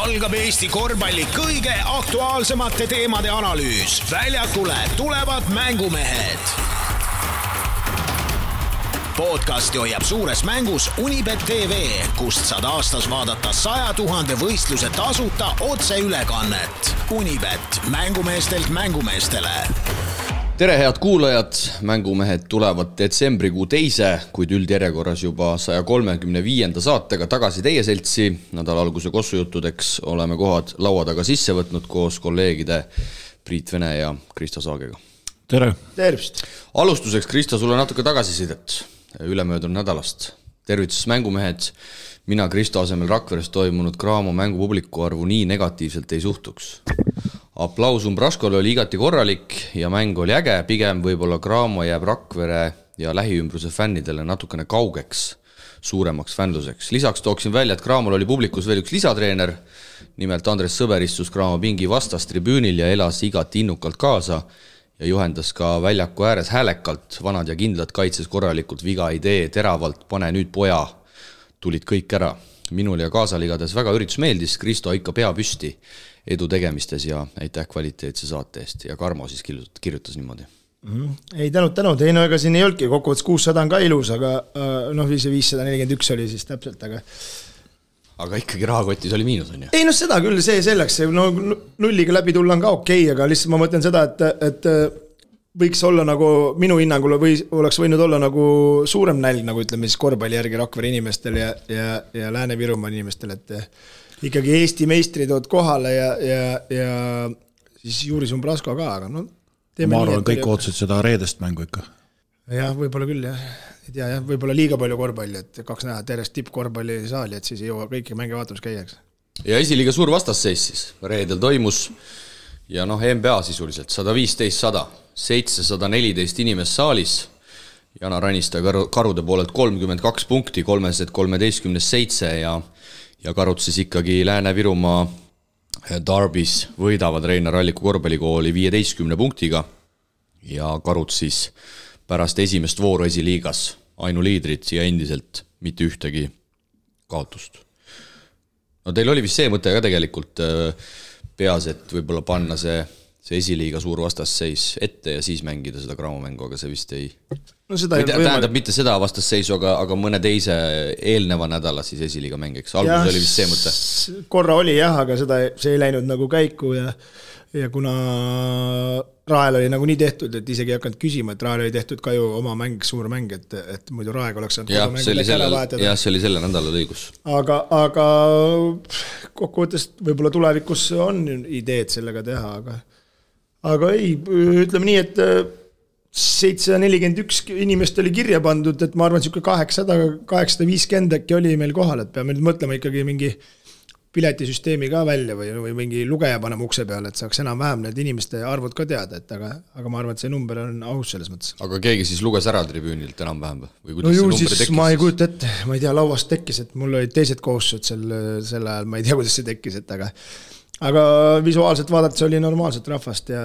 algab Eesti korvpalli kõige aktuaalsemate teemade analüüs. Väljakule tulevad mängumehed. Podcasti hoiab suures mängus Unibet TV, kust saad aastas vaadata 100 000 võistluse tasuta otseülekannet. Unibet, mängumeestelt mängumeestele. Tere head kuulajad, mängumehed tulevad detsembrikuu teise, kuid üldjärjekorras juba 135. saatega tagasi teie seltsi. Nädala alguse kossujuttudeks oleme kohad laua taga sisse võtnud koos kolleegide Priit Vene ja Kristo Saagega. Tere! Tervist! Alustuseks, Kristo, sulle natuke tagasisidet ülemöödunud nädalast. Tervitus mängumehed, mina Kristo asemel Rakveres toimunud Graamo mängupubliku arvu nii negatiivselt ei suhtuks. Aplaus Umbraskole oli igati korralik ja mäng oli äge, pigem võib-olla Graamo jääb Rakvere ja lähiümbruse fännidele natukene kaugeks, suuremaks fännluseks. Lisaks tooksin välja, et Graamol oli publikus veel üks lisatreener, nimelt Andres Sõber istus Graamo pingi vastas tribüünil ja elas igati innukalt kaasa ja juhendas ka väljaku ääres häälekalt, vanad ja kindlad kaitses korralikult, viga idee, teravalt, pane nüüd poja, tulid kõik ära. Minul ja kaasal igades väga üritus meeldis, Kristo ikka pea püsti edu tegemistes ja aitäh kvaliteetse saate eest ja Karmo siis kirjutas niimoodi. Ei tänud, ei no ega siin ei olnudki, kokkuvõttes 600 on ka ilus, aga noh, 541 oli siis täpselt, aga ikkagi rahakotis oli miinus, on ju? Ei no seda küll, see selleks, no nulliga läbi tulla on ka okei, aga lihtsalt ma mõtlen seda, et võiks olla nagu minu hinnangul või oleks võinud olla nagu suurem nälg, nagu ütleme siis korvpalli järgi Rakvere inimestel ja Lääne-Virumaa inimestel, et ikkagi Eesti meistrid ood kohale ja siis Juris Umbrasko ka, aga no ma arvan, kõik ootsid seda reedest mängu ikka. Jah, võib-olla küll, jah. Ei tea, jah, võib-olla liiga palju korvpalli, et 2 näha tervest tippkorvpalli saali, et siis ei jõua kõiki mänge vaatamas käiaks. Ja esiliiga suur vastasseis siis reedel toimus ja noh, NBA sisuliselt 115-100, 714 inimest saalis, Jana Ranista Karude poolelt 32 punkti, 313-7 ja Karud siis ikkagi Lääne-Virumaa Darbis võidavad Reinar Alliku korvpallikooli 15 punktiga ja Karud siis pärast esimest vooru esiliigas ainuliidrid ja endiselt mitte ühtegi kaotust. No teil oli vist see mõte ka tegelikult peas, et võib-olla panna see esiliiga suur vastasseis ette ja siis mängida seda Graamo mängu, aga see vist ei... No seda tähendab mitte seda vastasseisu, aga mõne teise eelneva nädala siis esiliiga mängiks. Alguses oli vist see mõte. Korra oli jah, aga see ei läinud nagu käiku ja kuna Rael oli nagu nii tehtud, et isegi ei hakanud küsima, et Rael oli tehtud ka ju oma mäng, suur mäng, et muidu Raeg oleks saanud jah, see oli selle nädala õigus. Aga kokkuvõttes võib-olla tulevikus on ideed sellega teha, aga ei, ütleme nii, et 741 inimest oli kirja pandud, et ma arvan, et 850 äkki oli meil kohal, et peame nüüd mõtlema ikkagi mingi piletisüsteemi ka välja või mingi lugeja panema ukse peale, et saaks enam-vähem need inimeste arvud ka teada, aga ma arvan, et see number on aus selles mõttes. Aga keegi siis luges ära tribüünilt enam-vähem? No ju siis ma ei kujuta ette, ma ei tea, lauast tekkis, et mul olid teised kohustused sel ajal, ma ei tea, kuidas see tekkis, aga visuaalselt vaadates oli normaalselt rahvast ja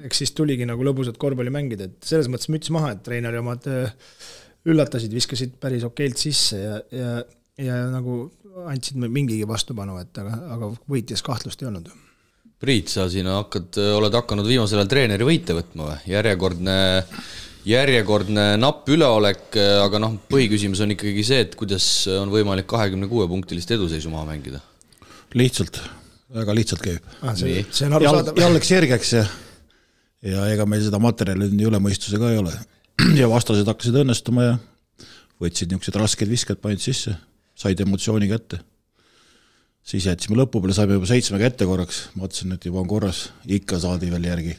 eks siis tuligi nagu lõbusat korvpalli mängida, et selles mõttes müts maha, et treeneri omad üllatasid, viskasid päris okeilt sisse ja nagu andsid mingigi vastupanu, aga võitjas kahtlust ei olnud. Priit, sa siin oled hakanud viimasel ajal treeneri võite võtma või? Järjekordne napp üleolek, aga põhiküsimus on ikkagi see, et kuidas on võimalik 26-punktilist eduseisu maha mängida? Lihtsalt, väga lihtsalt käib. See on arusaadav. Jälleks järgeks ja ega meil seda materjali üle mõistuse ka ei ole. Ja vastased hakkasid õnnestuma ja võtsid niisugused rasked visked, panid sisse, said emotsiooni kätte. Siis jätsime lõpu peale, saime juba 7 ette korraks, mõtlesin, et juba on korras, ikka saadi veel järgi.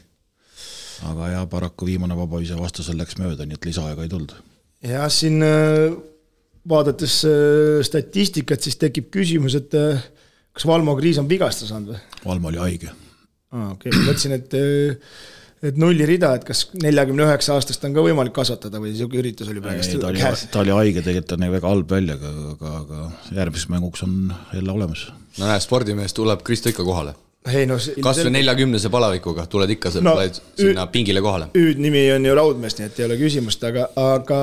Aga ja paraku viimane vabavise vastasel läks mööda, nii et lisaaega ei tulnud. Ja siin vaadates statistikat, siis tekib küsimus, et kas Valmo Kriis on vigasta saanud või? Valmo oli haige. Okay. Mõtlesin, et nulli rida, et kas 49 aastast on ka võimalik kasvatada või siuke üritus oli praegust käes? Ta oli haige, tegelikult on väga halb välja, aga järgmiseks mänguks on jälle olemas. No näe, spordimees tuleb Kristo ikka kohale. Kas või 40 palavikuga tuled ikka sinna pingile kohale? Nimi on ju Raudmees, nii et ei ole küsimust, aga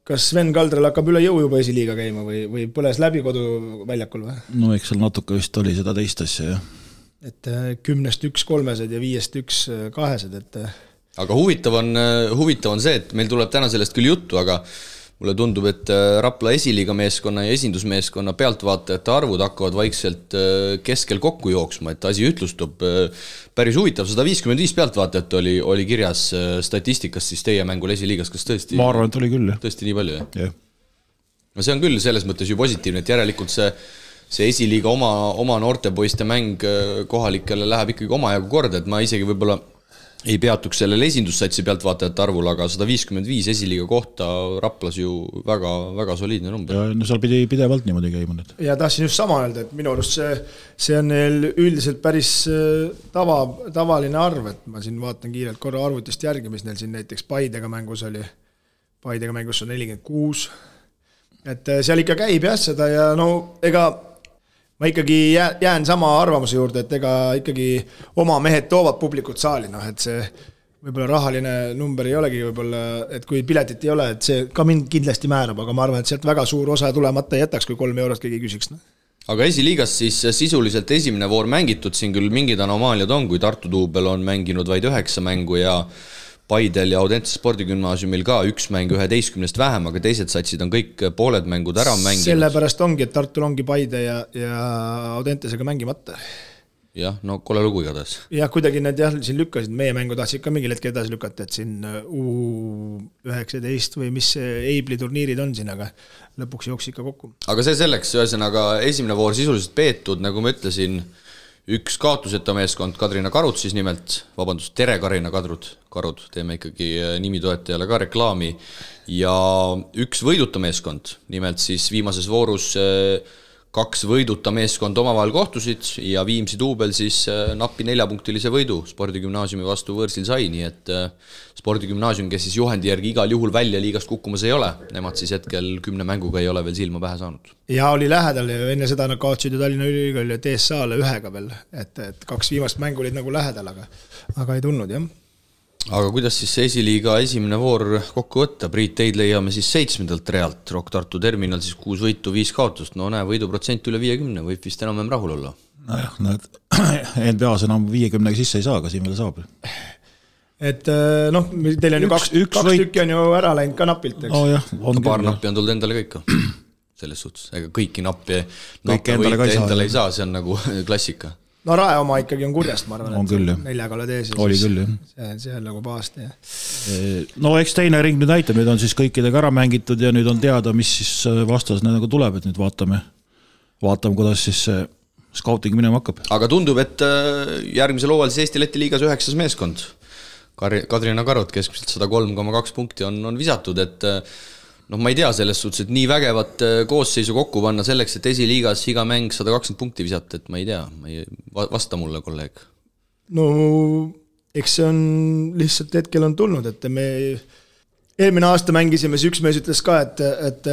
kas Sven Kaldral hakkab üle jõu juba esiliiga käima või põles läbi koduväljakul või? No eks seal natuke vist oli seda teist asja, jah. Et 10-st 1 kolmesed ja 5-st 1 kahesed, et aga huvitav on see, et meil tuleb täna sellest küll juttu, aga mulle tundub, et Rapla esiliiga meeskonna ja esindusmeeskonna pealtvaatajate arvud hakkavad vaikselt keskel kokku jooksma, et asi ütlustub päris huvitav. 155 pealtvaatajat oli kirjas statistikas siis teie mängul esiliigas, kas tõesti? Ma arvan, et oli küll, jah. Tõesti nii palju, jah? Jah. No see on küll selles mõttes ju positiivne, et järelikult see esiliiga oma noortepoiste mäng kohalikele läheb ikkagi omajagu korda, et ma isegi võib-olla ei peatuks sellel esindussatsi pealtvaatajate arvul, aga 155 esiliiga kohta Raplas ju väga, väga soliidne number. Ja no seal pidi pidevalt niimoodi käima nüüd. Ja tahtsin just sama öelda, et minu arust see on neil üldiselt päris tavaline arv, et ma siin vaatan kiirelt korra arvutist järgi, mis neil siin näiteks Paidega mängus oli. Paidega mängus on 46. Et seal ikka käib jah seda ja no ega ma ikkagi jään sama arvamuse juurde, et ega ikkagi oma mehed toovad publikut saali, et see võib-olla rahaline number ei olegi võib-olla, et kui piletit ei ole, et see ka mind kindlasti määrab, aga ma arvan, et sealt väga suur osa tulemata jätaks, kui 3 eurot keegi küsiks. Aga esiliigas siis sisuliselt esimene voor mängitud, siin küll mingid anomaaliad on, kui Tartu Duubel on mänginud vaid 9 mängu ja Paidel ja Audentse spordigümnaasiumil ka 1 mäng 11 vähem, aga teised satsid on kõik pooled mängud ära mänginud. Sellepärast ongi, et Tartul ongi Paide ja Audentesega mängimata. Jah, no kole lugu igatahes. Jah, kuidagi need siin lükkasid, meie mängu tahtsid ka mingil hetkel edasi lükata, et siin U19 või mis Eibli turniirid on siin, aga lõpuks jooks ikka kokku. Aga see selleks, ühesõnaga esimene voor sisuliselt peetud, nagu ma ütlesin, 1 kaotuseta meeskond, Kadrina Karud siis nimelt, Tere Karina Karud, teeme ikkagi nimitoetajale ka reklaami, ja 1 võiduta meeskond, nimelt siis viimases voorus 2 võiduta meeskond omavahel kohtusid ja Viimsi Duubel siis napi 4-punktilise võidu spordigümnaasiumi vastu võõrsil sai, nii et spordigümnaasium, kes siis juhendi järgi igal juhul välja liigast kukkumas ei ole, nemad siis hetkel 10 mänguga ei ole veel silma pähe saanud. Ja oli lähedal ja enne seda nad kaotsid ju Tallinna Ülikooli ja TSA-le 1 veel, et 2 viimast mängu olid nagu lähedal, aga ei tulnud, jah. Aga kuidas siis see esiliiga esimene voor kokku võtta? Priit, teid leiame siis 7. realt, Rock Tartu Terminal siis 6 võitu, 5 kaotust, no näe, võiduprotsent üle 50, võib vist enam rahul olla. Nojah, NBA-s enam 50 sisse ei saa, aga siin veel saab. Et teil on ju 2 tükki on ju ära läinud ka napilt, eks? Oh, jah, paar nappi on tulnud endale kõik. Selles suhtes, ega kõiki nappi endale ei saa, see on nagu klassika. No Rae oma ikkagi on kurjast, ma arvan, on küll, 4 oled ees. Oli küll, jah. See on nagu pahasti, jah. No eks teine ring nüüd näitab, nüüd on siis kõikidega ära mängitud ja nüüd on teada, mis siis vastas nagu tuleb, et nüüd vaatame, kuidas siis scouting minema hakkab. Aga tundub, et järgmisel hooajal siis Eesti-Läti liigas 9. meeskond. Kadrina Karud keskmiselt 103,2 punkti on visatud, et ma ei tea selles suhtes, et nii vägevat koosseisu kokku panna selleks, et esiliigas iga mäng 120 punkti visata, et ma ei tea, vasta mulle, kolleeg. No, eks see on lihtsalt hetkel on tulnud, et me eelmine aasta mängisime, see üks mees ütles ka, et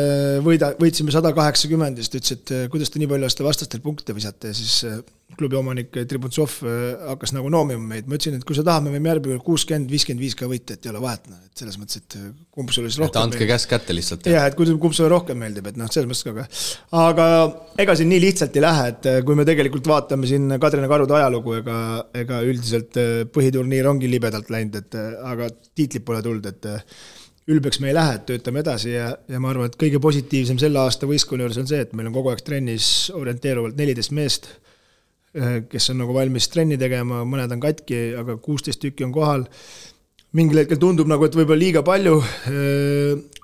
võitsime 180, siis ütles, et kuidas te nii palju aasta vastastel punkte visate ja siis klubi omanik Tribuntsov hakkas nagu noomima meid. Ma ütlesin, et kui sa tahame, võime järgmine 60-55 ka võita, et ei ole vahet. Et selles mõttes, et kumb sulle siis rohkem meeldib. Andke käsk kätte lihtsalt. Ja, et kumb sulle rohkem meeldib, et selles mõttes ka. Aga ega siin nii lihtsalt ei lähe, et kui me tegelikult vaatame siin Kadrina Karude ajalugu, ega üldiselt põhiturniir ongi libedalt läinud, aga tiitlid pole tulnud, et ülbeks me ei lähe, et töötame edasi ja ma arvan, et kõige positiivsem selle aasta võistkonna juures on see, et meil on kogu aeg trennis orienteeruvalt 14 meest, kes on nagu valmis trenni tegema, mõned on katki, aga 16 tükki on kohal. Mingil hetkel tundub nagu, et võib-olla liiga palju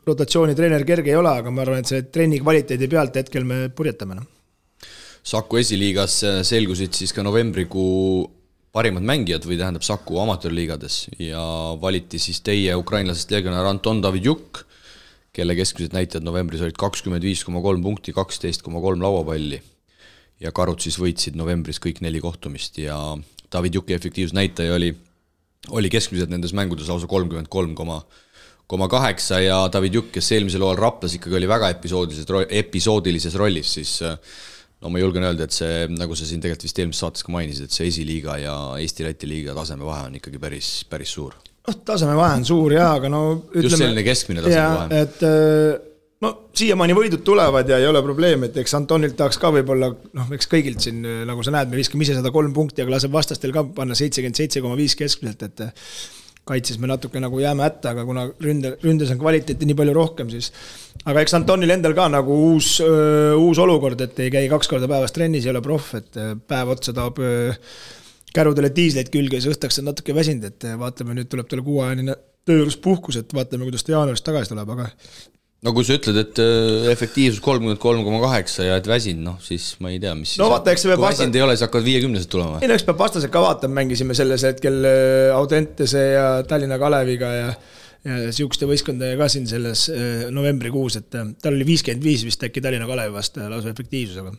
rotatsiooni treener kerge ei ole, aga ma arvan, et see trenni kvaliteedi pealt hetkel me purjetame. Saku esiliigas selgusid siis ka novembrikuu parimad mängijad või tähendab Saku amatöörliigades ja valiti siis teie ukrainlasest legionär Anton Davidjuk, kelle keskmised näitajad novembris olid 25,3 punkti, 12,3 lauapalli. Ja Karud siis võitsid novembris kõik 4 kohtumist ja Davidjuki efektiivsnäitaja oli keskmiselt nendes mängudes lausa 33,8 ja Davidjuk, kes eelmisel hooajal Raplas ikkagi oli väga episoodilises rollis, siis ma julgen öelda, et see, nagu sa siin tegelikult vist eelmises saates ka mainisid, et see esiliiga ja Eesti-Läti liiga taseme vahe on ikkagi päris suur. tasemevahe on suur jaa, aga no ütleme, just selline keskmine tasemevahe. Et no siiamaani võidud tulevad ja ei ole probleem, et eks Antonilt tahaks ka võib-olla, eks kõigilt siin, nagu sa näed, me viskame ise 103 punkti, aga laseb vastastel ka panna 77,5 keskmiselt, et kaitses me natuke nagu jääme hätta, aga kuna ründes on kvaliteeti nii palju rohkem, siis aga eks Antonil endal ka nagu uus olukord, et ei käi 2 korda päevas trennis, ei ole proff, et päev otsa tahab kärudele diisleid külge ja siis õhtaks on natuke väsinud, et vaatame, nüüd tuleb talle 6-ajane tööjuures puhkus, et vaatame, kuidas ta jaanuarist tagasi tuleb, aga no kui sa ütled, et efektiivsus 33,8 ja et väsin, siis ma ei tea, mis no, vaata, kui väsinud ei ole, siis hakkavad 50-sed tulema. Ei, eks peab vastased ka vaatama, mängisime selles hetkel Audentese ja Tallinna Kaleviga ja siukeste võistkondadega ka siin selles novembrikuus, et tal oli 55 vist äkki Tallinna Kalevi vastu lausa efektiivsusega.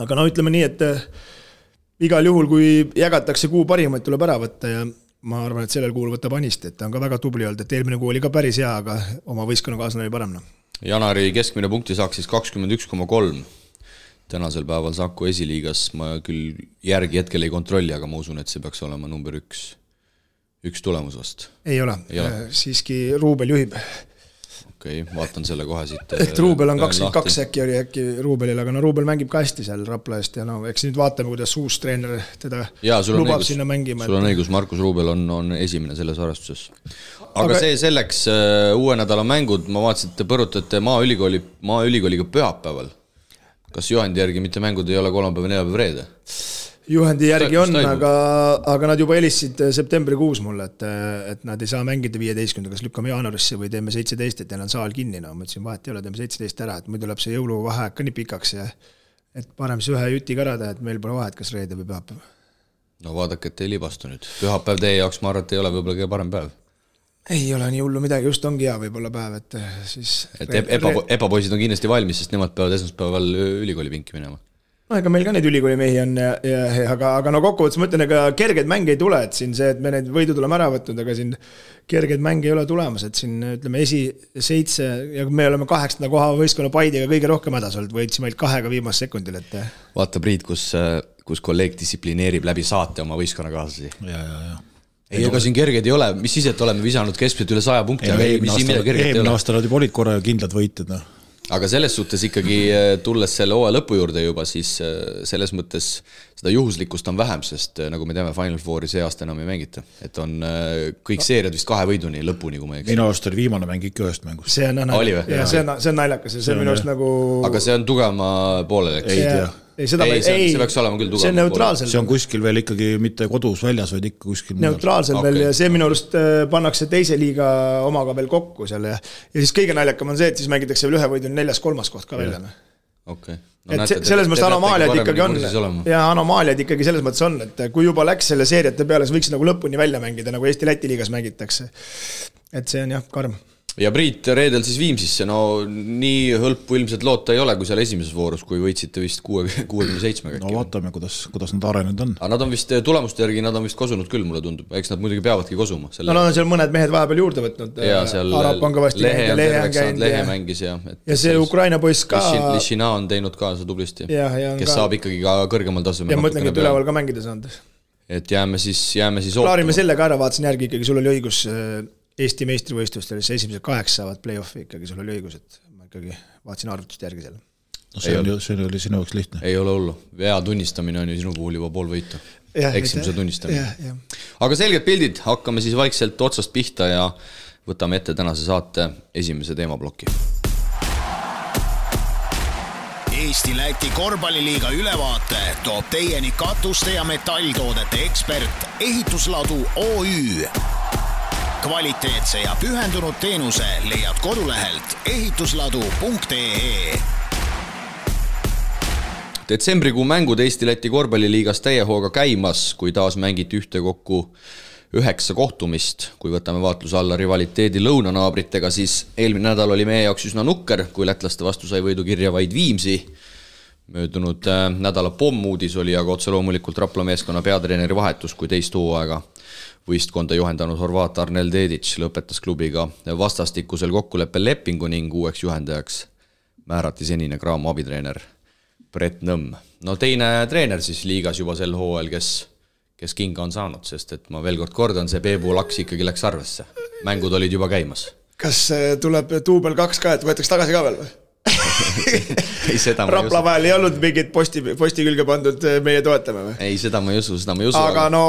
Aga no ütleme nii, et igal juhul, kui jagatakse kuu parimaid, tuleb ära võtta ja ma arvan, et sellel kuul võtab Anist, et ta on ka väga tubli olnud, et eelmine kuu oli ka päris hea, aga oma võistkonnakaaslane oli parem. Janari keskmine punkti saaks siis 21,3. Tänasel päeval Saku esiliigas ma küll järgi hetkel ei kontrolli, aga ma usun, et see peaks olema number 1 tulemus vast. Ei ole. Siiski Ruubel juhib. Okei, vaatan selle kohe siit. Ehk Ruubel on 22 äkki Ruubelil, aga no Ruubel mängib ka hästi seal Rapla eest ja eks nüüd vaatame, kuidas uus treener teda lubab sinna mängima. Sul on õigus, Markus Ruubel on esimene selles arvestuses. Aga see selleks uue nädala mängud, ma vaatasin, et te põrutate Maaülikooliga pühapäeval. Kas juhendi järgi mitte mängud ei ole kolmapäev, neljapäev, reede? Juhendi järgi on, aga nad juba helistasid septembrikuus mulle, et nad ei saa mängida 15, kas lükkame jaanuarisse või teeme 17, et neil on saal kinni. No, ma ütlesin, vahet ei ole, teeme 17 ära, et muidu tuleb see jõuluvaheaeg ka nii pikaks ja et parem siis ühe juti ka ära teha, et meil pole vahet, kas reede või pühapäev. No vaadake, et ei libastu nüüd. Pühapäev teie jaoks, ma arvan, et ei ole võib-olla kõige parem päev. Ei ole nii hullu midagi, just ongi hea võib-olla päev, et siis... Et epapoisid on kindlasti valmis, sest nemad peavad esmaspäeval ülikooli pinki minema. No ega meil ka neid ülikooli mehi on, aga no kokkuvõttes ma ütlen, ega kerged mänge ei tule, et siin see, et me need võidud oleme ära võtnud, aga siin kerged mänge ei ole tulemas, et siin ütleme 7 ja me oleme 8. koha võistkonna Paidiga kõige rohkem hädas olnud, võitsime ainult 2 viimast sekundil, et... Vaata Priit, kus kolleeg distsiplineerib läbi saate oma võistkonnakaaslasi. Ja. Ei, ega siin kerged ei ole, mis siis, et oleme visanud keskmiselt üle 100 punkti, aga eelmine aasta nad juba olid korra kindlad võitjad, Aga selles suhtes ikkagi tulles selle hooaja lõpu juurde juba, siis selles mõttes seda juhuslikkust on vähem, sest nagu me teame, Final Fouri see aasta enam ei mängita. Et on kõik seeriad vist 2 võiduni lõpuni, kui ma ei eks. Minu arust oli viimane mäng ikka ühest mängust. See on naljakas ja see minu arust nagu... Aga see on tugevama poolel, eks? Ei tea. See peaks olema küll tugev. See on neutraalsel. See on kuskil veel ikkagi mitte kodus väljas, vaid ikka kuskil neutraalsel veel ja see minu arust pannakse teise liiga omaga veel kokku seal ja siis kõige naljakam on see, et siis mängitakse veel 1 võiduni 4.-3. koht ka välja. Okay. No, et selles mõttes anomaaliad ikkagi on ja anomaaliad ikkagi selles mõttes on, et kui juba läks selle seeriate peale, siis võiks nagu lõpuni välja mängida, nagu Eesti-Läti liigas mängitakse. Et see on jah, karm. Ja Priit reedel siis Viimsisse, no nii hõlpu ilmselt loota ei ole, kui seal esimeses voorus, kui võitsite vist 67. No vaatame, kuidas nad arenenud on. Aga nad on vist tulemuste järgi, nad on vist kosunud küll, mulle tundub. Eks nad muidugi peavadki kosuma. No on seal mõned mehed vahepeal juurde võtnud. Ja seal Lehe mängis ja see Ukraina poiss ka. Lishina on teinud kaasa tublisti, kes saab ikkagi ka kõrgemal tasemel. Ja mõtlengi, et üleval ka mängida saanud. Et jääme siis Klaarime selle ka ära, vaatasin järgi ikkagi, sul oli õigus Eesti meistrivõistlustel, siis esimesed 8 saavad play-offi ikkagi, sul oli õigus, et ma ikkagi vaatasin arvutust järgi selle. No see oli sinu jaoks lihtne. Ei ole hullu. Vea tunnistamine on ju sinu puhul juba pool võitu. Eksimuse tunnistamine. Aga selged pildid, hakkame siis vaikselt otsast pihta ja võtame ette tänase saate esimese teemaploki. Eesti-Läti korvpalliliiga ülevaate toob teieni katuste ja metalltoodete ekspert Ehitusladu OÜ. Kvaliteetse ja pühendunud teenuse leiad kodulehelt ehitusladu.ee. Detsembrikuu mängud Eesti-Läti korvpalliliigas täie hooga käimas, kui taas mängiti ühtekokku 9 kohtumist. Kui võtame vaatluse alla rivaliteedi lõunanaabritega, siis eelmine nädal oli meie jaoks üsna nukker, kui lätlaste vastu sai võidu kirja vaid Viimsi. Möödunud nädala pommuudis oli aga otse loomulikult Rapla meeskonna peatreeneri vahetus, kui teist hooaega võistkonda juhendanud Horvaat Arnel Dedic lõpetas klubiga vastastikusel kokkuleppel lepingu ning uueks juhendajaks määrati senine Graamo abitreener Brett Nõmm. No teine treener siis liigas juba sel hooajal, kes kes kinga on saanud, sest et ma veel kord kordan, see Peebu laks ikkagi läks arvesse. Mängud olid juba käimas. Kas tuleb duubel 2 ka, et võetaks tagasi ka veel või? Ei, seda ma Rapla vahel ei olnud mingit posti külge pandud meie toetame või? Ei, seda ma ei usu. Aga no,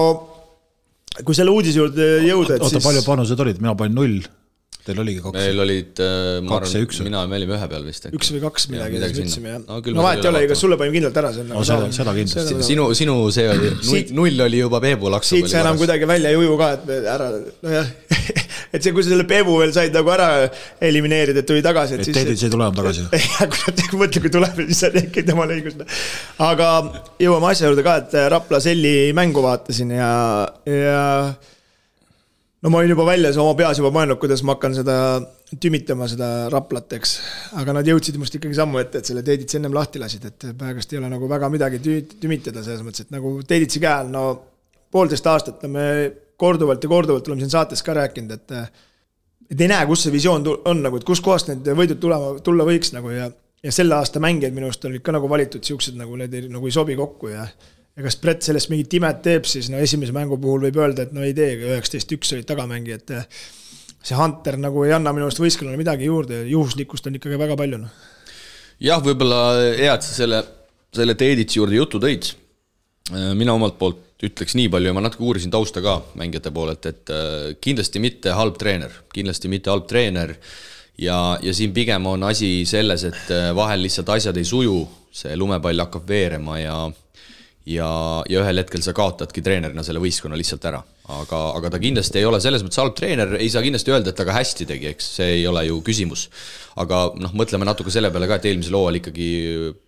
kui selle uudise juurde jõuda, et siis... Oota, palju panused olid? Mina panin 0. Teil oligi 2. Meil olid, ma arvan, mina me olime 1 peal vist. 1 või 2 midagi ütlesime, jah. No vahet ei ole, kas sulle panin kindlalt ära. Seda kindlasti. Sinu see oli, 0 oli juba Peebu laksu. Siit sa enam kuidagi välja ei uju ka, et ära, no jah, et see, kui sa selle Peebu veel said nagu ära elimineerida, et tuli tagasi. Et teedid see ei tule enam tagasi. Mõtle, kui tuleb, siis on äkki tema õigus. Aga jõuame asja juurde ka, et Rapla Selli mängu vaatasin ja no ma olin juba väljas oma peas juba mõelnud, kuidas ma hakkan seda tümitama, seda Raplat, eks. Aga nad jõudsid must ikkagi sammu ette, et selle Teeditsi ennem lahti lasid, et praegust ei ole nagu väga midagi tümitada selles mõttes, et nagu Teeditsi käel, no 1,5 aastat me korduvalt oleme siin saates ka rääkinud, et ei näe, kus see visioon on, nagu, et kus kohast need võidud tulla võiks nagu, ja selle aasta mängijad minust olid ka nagu valitud siuksed, nagu need nagu ei sobi kokku ja kas Brett sellest mingit imet teeb, siis no esimese mängu puhul võib öelda, et no ei tee, 19-1 olid tagamängijad, et see Hunter nagu ei anna minust võistkonnale midagi juurde, juhuslikkust on ikkagi väga palju. No. Jah, võib-olla hea, et sa selle Teeditsi juurde jutu tõid. Mina omalt poolt ütleks nii palju ja ma natuke uurisin tausta ka mängijate poolelt, et kindlasti mitte halb treener ja siin pigem on asi selles, et vahel lihtsalt asjad ei suju, see lumepall hakkab veerema ja ühel hetkel sa kaotadki treenerina selle võistkonna lihtsalt ära. Aga ta kindlasti ei ole selles mõttes halb treener, ei saa kindlasti öelda, et ta ka hästi tegi, eks see ei ole ju küsimus. Aga mõtleme natuke selle peale ka, et eelmisel hooajal ikkagi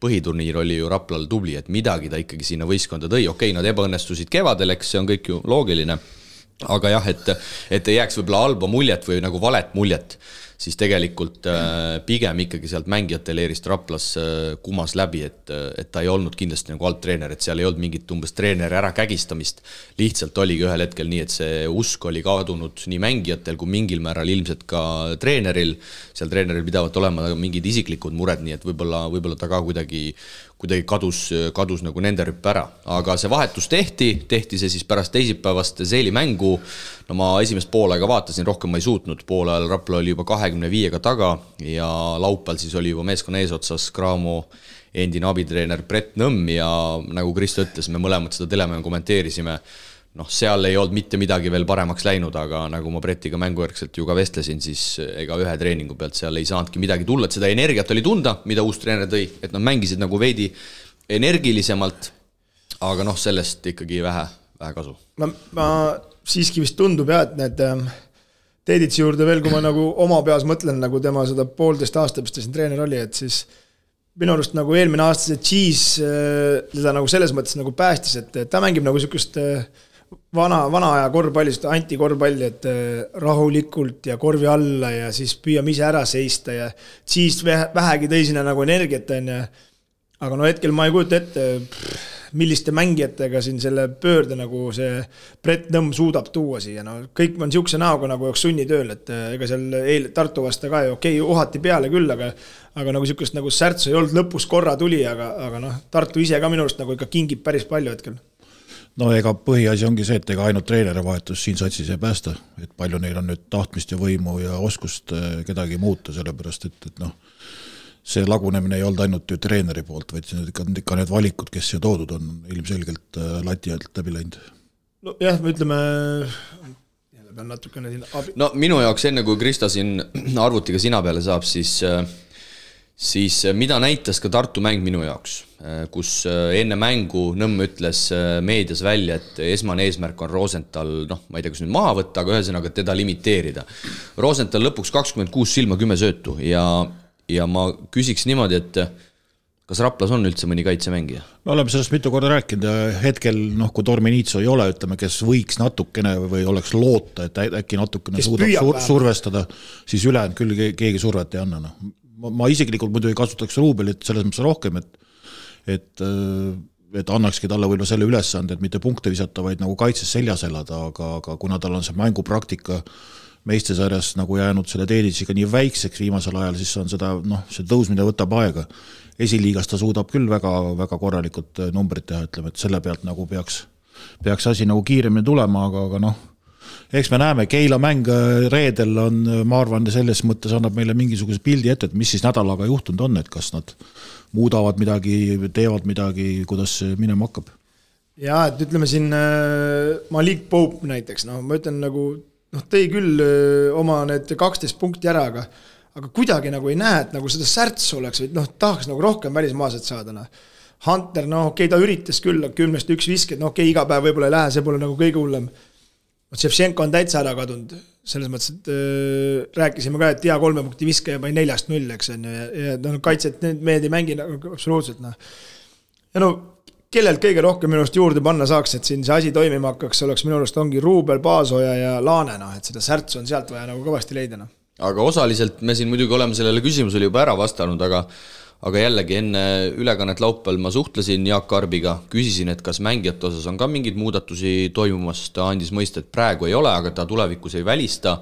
põhiturniir oli ju Raplal tubli, et midagi ta ikkagi sinna võistkonda tõi. Okei, nad ebaõnnestusid kevadel, eks see on kõik ju loogiline. Aga jah, et ei jääks võib-olla halba muljet või nagu valet muljet, siis tegelikult pigem ikkagi sealt mängijate leerist Raplas kumas läbi, et ta ei olnud kindlasti nagu alt treener, et seal ei olnud mingit umbes treeneri ära kägistamist, lihtsalt oligi ühel hetkel nii, et see usk oli kadunud nii mängijatel kui mingil määral ilmselt ka treeneril, seal treeneril pidavad olema mingid isiklikud mured, nii et võib-olla ta ka kuidagi kadus nagu nende rüppe ära, aga see vahetus tehti see siis pärast teisipäevast Seeli mängu, no ma esimest poolega vaatasin, rohkem ma ei suutnud, poole ajal Rapla oli juba 25-ga taga ja laupäeval siis oli juba meeskonna eesotsas Graamo endine abitreener Brett Nõmm ja nagu Kristo ütles, me mõlemad seda telemängu kommenteerisime, seal ei olnud mitte midagi veel paremaks läinud, aga nagu ma Brettiga mängujärgselt ju ka vestlesin, siis ega ühe treeningu pealt seal ei saanudki midagi tulla, et seda energiat oli tunda, mida uus treener tõi, et nad mängisid nagu veidi energilisemalt, aga sellest ikkagi vähe kasu. Ma siiski vist tundub et need Teeditsi juurde veel, kui ma nagu oma peas mõtlen, nagu tema seda 1,5 aasta, mis ta siin treener oli, et siis minu arust nagu eelmine aasta see Cheese teda nagu selles mõttes nagu päästis, et ta mängib nagu sükust vana aja korvpalli, antikorvpalli, et rahulikult ja korvi alla ja siis püüame ise ära seista ja siis vähegi tõi sinna nagu energiat on ja aga hetkel ma ei kujuta ette, milliste mängijatega siin selle pöörde nagu see Brett Nõmm suudab tuua siia. Kõik on siukse näoga nagu joks sunnitööl, et ega seal Tartu vasta ka okei, uhati peale küll, aga nagu siukest nagu särtsu ei olnud, lõpus korra tuli, aga Tartu ise ka minust nagu ikka kingib päris palju hetkel. No ega põhiasi ongi see, et ega ainult treeneri vahetus siin satsis ei päästa, et palju neil on nüüd tahtmist ja võimu ja oskust kedagi muuta, sellepärast et see lagunemine ei olnud ainult ju treeneri poolt, vaid ikka need valikud, kes siia toodud on ilmselgelt lati alt läbi läinud. No jah, me ütleme pean natukene siin abi. No minu jaoks enne kui Krista siin arvutiga sina peale saab, siis mida näitas ka Tartu mäng minu jaoks, kus enne mängu Nõmm ütles meedias välja, et esmane eesmärk on Rosenthal, ma ei tea, kus nüüd maha võtta, aga ühesõnaga teda limiteerida. Rosenthal lõpuks 26 silma 10 söötu ja ma küsiks niimoodi, et kas Raplas on üldse mõni kaitsemängija? Me oleme sellest mitu korda rääkinud ja hetkel, kui Torminitso ei ole, ütleme, kes võiks natukene või oleks loota, et äkki natukene suudab survestada, siis ülejäänud küll keegi survet ei anna. Ma isiklikult muidu ei kasutaks Ruubelit selles mõttes rohkem, et annakski talle võib-olla selle ülesande, et mitte punkte visata, vaid nagu kaitses seljas elada, aga kuna tal on see mängupraktika meistesarjas nagu jäänud selle Teeditsiga nii väikseks viimasel ajal, siis on seda, see tõusmine võtab aega. Esiliigas ta suudab küll väga, väga korralikult numbrid teha, ütleme, et selle pealt nagu peaks peaks asi nagu kiiremini tulema, aga noh, eks me näeme, Keila mäng reedel on, ma arvan, selles mõttes annab meile mingisuguse pildi ette, et mis siis nädalaga juhtunud on, et kas nad muudavad midagi, teevad midagi, kuidas see minema hakkab. Ja, et ütleme siin Malik Pope näiteks, ma ütlen nagu, tõi küll oma need 12 punkti ära, aga kuidagi nagu ei näe, et nagu seda särtsu oleks, või tahaks nagu rohkem välismaaset saada. Hunter, okei, ta üritas küll 10-1 visked, okei, iga päev võib-olla ei lähe, see pole nagu kõige hullem. Ševtšenko on täitsa ära kadunud, selles mõttes, et rääkisime ka, et 3 punkti viske ja 4-0, eks on, ja kaitset mehed ei mängi absoluutselt. Ja kellelt kõige rohkem minust juurde panna saaks, et siin see asi toimima hakkaks, oleks minu arust ongi Ruubel, Paasoja ja Laane, et seda särtsu on sealt vaja nagu kõvasti leida. Aga osaliselt me siin muidugi oleme sellele küsimusele juba ära vastanud, aga jällegi enne ülekannet laupäeval ma suhtlesin Jaak Arbiga, küsisin, et kas mängijate osas on ka mingeid muudatusi toimumas, ta andis mõista, et praegu ei ole, aga ta tulevikus ei välista,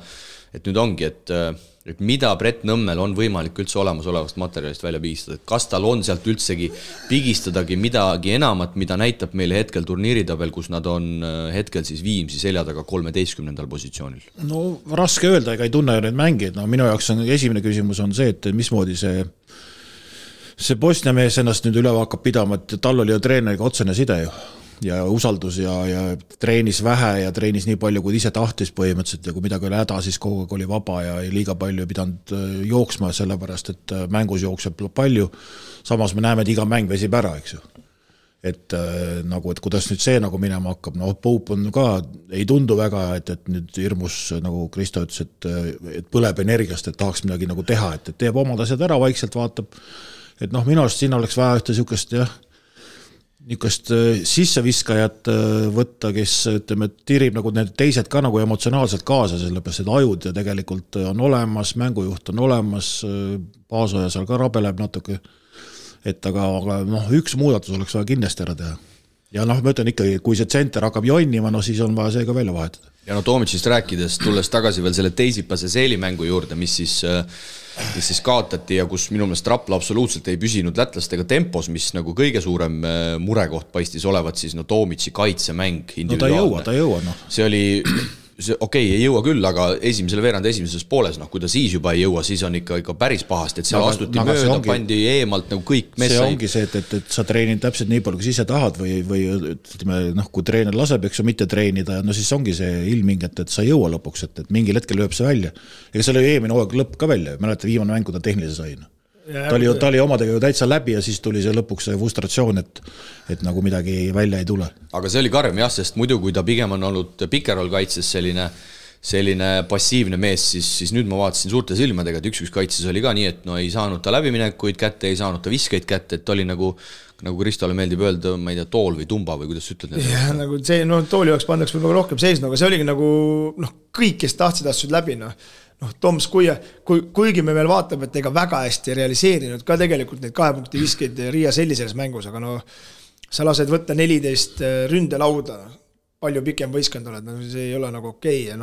et nüüd ongi, et mida Brett Nõmmel on võimalik üldse olemasolevast materjalist välja pigistada, et kas tal on sealt üldsegi pigistadagi midagi enamat, mida näitab meile hetkel turniiritabel, kus nad on hetkel siis Viimsi selja taga 13. positsioonil. No raske öelda, ega ei tunne neid mängijaid, minu jaoks on esimene küsimus on see, et mismoodi see Bosnia mees ennast nüüd üle hakkab pidama, et tal oli ju treeneriga otsene side ju ja usaldus ja treenis vähe ja treenis nii palju, kui ise tahtis põhimõtteliselt ja kui midagi oli häda, siis kogu aeg oli vaba ja liiga palju ei pidanud jooksma sellepärast, et mängus jookseb palju. Samas me näeme, et iga mäng vesib ära, eks ju. Et kuidas nüüd see nagu minema hakkab, Pope on ka, ei tundu väga, et nüüd hirmus, nagu Kristo ütles, et põleb energiast, et tahaks midagi nagu teha, et teeb omad asjad ära, vaikselt vaatab, et minu arust siin oleks vaja ühte niisugust sisseviskajat võtta, kes ütleme, tirib nagu need teised ka nagu emotsionaalselt kaasa, sellepärast, et ajud ja tegelikult on olemas, mängujuht on olemas, Paasoja seal ka rabeleb natuke, et aga üks muudatus oleks vaja kindlasti ära teha. Ja ma ütlen ikkagi, kui see tsenter hakkab jonnima, siis on vaja see ka välja vahetada. Ja Toomicist rääkides, tulles tagasi veel selle teisipase seelimängu juurde, mis siis kaotati ja kus minu meelest Rapla absoluutselt ei püsinud lätlastega tempos, mis nagu kõige suurem murekoht paistis olevat, siis Tomici kaitsemäng individuaalne. Ta ei jõua. See oli, ei jõua küll, aga esimesele veerand esimeses pooles, kui ta siis juba ei jõua, siis on ikka päris pahast, et seal astuti mööda, pandi eemalt nagu kõik mees. See ongi see, et sa treenid täpselt nii palju, kui ise tahad või ütleme, kui treener laseb, eks sa mitte treenida, siis ongi see ilming, et sa ei jõua lõpuks, et mingil hetkel lööb see välja. Ega see oli eelmine hooaeg lõpp ka välja, mäleta viimane mäng, kui ta tehnilise sai. Ta oli omadega ju täitsa läbi ja siis tuli see lõpuks see frustratsioon, et nagu midagi välja ei tule. Aga see oli karm jah, sest muidu kui ta pigem on olnud pikerol kaitses selline passiivne mees, siis nüüd ma vaatasin suurte silmadega, et üks kaitses oli ka nii, et ei saanud ta läbiminekuid kätte, ei saanud ta viskeid kätte, et oli nagu Kristole meeldib öelda, ma ei tea, tool või tumba või kuidas ütled? Ja, nagu see, tooli jaoks pandaks võib-olla rohkem seisnu, aga see oligi nagu kõik, kes tahtsid asjad läbi, Toms, kuigi me veel vaatab, et ega väga hästi realiseerinud ka tegelikult neid 2 punkti viskeid Riia Selli selles mängus, aga sa lased võtta 14 ründelauda, palju pikem võistkond oled, see ei ole nagu okei. Ja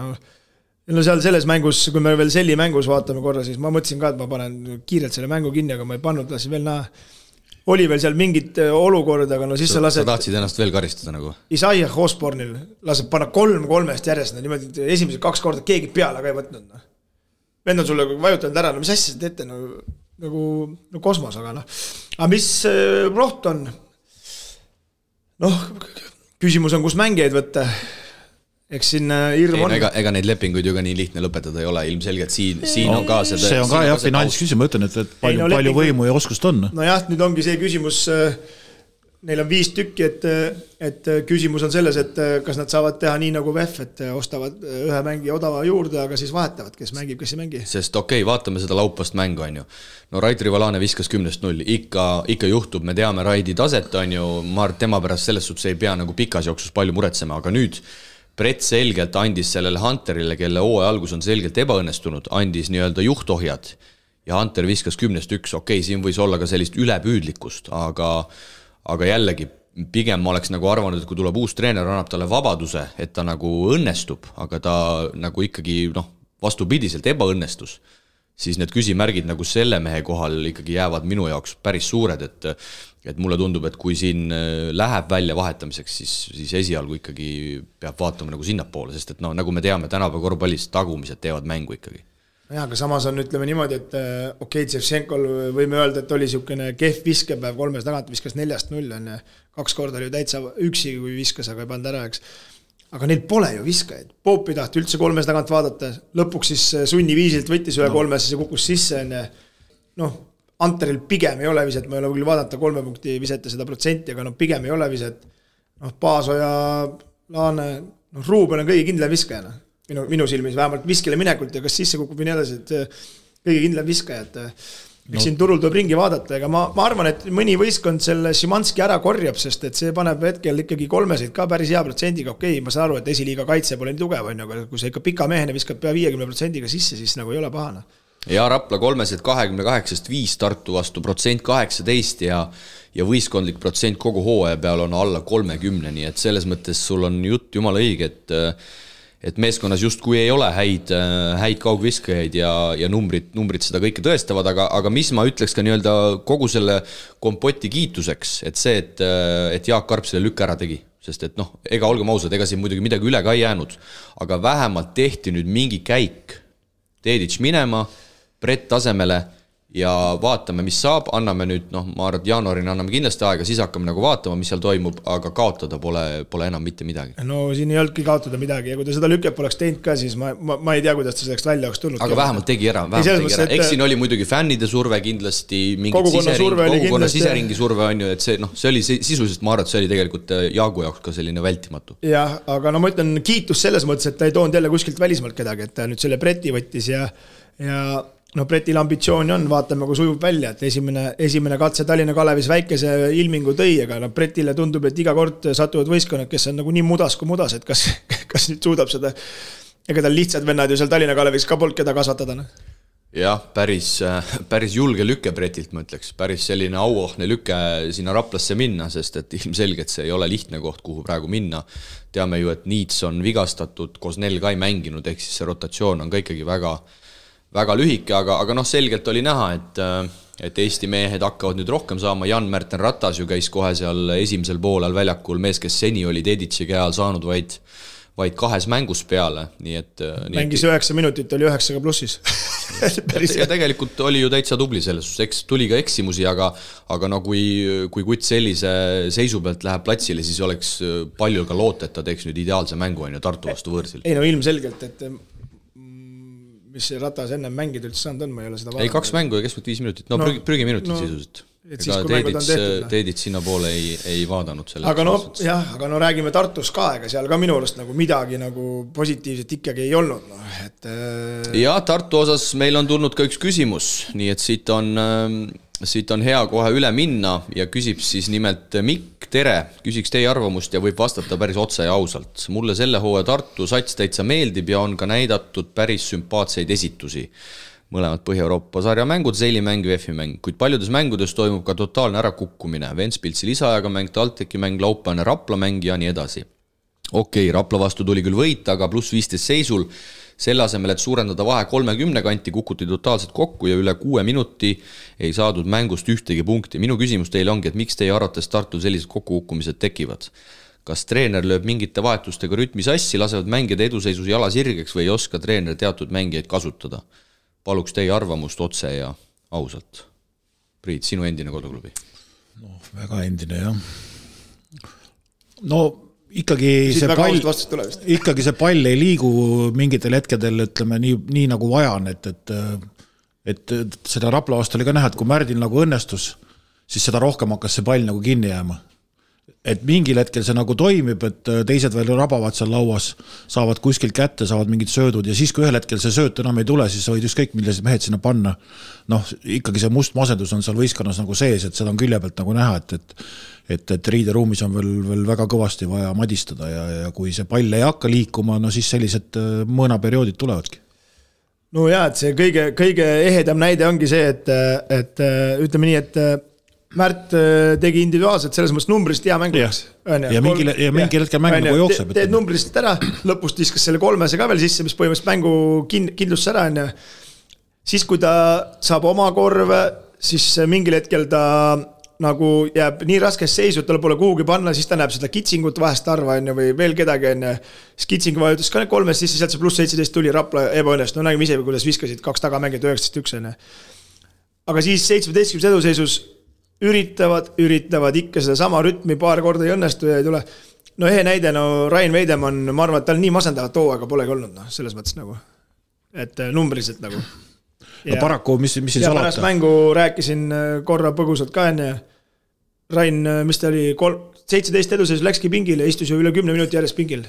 seal selles mängus, kui me veel Selli mängus vaatame korra, siis ma mõtlesin ka, et ma panen kiirelt selle mängu kinni, aga ma ei pannud, lasin veel näha. Oli veel seal mingit olukorda, aga siis sa lased... Sa tahtsid ennast veel karistada nagu? Isaiah Osbornil laseb panna 3-3 järjest, niimoodi esimesed 2 korda keegi peale ka ei võtnud. Vend on sulle vajutanud ära, mis asja sa teete, nagu kosmos, aga Aga mis roht on? Küsimus on, kus mängijaid võtta. Eks siin hirm on. Ega neid lepinguid ju ka nii lihtne lõpetada ei ole, ilmselgelt siin on ka seda... See on ka jah, finantsküsimus, ma ütlen, et palju võimu ja oskust on. Jah, nüüd ongi see küsimus... Neil on 5 tükki, et küsimus on selles, et kas nad saavad teha nii nagu VEF, et ostavad ühe mängi odava juurde, aga siis vahetavad, kes mängib, kes ei mängi. Sest vaatame seda laupast mängu, on ju. Rait Rivalane viskas 10-0, ikka juhtub, me teame Raidi taset, on ju, tema pärast selles suhtes ei pea nagu pikas jooksus palju muretsema, aga nüüd Brett selgelt andis sellele Hunterile, kelle hooaja algus on selgelt ebaõnnestunud, andis nii-öelda juhtohjad ja Hunter viskas 10-1, siin võis olla ka sellist ülepüüdlikkust, aga jällegi, pigem ma oleks nagu arvanud, et kui tuleb uus treener, annab talle vabaduse, et ta nagu õnnestub, aga ta nagu ikkagi vastupidiselt ebaõnnestus, siis need küsimärgid nagu selle mehe kohal ikkagi jäävad minu jaoks päris suured, et mulle tundub, et kui siin läheb välja vahetamiseks, siis esialgu ikkagi peab vaatama nagu sinnapoole, sest et nagu me teame, tänapäeva korvpallis tagumised teevad mängu ikkagi. Jah, aga samas on, ütleme niimoodi, et okei, Ševtšenkol võime öelda, et oli siukene kehv viskepäev, 3 tagant viskas 4-0, 2 korda oli täitsa üksi, kui viskas, aga ei pannud ära, eks. Aga neil pole ju viskajaid. Poop ei tahti üldse 3 tagant vaadata, lõpuks siis sunniviisilt võttis üle 3, siis kukkus sisse. Anteril pigem ei ole viset, ma ei ole küll vaadata 3 punkti visete seda protsenti, aga pigem ei ole viset. Paasoja, Laane, Ruuben on kõige kindlam viskajana. Minu silmis vähemalt viskile minekult ja kas sisse kukub või nii edasi, et kõige kindlam viskajad. Eks siin turul tuleb ringi vaadata, aga ma arvan, et mõni võistkond selle Šimanski ära korjab, sest et see paneb hetkel ikkagi 3 ka päris hea protsendiga. Okei, ma saan aru, et esiliiga kaitse pole nii tugev, aga kui see ikka pika mehene viskab pea 50% sisse, siis nagu ei ole pahana. Ja Rapla 328-5 Tartu vastu 18% ja võistkondlik protsent kogu hooaja peal on alla 30, nii et selles mõttes sul on jutt jumala õige, et meeskonnas justkui ei ole häid kaugviskajaid ja numbrid seda kõike tõestavad, aga mis ma ütleks ka nii-öelda kogu selle kompoti kiituseks, et see, et Jaak Karp selle lükka ära tegi, sest et ega olgem ausad, ega siin muidugi midagi üle ka ei jäänud, aga vähemalt tehti nüüd mingi käik Dedic minema, Brett tasemele ja vaatame, mis saab, anname nüüd, ma arvan, et jaanuarina anname kindlasti aega, siis hakkame nagu vaatama, mis seal toimub, aga kaotada pole enam mitte midagi. No siin ei olnudki kaotada midagi ja kui ta seda lükket poleks teinud ka, siis ma ei tea, kuidas ta selleks välja oleks tulnud. Aga vähemalt tegi ära. Eks siin oli muidugi fännide surve kindlasti, kogukonna siseringi surve on ju, et see oli sisuliselt, ma arvan, et see oli tegelikult Jaagu jaoks ka selline vältimatu. Jah, aga ma ütlen kiitus selles mõttes, et ta ei toonud jälle kuskilt välismaalt kedagi, et ta nüüd selle Breti võttis ja Bretil ambitsiooni on, vaatame, kui sujub välja, et esimene katse Tallinna Kalevis väikese ilmingu tõi, aga Bretile tundub, et iga kord satuvad võistkonnad, kes on nagu nii mudas kui mudas, et kas nüüd suudab seda, ega tal lihtsad vennad ju seal Tallinna Kalevis ka polnud keda kasvatada. Jah, päris julge lükke Bretilt, ma ütleks, päris selline auohne lükke sinna Raplasse minna, sest et ilmselgelt see ei ole lihtne koht, kuhu praegu minna. Teame ju, et Niits on vigastatud, Kosnel ka ei mänginud, ehk siis see rotatsioon on ka ikkagi väga lühike, aga selgelt oli näha, et Eesti mehed hakkavad nüüd rohkem saama. Jan-Märten Ratas ju käis kohe seal esimesel poolel väljakul, mees, kes seni oli Dedici käal saanud vaid 2 mängus peale. Mängis 9 minutit, oli 9 plussis. Ja tegelikult oli ju täitsa tubli selles, tuli ka eksimusi, aga kui Kutt sellise seisu pealt läheb platsile, siis oleks palju ka loota, et ta teeks nüüd ideaalse mängu Tartu vastu võõrsil. Ei ilmselgelt, et mis see Ratas ennem mängida üldse saanud on, ma ei ole seda vaadanud. 2 mängu ja keskselt 5 minutit, prügiminutit sisuliselt. Teedid sinna poole ei vaadanud selle. Aga räägime Tartus ka, ega seal ka minu arust nagu midagi nagu positiivset ikkagi ei olnud. Ja Tartu osas meil on tulnud ka üks küsimus, nii et siit on hea kohe üle minna ja küsib siis nimelt Mikk, tere, küsiks teie arvamust ja võib vastata päris otse ja ausalt. Mulle selle hooaja Tartu sats täitsa meeldib ja on ka näidatud päris sümpaatseid esitusi. Mõlemad Põhja-Euroopa sarja mängud, seilimäng, VF-i mäng, kuid paljudes mängudes toimub ka totaalne ärakukkumine. Ventspilsi lisaajaga mäng, Talteki mäng, Laupäevane Rapla mäng ja nii edasi. Okei, Rapla vastu tuli küll võita, aga pluss 15 seisul. Selle asemel, et suurendada vahe 30 kanti, kukuti totaalselt kokku ja üle 6 minuti ei saadud mängust ühtegi punkti. Minu küsimus teile ongi, et miks teie arvates Tartul sellised kokkukukkumised tekivad? Kas treener lööb mingite vahetustega rütmi sassi, lasevad mängida eduseisus jala sirgeks või ei oska treener teatud mängijaid kasutada? Paluks teie arvamust otse ja ausalt. Priit, sinu endine koduklubi? Väga endine, jah. Ikkagi see pall ei liigu mingitel hetkedel, ütleme, nii nagu vajan, et seda Rapla vastu oli ka näha, et kui Märdil nagu õnnestus, siis seda rohkem hakkas see pall nagu kinni jääma. Et mingil hetkel see nagu toimib, et teised veel rabavad seal lauas, saavad kuskilt kätte, saavad mingid söödud ja siis kui ühel hetkel see sööt enam ei tule, siis võid ükskõik millised mehed sinna panna. Ikkagi see must masendus on seal võistkonnas nagu sees, et seda on külje pealt nagu näha, et riideruumis on veel väga kõvasti vaja madistada ja kui see pall ei hakka liikuma, siis sellised mõõnaperioodid tulevadki. Et see kõige ehedam näide ongi see, et ütleme nii, et Märt tegi individuaalselt selles mõttes numbrist hea mänguks. Ja mingi hetkel mäng nagu jookseb. Teed numbrist ära, lõpust viskas selle 3 ka veel sisse, mis põhimõtteliselt mängu kindlust ära. siis kui ta saab oma korve, siis mingil hetkel ta nagu jääb nii raskes seisu, et talle pole kuhugi panna, siis ta näeb seda kitsingut vahest arva või veel kedagi siis kitsing vajutas ka need 3 sisse, sealt see pluss 17 tuli Rapla ebaõnnest, no nägime ise, kuidas viskasid 2 tagamängid 19-1. Aga siis 17 eduseisus üritavad ikka seda sama rütmi, paar korda ei õnnestu ja ei tule. No ehe näide, Rain Veidemann, ma arvan, et tal nii masendavat hooaega polegi olnud, selles mõttes nagu, et numbriliselt nagu. No paraku, mis siin salata? Pärast mängu rääkisin korra põgusalt ka enne. Rain, mis ta oli, 17 eduseisus läkski pingile, istus ju üle 10 minuti järjest pingil.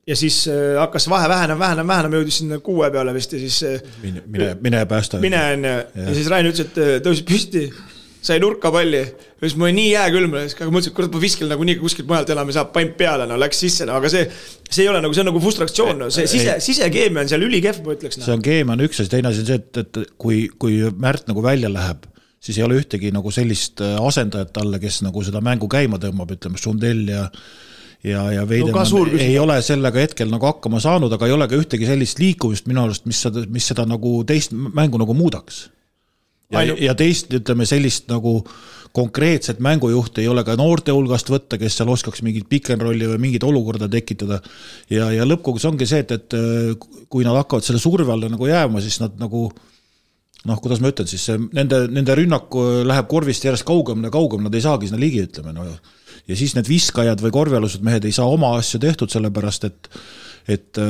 Ja siis hakkas vahe vähenema, jõudis sinna 6 peale vist ja siis... Mine päästa. Ja siis Rain ütles, et tõusid püsti, sai nurka palli. Ja siis mul oli nii jääkülm, aga mõtlesin, et kurat ma viskil nagu nii kuskilt mujalt enam ei saa paim peale, läks sisse, aga see ei ole nagu, see on nagu frustratsioon, see sisekeemia on seal ülikev, ma ütleks. See on keemia on üks, teine asi on see, et kui Märt nagu välja läheb, siis ei ole ühtegi nagu sellist asendajat talle, kes nagu seda mängu käima tõmbab, ütleme, Sundell ja Veidemann ei ole sellega hetkel nagu hakkama saanud, aga ei ole ka ühtegi sellist liikumist minu arust, mis seda nagu teist mängu nagu muudaks. Ja teist, ütleme, sellist nagu konkreetset mängujuhti ei ole ka noorte hulgast võtta, kes seal oskaks mingit pikenrolli või mingit olukorda tekitada. Ja lõppkogus ongi see, et kui nad hakkavad selle surve alla nagu jääma, siis nad nagu, kuidas ma ütlen, siis nende rünnak läheb korvist järjest kaugemale, nad ei saagi sinna ligi, ütleme. Ja siis need viskajad või korvialused mehed ei saa oma asju tehtud, sellepärast, et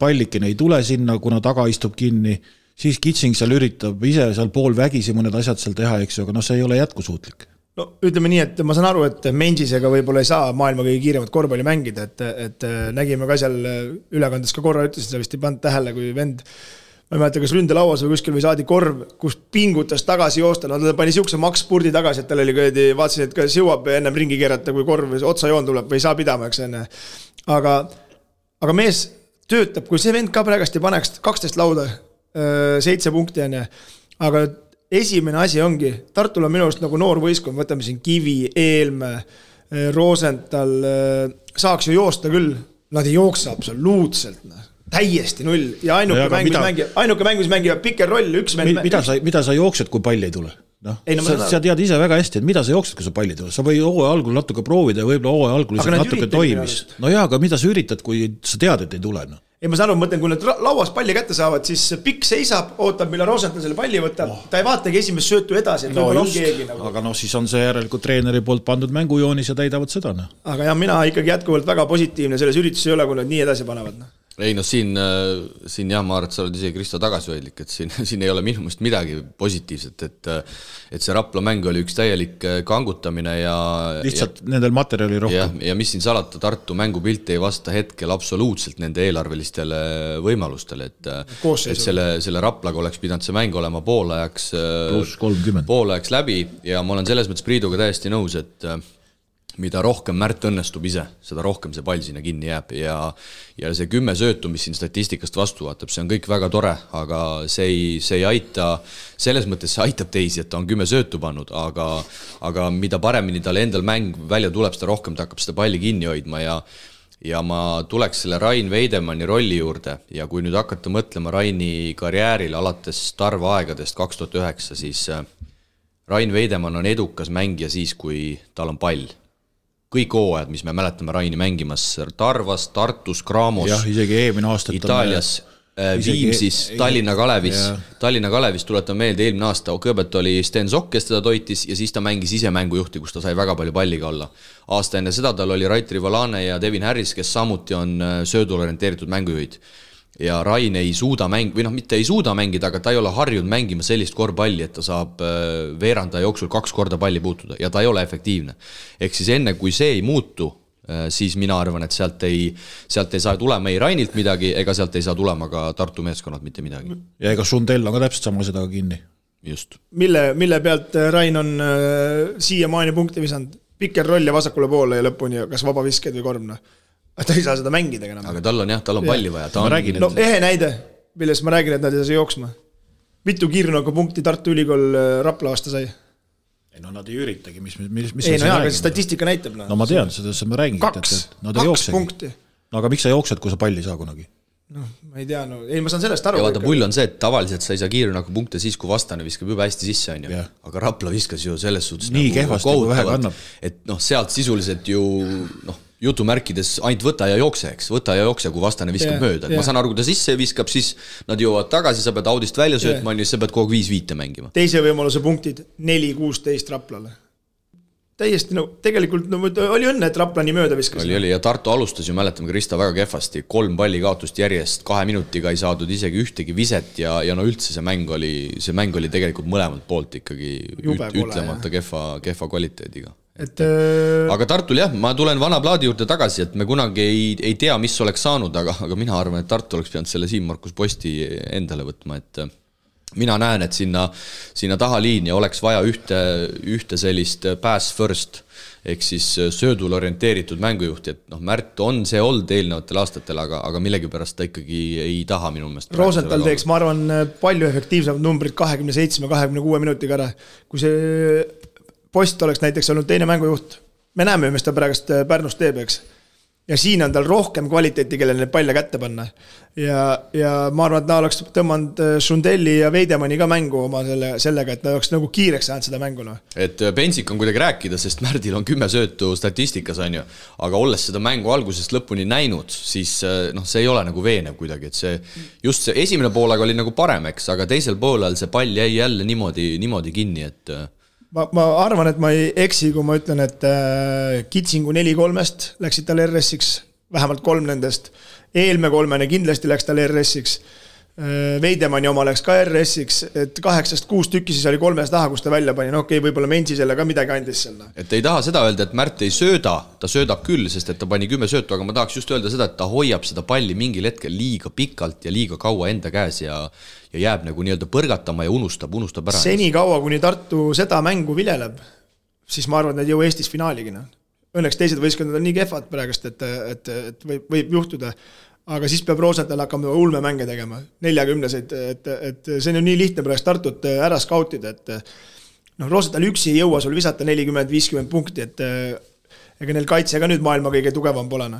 pallikin ei tule sinna, kuna taga istub kinni. Siis Kitsing seal üritab ise seal pool vägisi mõned asjad seal teha, eks ju, aga see ei ole jätkusuutlik. No ütleme nii, et ma saan aru, et Mendisega võib-olla ei saa maailma kõige kiiremat korvpalli mängida, et nägime ka seal ülekandes ka korra ütlesin, sa vist ei pannud tähele, kui vend, ma ei mäleta, kas ründelauas või kuskil või saadi korv, kus pingutas tagasi joosta, ta pani siukse makspurdi tagasi, et tal oli vaatasin, et kas jõuab ennem ringi keerata, kui korv otsa joon tuleb või ei saa pidama, eks enne. Aga mees töötab, kui see vend ka praegast ei paneks 12 lauda, 7 punkti on, aga esimene asi ongi, Tartul on minu arust nagu noor võistkond, võtame siin Kivi, Eelme, Rosenthal, saaks ju joosta küll, nad ei jooksa absoluutselt, täiesti null ja ainuke mängus mängivad piker roll, üks vend. Mida sa jooksed, kui palli ei tule? Sa tead ise väga hästi, et mida sa jooksed, kui sa palli tule? Sa või hooaja algul natuke proovida ja võib-olla hooaja algul natuke toimis. No jaa, aga mida sa üritad, kui sa tead, et ei tule? Ei, ma saan aru, mõtlen, kui nad lauas palli kätte saavad, siis pikk seisab, ootab, mille Rosenthal selle palli võtab. Ta ei vaatagi esimest söötu edasi, et võib-olla on keegi nagu. Aga siis on see järelikult treeneri poolt pandud mängujoonis ja täidavad seda. Aga jah, mina ikkagi jätkuvalt väga positiivne selles üritus ei ole, kui nad nii edasi panevad. Ei, siin jah, ma arvan, et sa oled ise Kristo tagasihoidlik, et siin ei ole minu mõist midagi positiivset, et see Rapla mäng oli üks täielik kangutamine ja lihtsalt nendel materjali rohkem. Ja mis siin salata, Tartu mängupilt ei vasta hetkel absoluutselt nende eelarvelistele võimalustele, et selle Raplaga oleks pidanud see mäng olema poolajaks läbi ja ma olen selles mõttes Priiduga täiesti nõus, et mida rohkem Märt õnnestub ise, seda rohkem see pall sinna kinni jääb ja see 10 söötu, mis siin statistikast vastu vaatab, see on kõik väga tore, aga see ei aita, selles mõttes see aitab teisi, et ta on 10 söötu pannud, aga mida paremini tal endal mäng välja tuleb, seda rohkem ta hakkab seda palli kinni hoidma ja ma tuleks selle Rain Veidemanni rolli juurde ja kui nüüd hakata mõtlema Raini karjäärile alates Tarva aegadest 2009, siis Rain Veidemann on edukas mängija siis, kui tal on pall. Kõik hooajad, mis me mäletame Raini mängimas Tarvas, Tartus, Graamos, isegi eelmine aastat Itaalias, Viimsis, Tallinna Kalevis tuletan meelde, eelmine aasta kõigepealt oli Sten Sokk, kes teda toitis ja siis ta mängis ise mängujuhti, kus ta sai väga palju palliga olla. Aasta enne seda tal oli Raitri Valane ja Devin Harris, kes samuti on söödul orienteeritud mängujuhid. Ja Rain ei suuda mitte ei suuda mängida, aga ta ei ole harjunud mängima sellist korvpalli, et ta saab veeranda jooksul 2 korda palli puutuda ja ta ei ole efektiivne. Ehk siis enne, kui see ei muutu, siis mina arvan, et sealt ei saa tulema ei Rainilt midagi, ega sealt ei saa tulema ka Tartu meeskonnad mitte midagi. Ja ega Sundell on ka täpselt sama seda kinni. Just. Mille pealt Rain on siia maani punkti visanud? Pikker roll ja vasakule poole ja lõpuni, kas vaba visked või korvna? Ta ei saa seda mängida enam. Aga tal on palli vaja. Ehe näide, milles ma räägin, et nad ei saa jooksma. Mitu kiirnooga punkti Tartu Ülikool Rapla aasta sai? Ei, nad ei üritagi. Aga statistika näitab. No ma tean, seda ma räägin. 2 punkti. No aga miks sa jooksed, kui sa palli saa kunagi? ma ei tea, ei ma saan sellest aru. Ja vaata, pull on see, et tavaliselt sa ei saa kiirrünnaku punkte siis, kui vastane viskab juba hästi sisse, on ju. Aga Rapla viskas ju selles suhtes nii kehvasti, kui vähe kannab. Et sealt sisuliselt ju jutumärkides ainult võta ja jookse, eks. Võta ja jookse, kui vastane viskab mööda. Ma saan aru, kui ta sisse viskab, siis nad jõuavad tagasi, sa pead audist välja söötma, sa pead kogu 5-5 mängima. Teise võimaluse punktid 4-16 Raplale. Täiesti, tegelikult oli õnne, et Rapla nii mööda viskas. Oli, ja Tartu alustas ju, mäletame Krista väga kehvasti, 3 palli kaotust järjest, 2 minutiga ei saadud isegi ühtegi viset ja üldse see mäng oli tegelikult mõlemalt poolt ikkagi ütlemata kehva kvaliteediga. Aga Tartul jah, ma tulen vana plaadi juurde tagasi, et me kunagi ei tea, mis oleks saanud, aga mina arvan, et Tartu oleks pidanud selle Siim Markus Posti endale võtma, et mina näen, et sinna taha liinia oleks vaja ühte sellist pass first, ehk siis söödul orienteeritud mängujuhti, et Märt on see olnud eelnevatel aastatel, aga millegipärast ta ikkagi ei taha minu meelest. Rosenthal teeks, ma arvan, palju efektiivsemad numbrid 27-26 minutiga ära. Kui see Post oleks näiteks olnud teine mängujuht, me näeme, mis ta praegust Pärnus teeb, eks. Ja siin on tal rohkem kvaliteeti, kellele need palle kätte panna. Ja ma arvan, et ta oleks tõmmanud Sundelli ja Veidemanni ka mängu oma sellega, et ta oleks nagu kiireks saanud seda mänguna. Et pensik on kuidagi rääkida, sest Märdil on 10 söötu statistikas, on ju. Aga olles seda mängu algusest lõpuni näinud, siis see ei ole nagu veenev kuidagi. Et just see esimene poolaga oli nagu parem, eks, aga teisel poolel see pall jäi jälle niimoodi kinni, et Ma arvan, et ma ei eksi, kui ma ütlen, et Kitsingu 4-3-st läksid tal RS-iks, vähemalt 3 nendest. Eelme 3 kindlasti läks tal RS-iks. Veidemanni oma läks ka RS-iks, et 8-6 tükki siis oli 3 taha, kus ta välja pani. Okei, võib-olla Mensi selle ka midagi andis selle. Et ei taha seda öelda, et Märt ei sööda, ta söödab küll, sest et ta pani 10 söötu, aga ma tahaks just öelda seda, et ta hoiab seda palli mingil hetkel liiga pikalt ja liiga kaua enda käes ja jääb nagu nii-öelda põrgatama ja unustab ära. Seni kaua, kuni Tartu seda mängu viljeleb, siis ma arvan, et need jõu Eestis finaaligina. Õnneks teised võistkondad on nii kehvad praegust, et võib juhtuda. Aga siis peab Rosenthal hakkama ulme mänge tegema, 40-seid, et see on ju nii lihtne praegu Tartut ära skautida, et Rosenthal üksi ei jõua sul visata 40-50 punkti, et ega neil kaitse ka nüüd maailma kõige tugevam polena.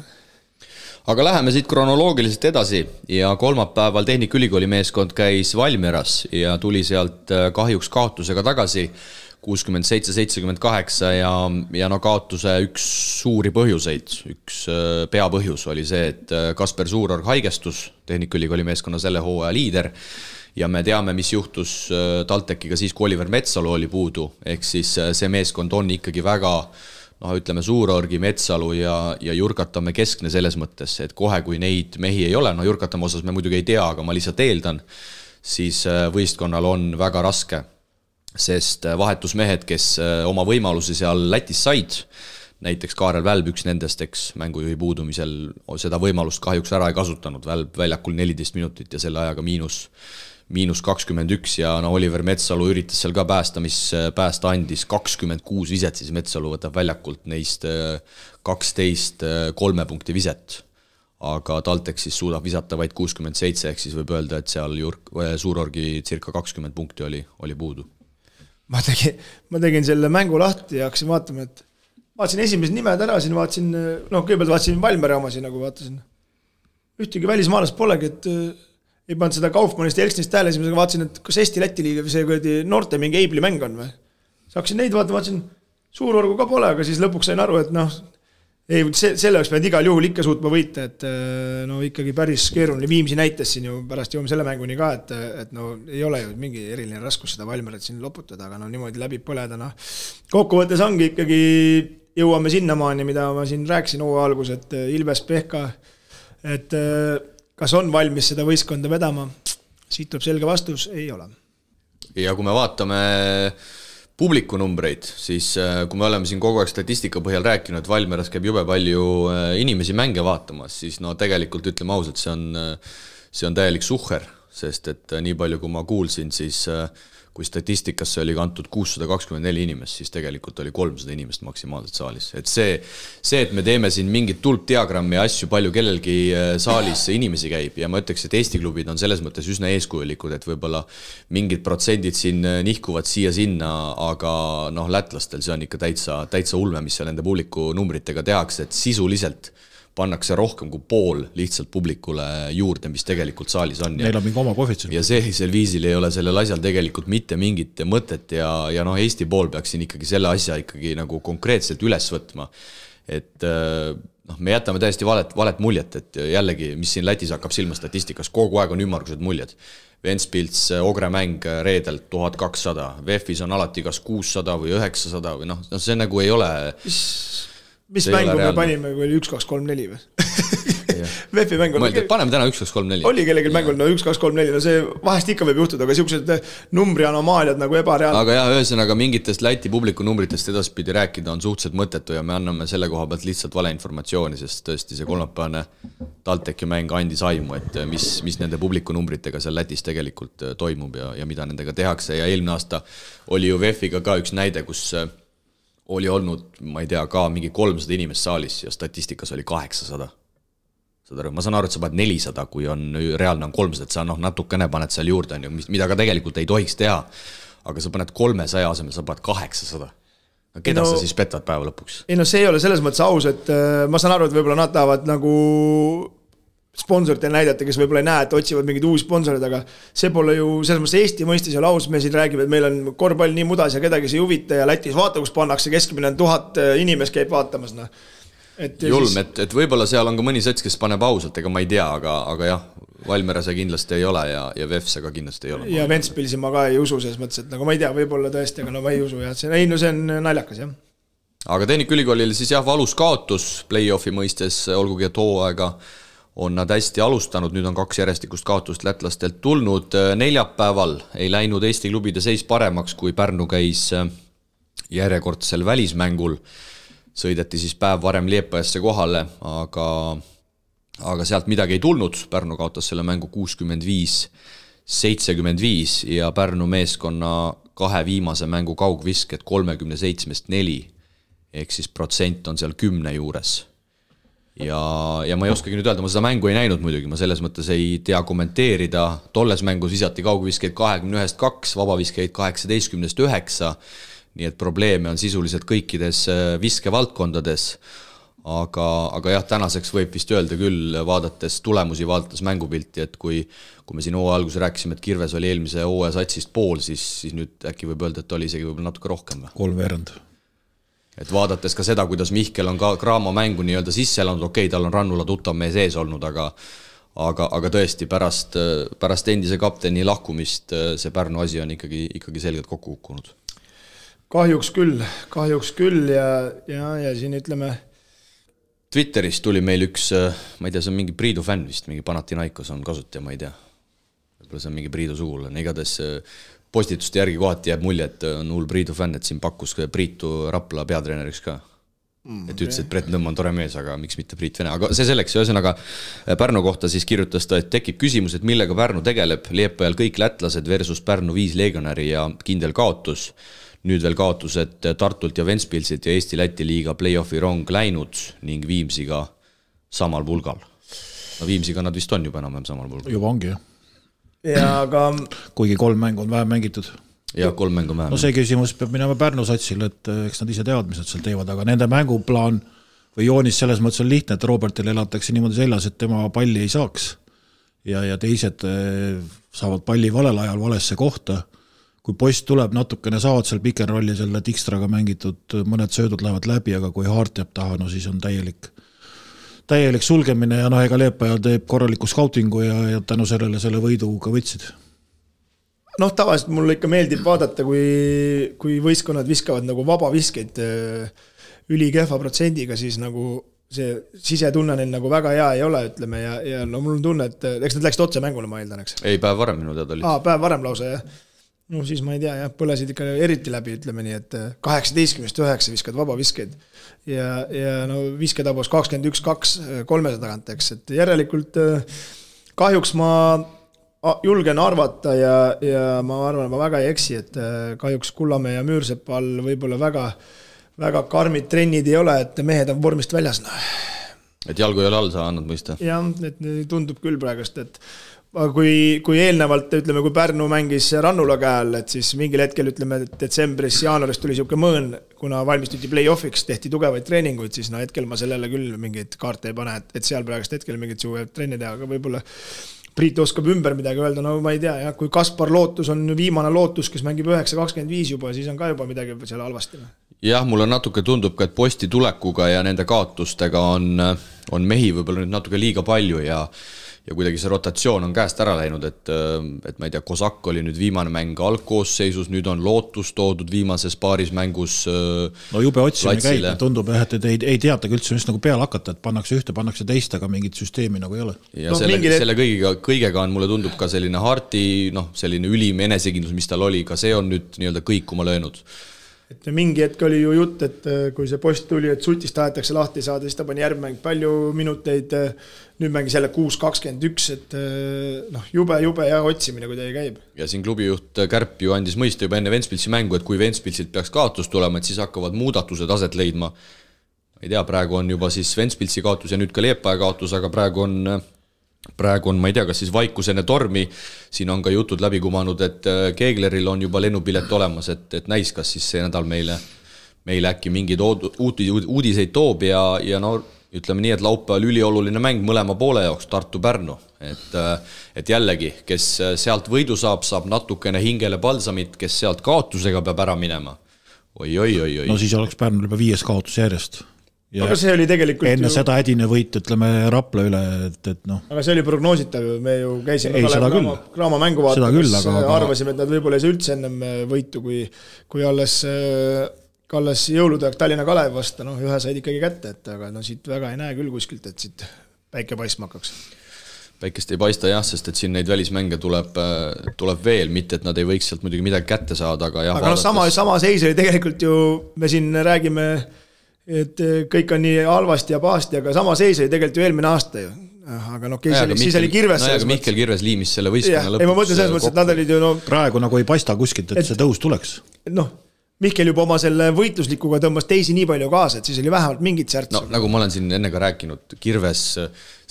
Aga läheme siit kronoloogiliselt edasi ja kolmapäeval Tehnikaülikooli meeskond käis Valmieras ja tuli sealt kahjuks kaotusega tagasi 67-78 ja kaotuse üks suuri põhjuseid, üks peapõhjus oli see, et Kasper Suurorg haigestus, Tehnikaülikooli meeskonna selle hooaja liider ja me teame, mis juhtus TalTechiga siis, kui Oliver Metsalu oli puudu, ehk siis see meeskond on ikkagi väga ütleme Suurorgi, Metsalu ja Jurkatamme keskne selles mõttes, et kohe kui neid mehi ei ole, Jurkatamme osas me muidugi ei tea, aga ma lihtsalt eeldan, siis võistkonnal on väga raske, sest vahetusmehed, kes oma võimalusi seal Lätis said, näiteks Kaarel Välb, üks nendest, eks mängujuhi puudumisel seda võimalust kahjuks ära ei kasutanud, Välb väljakul 14 minutit ja selle ajaga miinus 21 ja Oliver Metsalu üritas seal ka päästa, mis päästa andis 26 viset, siis Metsalu võtab väljakult neist 12 3 punkti viset. Aga TalTech siis suudab visata vaid 67, ehk siis võib öelda, et seal Suurorgi circa 20 punkti oli puudu. Ma tegin selle mängu lahti ja hakkasin vaatama, et vaatasin esimesed nimed ära, siin vaatasin, kõigepealt vaatasin Valmere oma siin, nagu vaatasin. Ühtegi välismaalast polegi, et ei pannud seda Kaufmannist ja Elksnist hääle, esimesega vaatasin, et kas Eesti-Läti liiga või see noorte mingi Eibli mäng on või. Hakkasin neid vaatasin, Suurorgu ka pole, aga siis lõpuks sain aru, et selle oleks pidanud igal juhul ikka suutma võita, et ikkagi päris keeruline. Viimsi näitas siin ju pärast jõuame selle mänguni ka, et ei ole ju mingi eriline raskus seda Valmeret siin loputada, aga niimoodi läbi põleda. Kokkuvõttes ongi ikkagi jõuame sinnamaani, mida ma siin rääkisin hooaja algus, et Ilves Pehka, et kas on valmis seda võistkonda vedama? Siit tuleb selge vastus, ei ole. Ja kui me vaatame publiku numbreid, siis kui me oleme siin kogu aeg statistika põhjal rääkinud, et Valmeras käib jube palju inimesi mänge vaatamas, siis tegelikult ütleme ausalt, see on täielik suhher, sest et nii palju kui ma kuulsin, siis kui statistikasse oli kantud 624 inimest, siis tegelikult oli 300 inimest maksimaalselt saalis. Et see, et me teeme siin mingit tulpdiagrammi ja asju, palju kellelgi saalis inimesi käib ja ma ütleks, et Eesti klubid on selles mõttes üsna eeskujulikud, et võib-olla mingid protsendid siin nihkuvad siia-sinna, aga lätlastel see on ikka täitsa ulme, mis seal nende publiku numbritega tehakse, et sisuliselt pannakse rohkem kui pool lihtsalt publikule juurde, mis tegelikult saalis on. Neil on mingi oma koefitsient. Ja sellisel viisil ei ole sellel asjal tegelikult mitte mingit mõtet ja Eesti pool peaks siin ikkagi selle asja ikkagi nagu konkreetselt üles võtma. Et me jätame täiesti valet muljet, et jällegi, mis siin Lätis hakkab silma statistikas, kogu aeg on ümmargused muljed. Ventspils, Ogre mäng reedelt 1200, VEF-is on alati kas 600 või 900 või see nagu ei ole... Mis mängu me panime, kui oli 1, 2, 3, 4 või? VEF-i mäng oli... Paneme täna 1, 2, 3, 4. Oli kellelgi mängul 1, 2, 3, 4, see vahest ikka võib juhtuda, aga siuksed numbri anomaaliad nagu ebareaalne. Aga jah, ühesõnaga mingitest Läti publiku numbritest edaspidi rääkida on suhteliselt mõttetu ja me anname selle koha pealt lihtsalt valeinformatsiooni, sest tõesti see kolmapäevane TalTechi mäng andis aimu, et mis nende publiku numbritega seal Lätis tegelikult toimub ja mida nendega tehakse ja eelmine aasta oli ju VEF-iga ka üks näide, kus oli olnud, ma ei tea, ka mingi 300 inimest saalis ja statistikas oli 800. Ma saan aru, et sa paned 400, kui on reaalne on 300, et sa natukene paned seal juurde, mida ka tegelikult ei tohiks teha, aga sa paned 300 asemel, sa paned 800. Keda sa siis petad päeva lõpuks? Ei see ei ole selles mõttes aus, et ma saan aru, et võib-olla nad tahavad nagu sponsorite näidata, kes võib-olla ei näe, et otsivad mingid uusi sponsorid, aga see pole ju selles mõttes Eesti mõistes ja laus, me siin räägime, et meil on korvpall nii mudas ja kedagi see huvita ja Lätis vaata, kus pannakse keskmine 1000 inimest käib vaatamas. Julm, et võib-olla seal on ka mõni sets, kes paneb ausalt, ega ma ei tea, aga jah, Valmiera see kindlasti ei ole ja VEF see ka kindlasti ei ole. Ja Ventspilsi ma ka ei usu selles mõttes, et nagu ma ei tea, võib-olla tõesti, aga ma ei usu ja see on naljakas, jah. Aga Tehnikaülikoolil siis jah, valus kaotus play-offi mõistes, olgugi et hooaega on nad hästi alustanud, nüüd on 2 järjestikust kaotust lätlastelt tulnud. Neljapäeval ei läinud Eesti klubide seis paremaks, kui Pärnu käis järjekordsel välismängul. Sõideti siis päev varem Liepajasse kohale, aga sealt midagi ei tulnud. Pärnu kaotas selle mängu 65-75 ja Pärnu meeskonna 2 viimase mängu kaugvisked 37-4, ehk siis protsent on seal 10 juures. Ja ma ei oskagi nüüd öelda, ma seda mängu ei näinud muidugi, ma selles mõttes ei tea kommenteerida. Tolles mängus visati kaugviskeid 21-2, vabaviskeid 18-9, nii et probleeme on sisuliselt kõikides viskevaldkondades. Aga jah, tänaseks võib vist öelda küll, vaadates tulemusi, vaadates mängupilti, et kui me siin hooaja alguses rääkisime, et Kirves oli eelmise hooaja satsist pool, siis nüüd äkki võib öelda, et oli isegi võib-olla natuke rohkem. 3/4. Et vaadates ka seda, kuidas Mihkel on ka Kraamo mängu nii-öelda sisse elanud, okei, tal on Rannula tuttav mees ees olnud, aga tõesti pärast endise kapteni lahkumist see Pärnu asi on ikkagi selgelt kokku kukkunud. Kahjuks küll ja siin ütleme... Twitteris tuli meil üks, ma ei tea, see on mingi Priidu fänn vist, mingi Panathinaikos on kasutaja, ma ei tea. Võib-olla see on mingi Priidu sugulane, igatahes... Postituste järgi kohati jääb mulje, et on hull Priidu fänn, et siin pakkus Priitu Rapla peatreeneriks ka. Et ütles, et Brett Nõmm on tore mees, aga miks mitte Priit Vene. Aga see selleks, ühesõnaga Pärnu kohta siis kirjutas ta, et tekib küsimus, et millega Pärnu tegeleb. Liepajal kõik lätlased versus Pärnu 5 legionäri ja kindel kaotus. Nüüd veel kaotused Tartult ja Ventspilsilt ja Eesti-Läti liiga play-offi rong läinud ning Viimsiga samal pulgal. No Viimsiga nad vist on juba enam samal pulgal. Juba ongi, jah. Ja aga... Kuigi 3 mängu on vähem mängitud. Ja 3 mängu vähem. No see küsimus peab minema Pärnu satsile, et eks nad ise teavad, mis nad seal teevad, aga nende mänguplaan või joonis selles mõttes on lihtne, et Robertile elatakse niimoodi seljas, et tema palli ei saaks ja teised saavad palli valel ajal valesse kohta. Kui post tuleb natukene, saavad seal pick and rolli selle Tikstraga mängitud, mõned söödud lähevad läbi, aga kui Haart jääb taha, no siis on täielik sulgemine ja ega Leepaja teeb korraliku scoutingu ja tänu selle võidu ka võtsid. Tavaliselt mulle ikka meeldib vaadata, kui võistkonnad viskavad nagu vabaviskeid ülikehva protsendiga, siis nagu see sisetunne neil nagu väga hea ei ole, ütleme, ja mul on tunne, et eks nad läksid otse mängule, ma eeldan, eks? Ei, päev varem minu teada oli. Päev varem lausa, jah. No siis ma ei tea, põlesid ikka eriti läbi, ütleme nii, et 18-9 viskad vabaviskeid ja visketabos 21-2 300 tagant, eks, et järelikult kahjuks ma julgen arvata ja ma arvan, ma väga ei eksi, et kahjuks Kullamäe ja Müürsepa all võib-olla väga karmid trennid ei ole, et mehed on vormist väljas. Et jalgu ei ole all, sa annad mõista? Jah, et tundub küll praegust, et kui eelnevalt, ütleme, kui Pärnu mängis Rannula käel, et siis mingil hetkel, ütleme, detsembris, jaanuaris tuli siuke mõõn, kuna valmistuti play-offiks, tehti tugevaid treeninguid, siis hetkel ma sellele küll mingit kaarte ei pane, et seal praegust hetkel mingit suve trenni teha, aga võib-olla Priit oskab ümber midagi öelda, no ma ei tea, jah, kui Kaspar Lootus on viimane Lootus, kes mängib 9-25 juba, siis on ka juba midagi seal halvasti. Jah, mulle natuke tundub ka, et Posti tulekuga ja nende kaotustega on mehi võib-olla nüüd natuke liiga palju ja kuidagi see rotatsioon on käest ära läinud, et ma ei tea, Kosak oli nüüd viimane mäng algkoosseisus, nüüd on Lootus toodud viimases paaris mängus no jube otsimine käib, tundub, et ei teatagi üldse just nagu peale hakata, et pannakse ühte, pannakse teist, aga mingit süsteemi nagu ei ole. Ja selle kõigega on mulle tundub ka selline Harti, selline ülim enesekindlus, mis tal oli, ka see on nüüd nii-öelda kõikuma löönud. Et mingi hetk oli ju jutt, et kui see Post tuli, et Sutist tahetakse lahti saada, siis ta pani järgmäng palju minuteid, nüüd mängis jälle 6-21, et jube ja otsimine kuidagi käib. Ja siin klubijuht Kärp ju andis mõista juba enne Ventspilsi mängu, et kui Ventspilsilt peaks kaotus tulema, et siis hakkavad muudatused aset leidma. Ei tea, praegu on juba siis Ventspilsi kaotus ja nüüd ka Liepaja kaotus, aga praegu on, ma ei tea, kas siis vaikusene tormi, siin on ka jutud läbi kumanud, et Keegleril on juba lennupilet olemas, et näis, kas siis see nädal meile äkki mingid uudiseid toob ja no ütleme nii, et laupäeval ülioluline mäng mõlema poole jaoks Tartu-Pärnu, et jällegi, kes sealt võidu saab natukene hingele palsamit, kes sealt kaotusega peab ära minema. Oi. No siis oleks Pärnul juba 5 kaotus järjest. Ja aga see oli tegelikult enne seda hädine võit, ütleme Rapla üle, et noh. Aga see oli prognoositav, me ju käisime Kraama mängu vaatamas, arvasime, et nad võib-olla ei saa üldse ennem võitu, kui alles jõulutöök Tallinna Kalev vasta, ühe said ikkagi kätte, aga siit väga ei näe küll kuskilt, et siit päike paistma hakkaks. Päikest ei paista jah, sest et siin neid välismänge tuleb veel, mitte et nad ei võiks sealt muidugi midagi kätte saada, aga jah. Aga sama seis oli tegelikult ju, me siin räägime et kõik on nii halvasti ja pahasti, aga sama seis oli tegelikult ju eelmine aasta ju. Aga siis oli Kirves. Aga Mihkel Kirves liimis selle võistkonna lõpuks. Ei, ma mõtlen selles mõttes, et nad olid ju praegu nagu ei paista kuskilt, et see tõus tuleks. Mihkel juba oma selle võitluslikuga tõmbas teisi nii palju kaasa, et siis oli vähemalt mingit särts. Nagu ma olen siin enne ka rääkinud, Kirves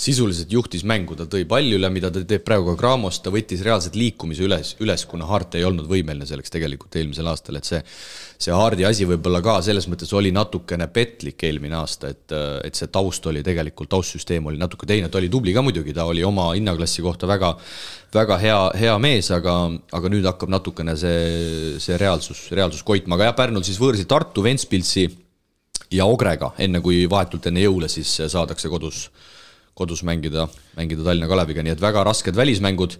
sisuliselt juhtis mängu, ta tõi palli üle, mida ta teeb praegu ka Graamos, ta võttis reaalselt liikumise üles, kuna Hart ei olnud võimeline selleks tegelikult eelmisel aastal, et see Hardi asi võibolla ka selles mõttes oli natukene petlik eelmine aasta, et see taust oli tegelikult, taustsüsteem oli natuke teine, ta oli tubli ka muidugi, ta oli oma hinnaklassi kohta väga hea mees, aga nüüd hakkab natukene see reaalsus koitma, aga jah, Pärnul siis võõrsi Tartu, Ventspilsi ja Ogrega, enne kui vahetult enne jõule siis saadakse kodus mängida Tallinna Kaleviga, nii et väga rasked välismängud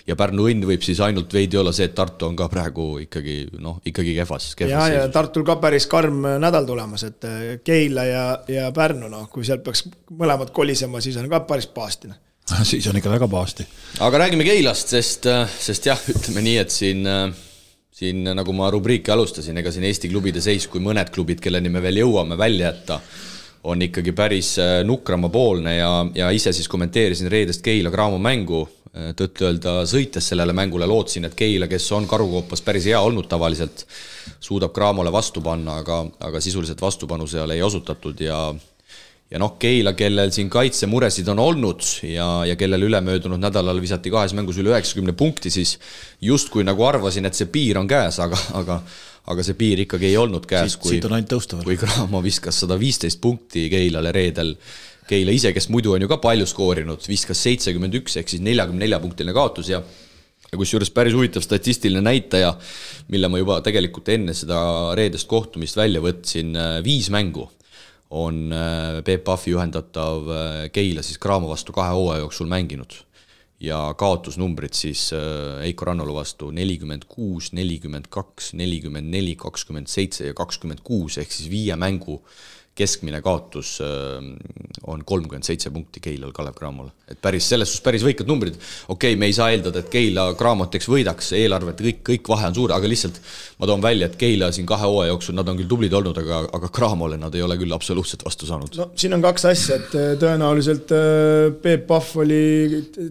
ja Pärnu õnn võib siis ainult veidi olla see, et Tartu on ka praegu ikkagi kehvas. Ja Tartul ka päris karm nädal tulemas, et Keila ja Pärnu, kui sealt peaks mõlemad kolisema, siis on ka päris paastine. Siis on ikka väga paasti. Aga räägime Keilast, sest jah, ütleme nii, et siin nagu ma rubriiki alustasin, ega siin Eesti klubide seis, kui mõned klubid, kelleni me veel jõuame välja jätta, on ikkagi päris nukramapoolne ja ise siis kommenteerisin reedest Keila Graamo mängu, tõtt-öelda sõites sellele mängule lootsin, et Keila, kes on Karukoopas päris hea olnud tavaliselt, suudab Graamole vastu panna, aga sisuliselt vastupanu seal ei osutatud ja Keila, kellel siin kaitsemuresid on olnud ja kellel ülemöödunud nädalal visati 2 mängus üle 90 punkti, siis justkui nagu arvasin, et see piir on käes, aga see piir ikkagi ei olnud käes, kui Graamo viskas 115 punkti Keilale reedel. Keila ise, kes muidu on ju ka palju skoorinud, viskas 71 ehk siis 44-punktiline kaotus ja kusjuures päris huvitav statistiline näitaja, mille ma juba tegelikult enne seda reedest kohtumist välja võtsin, 5 mängu on Peep Pahvi juhendatav Keila siis Graamo vastu 2 hooaja jooksul mänginud ja kaotusnumbrid siis Eiko Rannolu vastu 46, 42, 44, 27 ja 26 ehk siis 5 mängu keskmine kaotus on 37 punkti Keilal Kalev Cramole. Et selles päris võikad numbrid. Okei, me ei saa eeldada, et Keila Cramot võidaks, eelarvet kõik vahe on suur, aga lihtsalt ma toon välja, et Keila siin 2 hooaja jooksul, nad on küll tublid olnud, aga Cramole nad ei ole küll absoluutselt vastu saanud. No, siin on 2 asja, et tõenäoliselt Peep Pahv oli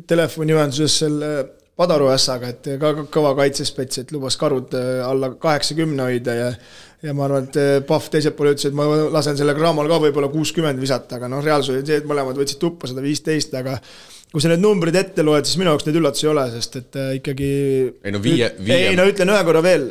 telefoniühenduses selle Padaru ässaga, et ka kõva kaitsespets, et lubas Karud alla 80 hoida ja ma arvan, et Pahv teiselt poole ütles, et ma lasen selle Cramol ka võib-olla 60 visata, aga reaalsus oli see, et mõlemad võtsid tuppa 115, aga kui sa need numbrid ette loed, siis minu jaoks neid üllatusi ei ole, sest et ikkagi ütlen ühe korra veel,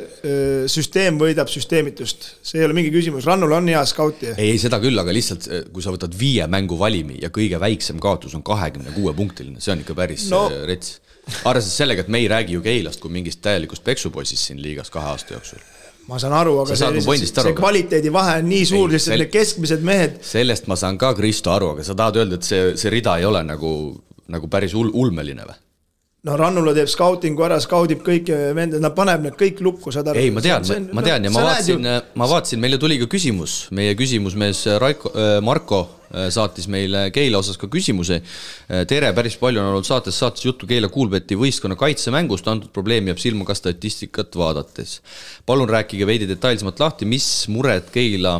süsteem võidab süsteemitust, see ei ole mingi küsimus, Rannul on hea skauti. Ei, seda küll, aga lihtsalt kui sa võtad 5 mängu valimi ja kõige väiksem kaotus on 26 punktiline, see on ikka päris rets. Arvestades sellega, et me ei räägi ju Keilast kui mingist täielikust peksupoisist siin liigas 2 aasta jooksul. Ma saan aru, aga see kvaliteedi vahe on nii suur, sest need keskmised mehed. Sellest ma saan ka Kristo aru, aga sa tahad öelda, et see rida ei ole nagu päris ulmeline või? No Rannula teeb skautingu ära, skaudib kõik vended, nad paneb need kõik lukku. Ei, ma tean ja ma vaatasin, meile tuli ka küsimus, meie küsimusmees Marko saatis meile Keila osas ka küsimuse. Tere, päris palju on olnud saates juttu Keila Kuulbeti võistkonna kaitsemängust, antud probleem jääb silma ka statistikat vaadates. Palun rääkige veidi detailsemalt lahti, mis mured Keila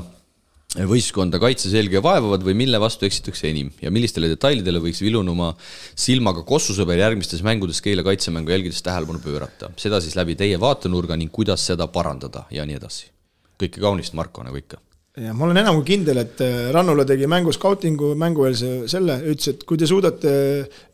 võistkonda kaitseselge vaevavad või mille vastu eksitakse enim ja millistele detailidele võiks vilunuma silmaga Kossusõber järgmistes mängudes Keila kaitsemängu jälgides tähelepanu pöörata. Seda siis läbi teie vaatenurga ning kuidas seda parandada ja nii edasi. Kõike kaunist, Marko, nagu ikka. Ja ma olen enam kui kindel, et Rannula tegi mängu skautingu, mängueelse selle, ütles, et kui te suudate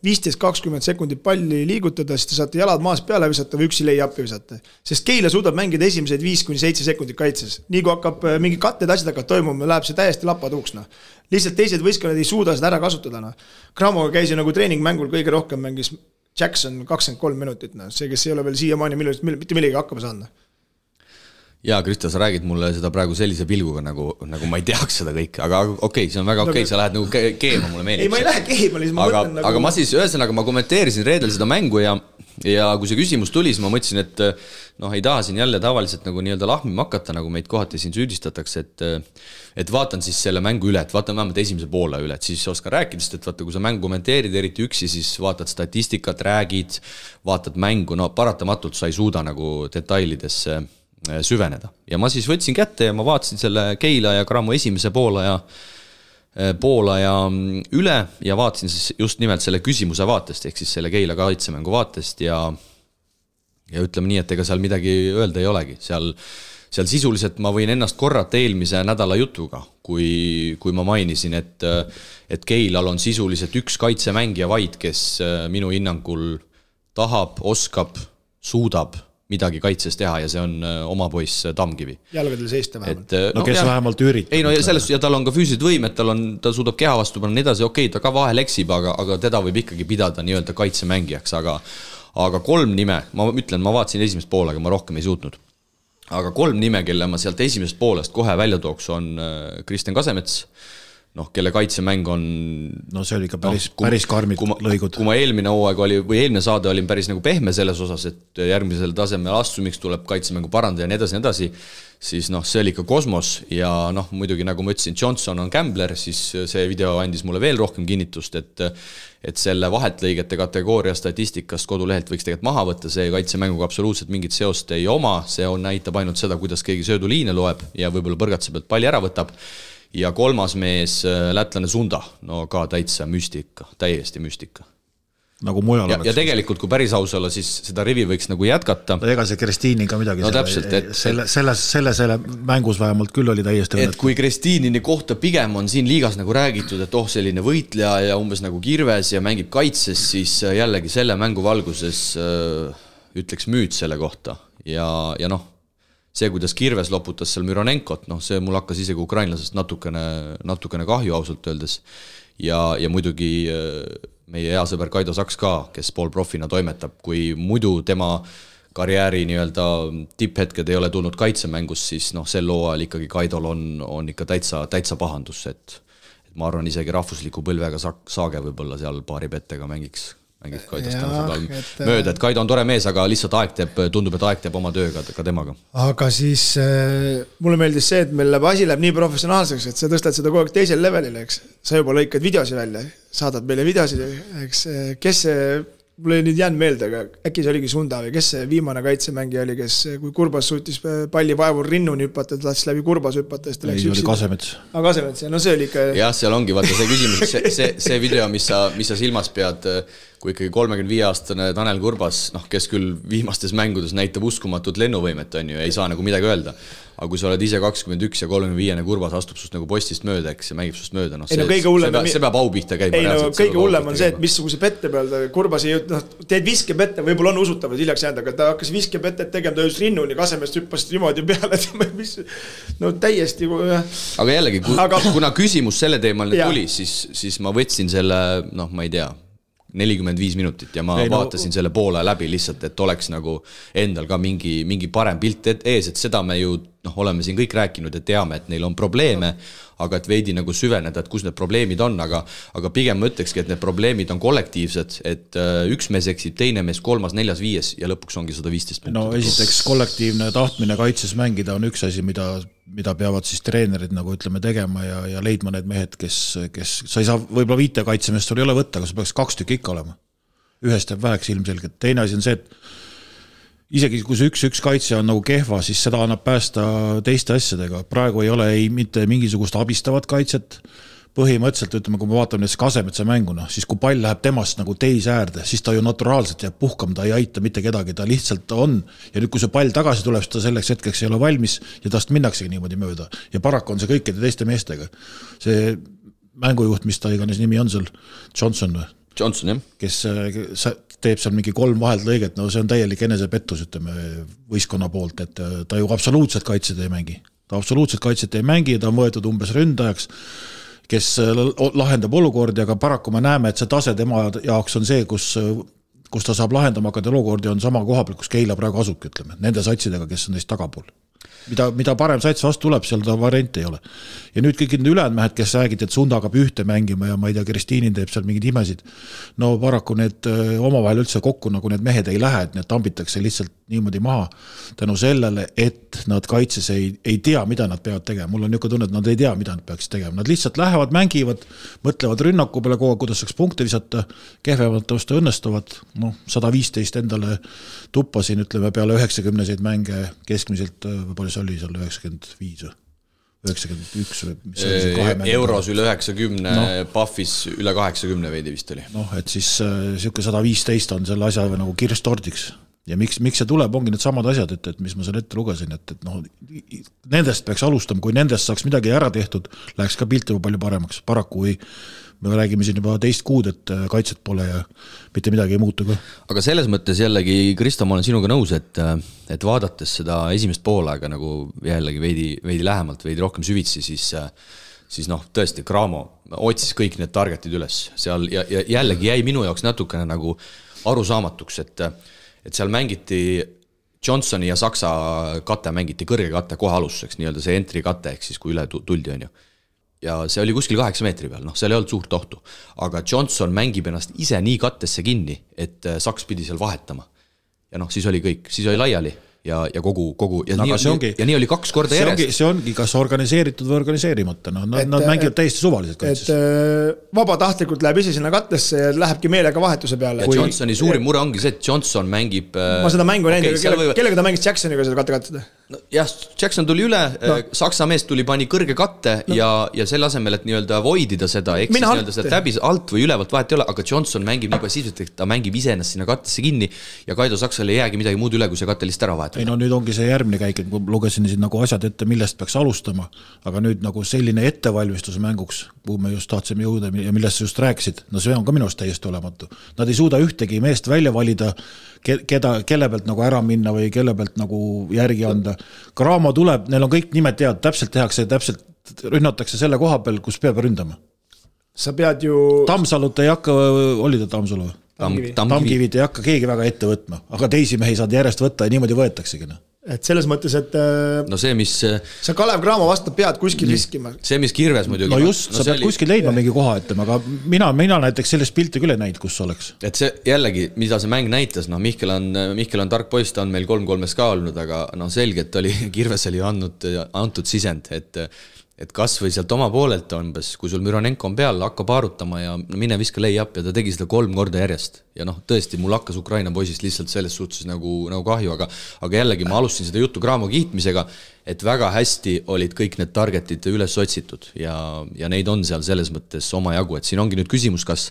15-20 sekundit palli liigutada, siis te saate jalad maas peale visata või üksi lay-up'i visata. Sest Keila suudab mängida esimesed 5-7 sekundit kaitses. Nii kui hakkab mingi katted asjad hakkab toimuma, läheb see täiesti lapatuuks. Lihtsalt teised võistkonnad ei suuda seda ära kasutada. Cramoga käis ju nagu treeningmängul kõige rohkem mängis Jackson 23 minutit. See, kes ei ole veel siiamaani mitte millegi hakkama saanud. Jaa, Kristo, sa räägid mulle seda praegu sellise pilguga, nagu ma ei teaks seda kõike, aga okei, see on väga okei, sa lähed nagu keema mulle meelib. Ei, ma ei lähe keema, ma mõtlen nagu... Aga ma siis ühesõnaga, ma kommenteerisin reedel seda mängu ja kui see küsimus tuli, siis ma mõtlesin, et ei taha siin jälle tavaliselt nagu nii-öelda lahmima hakata, nagu meid kohati siin süüdistatakse, et vaatan siis selle mängu üle, et vaatan vähemalt esimese poole üle, et siis oskan rääkida, sest et vaata, kui sa mängu kommenteerid eriti üksi, siis vaatad statistikat, räägid, vaatad mängu, paratamatult sa ei suuda nagu detailidesse süveneda. Ja ma siis võtsin kätte ja ma vaatasin selle Keila ja Cramo esimese poolaja üle ja vaatasin siis just nimelt selle küsimuse vaatest, ehk siis selle Keila kaitsemängu vaatest ja ütleme nii, et ega seal midagi öelda ei olegi. Seal sisuliselt ma võin ennast korrata eelmise nädala jutuga, kui ma mainisin, et Keilal on sisuliselt üks kaitsemängija vaid, kes minu hinnangul tahab, oskab, suudab midagi kaitses teha ja see on oma poiss Tamkivi. Jalgadel seista vähemalt. Kes vähemalt üritab. Ei, ja tal on ka füüsilised võimed, ta suudab keha vastu panna nii edasi, okei, ta ka vahel eksib, aga teda võib ikkagi pidada nii-öelda kaitsemängijaks, aga 3 nime, ma vaatasin esimest poole, aga ma rohkem ei suutnud. Aga 3 nime, kelle ma sealt esimesest poolest kohe välja tooks, on Kristjan Kasemets, kelle kaitsemäng on... see oli ikka päris karmid lõigud. Kui ma eelmine hooaeg oli, või eelmine saade olin päris nagu pehme selles osas, et järgmisel tasemel astumiks tuleb kaitsemängu parandada ja nii edasi, siis see oli ikka kosmos ja muidugi nagu ma ütlesin, Johnson on gambler, siis see video andis mulle veel rohkem kinnitust, et selle vahetlõigete kategooria statistikast kodulehelt võiks tegelikult maha võtta, see kaitsemänguga absoluutselt mingit seost ei oma, see näitab ainult seda, kuidas keegi sööduliine loeb ja võib-olla põrgatse pealt palli ära võtab. Ja 3. mees, lätlane Sunda, ka täitsa müstika, täiesti müstika. Nagu mujal oleks. Ja tegelikult, kui päris aus olla, siis seda rivi võiks nagu jätkata. Ega see Kristiini ka midagi. Täpselt, et selle mängus vähemalt küll oli täiesti õnnet. Et kui Kristiinini kohta pigem on siin liigas nagu räägitud, et selline võitleja ja umbes nagu kirves ja mängib kaitses, siis jällegi selle mängu valguses ütleks müüt selle kohta. Ja see, kuidas Kirves loputas seal Müronenkot, see mul hakkas isegi ukrainlasest natukene kahju ausalt öeldes. Ja muidugi meie hea sõber Kaido Saks ka, kes poolprofina toimetab, kui muidu tema karjääri nii-öelda tipphetked ei ole tulnud kaitsemängus, siis sel looajal ikkagi Kaidol on ikka täitsa pahandus, et ma arvan isegi rahvusliku põlvega saage võib-olla seal paari pettega mängiks mööda, et Kaido on tore mees, aga lihtsalt tundub, et aeg teeb oma tööga ka temaga. Aga siis mulle meeldis see, et meil asi läheb nii professionaalseks, et sa tõstad seda kogu aeg teisel levelile, eks. Sa juba lõikad videosi välja, saadad meile videosi, eks. Kes see, mulle ei nüüd jäänud meelde, aga äkki see oligi Sunda või kes see viimane kaitsemängija oli, kes kui Kurbas suutis palli vaevul rinnuni hüppata, ta tahtis läbi Kurbas hüppata. Ei, oli Kasemets. Kasemets, see oli ikka... Jah, seal ongi, vaata see küsimus, see video, mis sa silmas pead, kui ikkagi 35-aastane Tanel Kurbas, kes küll viimastes mängudes näitab uskumatut lennuvõimet, on ju, ei saa nagu midagi öelda. Aga kui sa oled ise 21 ja 35-ne Kurbas astub sust nagu postist mööda, eks, ja mängib sust mööda, see peab au pihta käima. Kõige hullem on see, et missuguse pette peal Kurbas teed viskepette, võib-olla on usutavad hiljaks jäänud, aga ta hakkas viskepettet tegema, ta just rinnuni Kasemest hüppas niimoodi peale, täiesti. Aga jällegi, kuna küsimus selle teemal tuli, siis ma võtsin selle, ma ei tea, 45 minutit ja ma vaatasin selle poole läbi lihtsalt, et oleks nagu endal ka mingi parem pilt ees, et seda me ju oleme siin kõik rääkinud, et teame, et neil on probleeme, aga et veidi nagu süveneda, et kus need probleemid on, aga pigem ma ütlekski, et need probleemid on kollektiivsed, et üks mees eksib, teine mees, kolmas, neljas, viies ja lõpuks ongi 115 punkti. No esiteks kollektiivne tahtmine kaitses mängida on üks asi, mida peavad siis treenerid nagu ütleme tegema ja leidma need mehed, kes sa ei saa, võib-olla 5 kaitsemest sul ei ole võtta, aga sa peaks 2 tükki ikka olema. Ühest jääb väheks ilmselgelt. Teine asi on see, et isegi kui see 1-1 kaitse on nagu kehva, siis seda annab päästa teiste asjadega. Praegu ei ole mitte mingisugust abistavat kaitset. Põhimõtteliselt, ütleme, kui me vaatame näiteks Kasemetsa mänguna, siis kui pall läheb temast nagu teise äärde, siis ta ju naturaalselt jääb puhkama, ta ei aita mitte kedagi, ta lihtsalt on. Ja nüüd, kui see pall tagasi tuleb, siis ta selleks hetkeks ei ole valmis ja tast minnaksegi niimoodi mööda. Ja paraku on see kõikide teiste meestega. See mängujuht, mis ta iganes nimi on seal, Johnson, jah. Kes teeb seal mingi 3 vahelt lõiget, see on täielik enesepettus, ütleme, võistkonna poolt, et ta ju absoluutselt kaitset ei mängi. Ta absoluutselt kaitset ei mängi, ta on võetud umbes ründajaks, kes lahendab olukordi, aga paraku me näeme, et see tase tema jaoks on see, kus ta saab lahendama hakata olukordi, on sama koha peal, kus Keila praegu asubki, ütleme, nende satsidega, kes on neist tagapool. Mida parem sats vastu tuleb, seal ta variante ei ole. Ja nüüd kõik need ülejäänud mehed, kes räägid, et Sunda hakkab ühte mängima ja ma ei tea, Kristiinin teeb seal mingid imesid. No paraku need omavahel üldse kokku, nagu need mehed ei lähe, et need tambitakse lihtsalt niimoodi maha tänu sellele, et nad kaitses ei tea, mida nad peavad tegema. Mul on niisugune tunne, et nad ei tea, mida nad peaks tegema. Nad lihtsalt lähevad, mängivad, mõtlevad rünnaku peale kogu, kuidas saaks punkte visata, kehvemalt tõusta õnnestuvad. 115 endale tuppasin, ütleme, peale 90-seid mänge keskmiselt, palju see oli seal 95 või 91 või Euros üle 90, Puffis üle 80 veidi vist oli. Et siis siuke 115 on selle asja nagu kirstordiks. Ja miks see tuleb, ongi need samad asjad, et mis ma selle ette lugesin, et nendest peaks alustama, kui nendest saaks midagi ära tehtud, läheks ka pilt juba palju paremaks. Paraku me räägime siin juba teist kuud, et kaitset pole ja mitte midagi ei muutu ka. Aga selles mõttes jällegi, Kristo, ma olen sinuga nõus, et vaadates seda esimest poolaega nagu jällegi veidi lähemalt, veidi rohkem süvitsi, siis tõesti Cramo otsis kõik need targetid üles seal ja jällegi jäi minu jaoks natukene nagu arusaamatuks, et seal mängiti Johnsoni ja Saksa kate mängiti kõrge kate kohe alustuseks, nii-öelda see entry kate, ehk siis kui üle tuldi on ju. Ja see oli kuskil 8 meetri peal, seal ei olnud suurt ohtu. Aga Johnson mängib ennast ise nii kattesse kinni, et Saks pidi seal vahetama. Ja siis oli kõik, siis oli laiali ja kogu ja nii oli 2 korda järjest. See ongi kas organiseeritud või organiseerimata. Nad mängivad täiesti suvaliselt kaitses. Et vabatahtlikult läheb ise sinna kattesse ja lähebki meelega vahetuse peale. Ja Johnsoni suurim mure ongi see, et Johnson mängib... Ma seda mängu näinud, kellega ta mängis Jacksoniga seda katte? Jah, Jackson tuli üle, Saksa mees tuli pani kõrge katte ja selle asemel, et nii-öelda voidida seda, eks siis nii-öelda seda täbis alt või ülevalt vahet ei ole, aga Johnson mängib nii passiivselt, et ta mängib ise ennast sinna kattesse kinni ja Kaido Saksale ei jäägi midagi muud üle, kui see katte lihtsalt ära vahetada. Nüüd ongi see järgmine käik, et lugesin siin nagu asjad ette, millest peaks alustama, aga nüüd nagu selline ettevalmistus mänguks, kuhu me just tahtsime jõuda ja millest sa just rääkisid, see on ka minust täiesti olematu. Nad ei suuda ühtegi meest välja valida, kelle pealt nagu ära minna või kelle pealt nagu järgi anda. Cramo tuleb, neil on kõik nimed tead, täpselt tehakse, täpselt rünnatakse selle koha peal, kus peab ründama. Sa pead ju... Tamsalut ei hakka, oli ta Tamsalu? Tamkivid ei hakka keegi väga ette võtma, aga teisi mehi saad järjest võtta ja niimoodi võetaksegi. Et selles mõttes, et see, mis... sa Kalev Cramo vastu pead kuskil riskima. See, mis Kirves muidugi... Just, sa pead kuskil leidma mingi koha, ütlema, aga mina näiteks sellest pilti küll ei näinud, kus oleks. Et see jällegi, mida see mäng näitas, Mihkel on tark poiss, ta on meil 3-3 ka olnud, aga selge, et oli Kirves oli antud sisend, et kas või sealt oma poolelt umbes, kui sul Müronenko on peal, hakka paarutama ja mine viska lay-up ja ta tegi seda 3 korda järjest. Ja tõesti, mul hakkas Ukraina poisist lihtsalt selles suhtes nagu kahju, aga jällegi ma alustasin seda juttu Cramo kiitmisega, et väga hästi olid kõik need targetid üles otsitud ja neid on seal selles mõttes oma jagu, et siin ongi nüüd küsimus, kas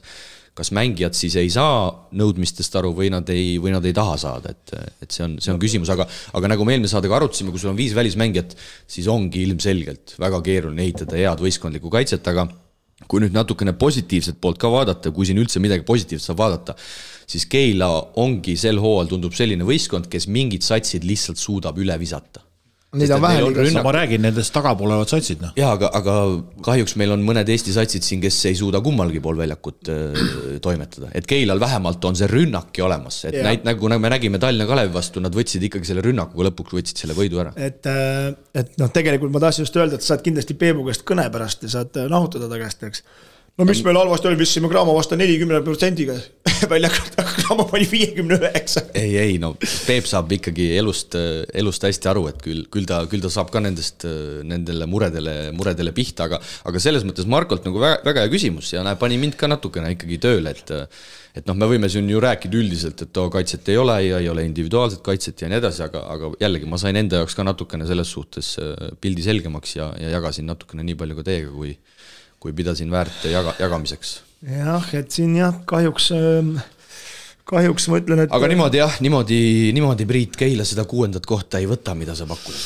kas mängijad siis ei saa nõudmistest aru või nad ei taha saada, et see on küsimus, aga nagu me eelmine saadega arutasime, kui sul on 5 välismängijat, siis ongi ilmselgelt väga keeruline ehitada head võistkondlikku kaitset, aga kui nüüd natukene positiivset poolt ka vaadata, kui siin üldse midagi positiivset saab vaadata, siis Keila ongi sel hooajal tundub selline võistkond, kes mingid satsid lihtsalt suudab üle visata. Neid on vähe liigas. Ma räägin nendest tagapolevad satsid. No. Jaa, aga kahjuks meil on mõned Eesti satsid siin, kes ei suuda kummalgi pool väljakut toimetada. Et Keilal vähemalt on see rünnaki olemas. Et nagu me nägime Tallinna Kalevi vastu, nad võtsid ikkagi selle rünnakuga lõpuks võtsid selle võidu ära. Et tegelikult ma tahtsin just öelda, et saad kindlasti Peebu käest kõne pärast ja saad nahutada ta käest, eks. No mis meil halvasti oli, vissime Graamo vastu 40%-ga väljakut, aga Graamo pani 59. Ei, no Peep saab ikkagi elust hästi aru, et küll ta saab ka nendele muredele pihta, aga selles mõttes Markolt nagu väga hea küsimus ja pani mind ka natukene ikkagi tööle, et me võime siin ju rääkida üldiselt, et kaitset ei ole ja ei ole individuaalset kaitset ja nii edasi, aga jällegi ma sain enda jaoks ka natukene selles suhtes pildi selgemaks ja jagasin natukene nii palju ka teiega, kui pidasin väärt jagamiseks. Jah, et siin kahjuks ma ütlen, et... Aga niimoodi Priit Keila seda 6. kohta ei võta, mida sa pakud.